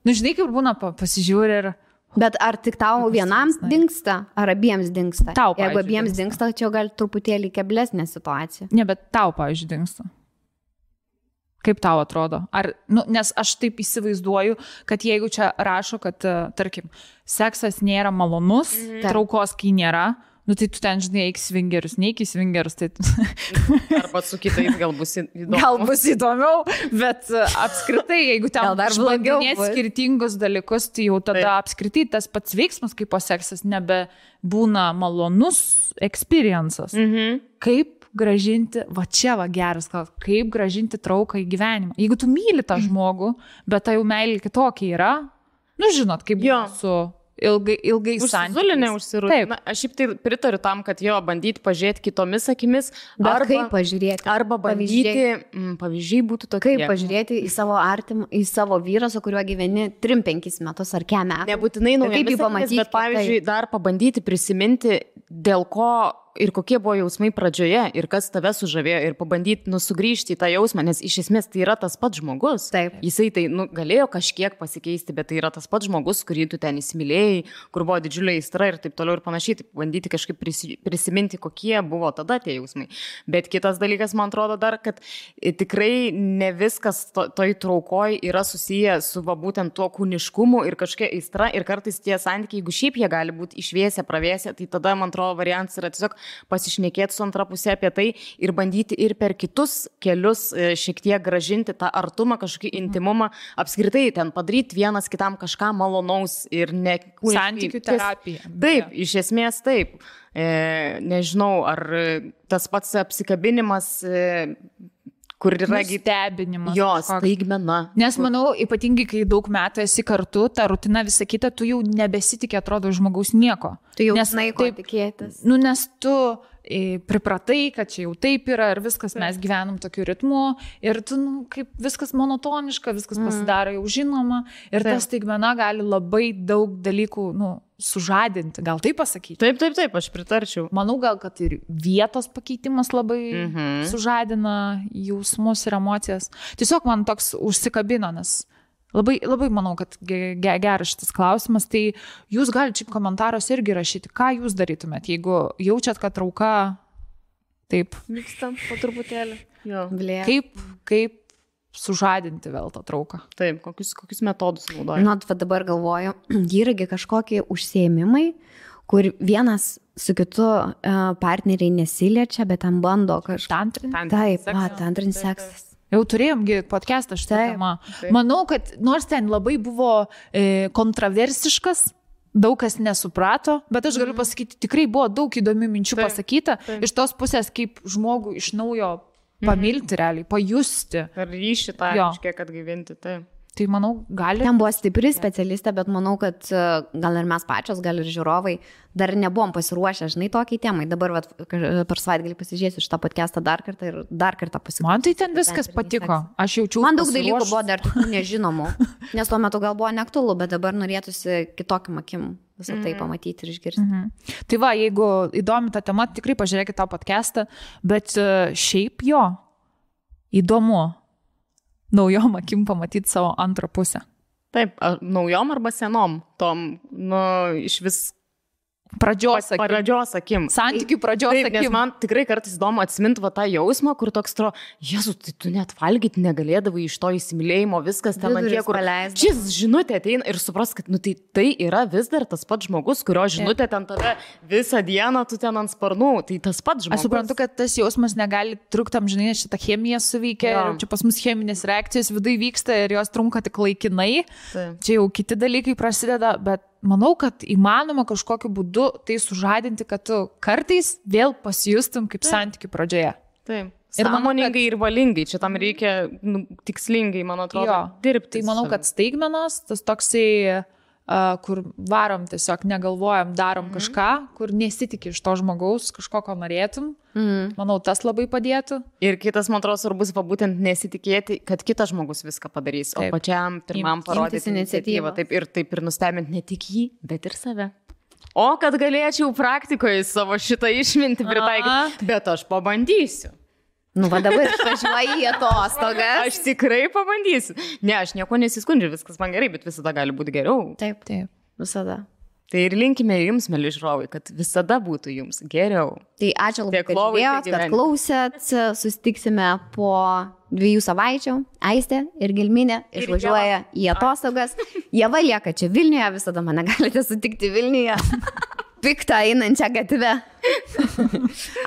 Speaker 1: žinai, kaip būna, pasižiūri ir...
Speaker 3: Bet ar tik tau vienam dingsta, ar abiems dingsta?
Speaker 1: Tau,
Speaker 3: jeigu abiems dingsta, čia gal truputėlį keblesnė situacija.
Speaker 1: Ne, bet tau, pavyzdžiui, dingsta. Kaip tau atrodo? Ar, nes aš taip įsivaizduoju, kad jeigu čia rašo, kad, tarkim, seksas nėra malonus, traukos kai nėra, tai tu ten, žinai, eik svingerius, neik į svingerius. Tai...
Speaker 2: Arba su kitais gal bus įdomiau.
Speaker 1: Gal bus įdomiau, bet apskritai, jeigu ten išbandinėt skirtingus dalykus, tai jau tada apskritai tas pats veiksmas kaip po seksas nebebūna malonus experiences. Kaip gražinti, va čia va geras, kaip gražinti trauką į gyvenimą. Jeigu tu myli tą žmogų, bet tai jau meilė kitokia yra, žinot, kaip su... ilgai
Speaker 2: santykiais. Užsirūti. Aš šiaip tai pritariu tam, kad jo bandyti pažiūrėti kitomis akimis.
Speaker 3: Kaip pažiūrėti?
Speaker 2: Arba bandyti, pavyzdžiai būtų tokie.
Speaker 3: Kaip pažiūrėti į savo artimą, į savo vyrą, su kuriuo gyveni 3-5 metus ar kem metų.
Speaker 2: Nebūtinai naujomis akimis, bet pavyzdžiui, dar pabandyti prisiminti, dėl ko ir kokie buvo jausmai pradžioje ir kas tave sužavėjo ir pabandyti sugrįžti į tą jausmą, nes iš esmės tai yra tas pats žmogus.
Speaker 3: Taip.
Speaker 2: Jisai tai galėjo kažkiek pasikeisti, bet tai yra tas pats žmogus, kurį tu ten įsimylėjai, kur buvo didžiulė aistra ir taip toliau ir panašiai, tai bandyti kažkaip prisiminti, kokie buvo tada tie jausmai. Bet kitas dalykas, man atrodo dar, kad tikrai ne viskas toj traukoj yra susiję su būtent tuo kūniškumu ir kažkokia aistra ir kartais tie santykiai, jeigu šiaip jie gali būti išvėsę, pravėsę, tai tada, man atrodo, variantas yra tiesiog pasišnekėti su antra pusė apie tai ir bandyti ir per kitus kelius šiek tiek gražinti tą artumą, kažkokį intimumą, apskritai ten padaryti vienas kitam kažką malonaus ir ne...
Speaker 1: Santykių terapija.
Speaker 2: Taip, iš esmės taip. Nežinau, ar tas pats apsikabinimas... kur yra
Speaker 1: stebinimas.
Speaker 2: Jo, staigmena.
Speaker 1: Nes manau, ypatingai, kai daug metų esi kartu, ta rutina visa kita, tu jau nebesitikė, atrodo, žmogaus nieko.
Speaker 3: Tu jau žinai, ko tikėtis.
Speaker 1: Nes tu pripratai, kad čia jau taip yra ir viskas, mes gyvenam tokiu ritmu ir tu, kaip viskas monotoniška, viskas pasidaro jau žinoma ir ta staigmena gali labai daug dalykų, sužadinti, gal taip pasakyti?
Speaker 2: Taip, aš pritarčiau.
Speaker 1: Manau, gal, kad ir vietos pakeitimas labai sužadina jausmus ir emocijas. Tiesiog man toks užsikabino, nes labai, labai manau, kad geras šitas klausimas, tai jūs galite šiaip komentaros irgi rašyti, ką jūs darytumėt, jeigu jaučiat, kad trauka taip
Speaker 2: vykstant po truputėlį. Jo.
Speaker 1: Kaip sužadinti vėl tą trauką.
Speaker 2: Taip, kokius metodus naudoja?
Speaker 3: Dabar galvoju, įragi kažkokie užsiėmimai, kur vienas su kitu partneriai nesiliečia, bet ten bando kažką. Tantrinis seksas.
Speaker 1: Jau turėjomgi podcastą šitą temą. Manau, kad nors ten labai buvo kontroversiškas, daug kas nesuprato, bet aš galiu pasakyti, tikrai buvo daug įdomių minčių pasakyta. Iš tos pusės, kaip žmogų iš naujo pamilti realiai, pajusti.
Speaker 2: Ar ryšį tą kažkiek atgaivinti, taip.
Speaker 1: Tai manau, gali.
Speaker 3: Ten buvo stipri specialistė, bet manau, kad gal ir mes pačios, gal ir žiūrovai dar nebuvom pasiruošę, žinai, tokiai temai. Dabar per savaitgalį pasižiūrėsiu šitą podcastą dar kartą ir dar kartą pasiklausyti.
Speaker 1: Man tai ten viskas patiko. Aš jaučiu.
Speaker 3: Man daug dalykų buvo dar tokių nežinomų, nes tuo metu gal buvo neaktualu, bet dabar norėtųsi kitokiam akim visą tai pamatyti ir išgirsti.
Speaker 1: Tai va, jeigu įdomi ta tema, tikrai pažiūrėkite tą podcastą, bet šiaip jo, įdomu. Naujom akim pamatyti savo antrą pusę.
Speaker 2: Taip, naujom arba senom, tom, iš vis
Speaker 1: pradžios
Speaker 2: akim.
Speaker 1: Santykių pradžios akim.
Speaker 2: Nes man tikrai kartais įdomu atsiminti tą jausmą, kur toks Jėzus, tai tu net valgyti negalėdavai iš to įsimylėjimo, viskas ten ant tiek, kur šis žinutė ateina ir supras, kad tai yra vis dar tas pats žmogus, kurio žinutė ten tave visą dieną, tu ten ant sparnų, tai tas pats žmogus.
Speaker 1: Aš suprantu, kad tas jausmas negali trukti amžinai, nes šitą chemiją suveikia ir čia pas mus cheminės reakcijos vidai vyksta ir jos trunka tik laikinai. Čia jau kiti dalykai prasideda, bet manau, kad įmanoma kažkokiu būdu tai sužadinti, kad tu kartais vėl pasijustum kaip santykių pradžioje.
Speaker 2: Taip. Ir sąmoningai ir valingai. Čia tam reikia tikslingai, man atrodo, dirbti.
Speaker 1: Tai manau, kad staigmenos, tas toksai kur varom tiesiog, negalvojam, darom kažką, kur nesitikė iš to žmogaus, kažko, ko norėtum. Manau, tas labai padėtų.
Speaker 2: Ir kitas, man atrodo, svarbus būtent nesitikėti, kad kitas žmogus viską padarys, o pačiam pirmam parodyti iniciatyvą. Taip ir nustebinti ne tik jį, bet ir save. O kad galėčiau praktikoje savo šitą išmintį pritaikyti, bet aš pabandysiu.
Speaker 3: Nu, va dabar išvažiuoju į atostogas.
Speaker 2: Aš tikrai pabandysiu. Ne, aš nieko nesiskundžiu, viskas man gerai, bet visada gali būti geriau.
Speaker 3: Taip, visada.
Speaker 2: Tai ir linkime jums, mėly žiūrovai, kad visada būtų jums geriau.
Speaker 3: Tai ačiū labai, kad žiūrėjot, kad klausėt. Susitiksime po 2 savaičių. Aistė ir Gelminė išvažiuoja į atostogas. Ieva lieka čia Vilniuje, visada mane galite sutikti Vilniuje. Piktą einančią gatvę.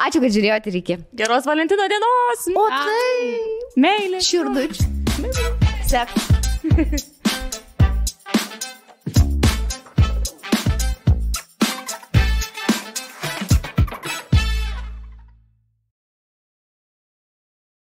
Speaker 3: Ačiū, kad žiūrėjot ir iki.
Speaker 2: Geros Valentino dienos.
Speaker 3: O tai.
Speaker 2: Meilė.
Speaker 3: Širdučių. Sek.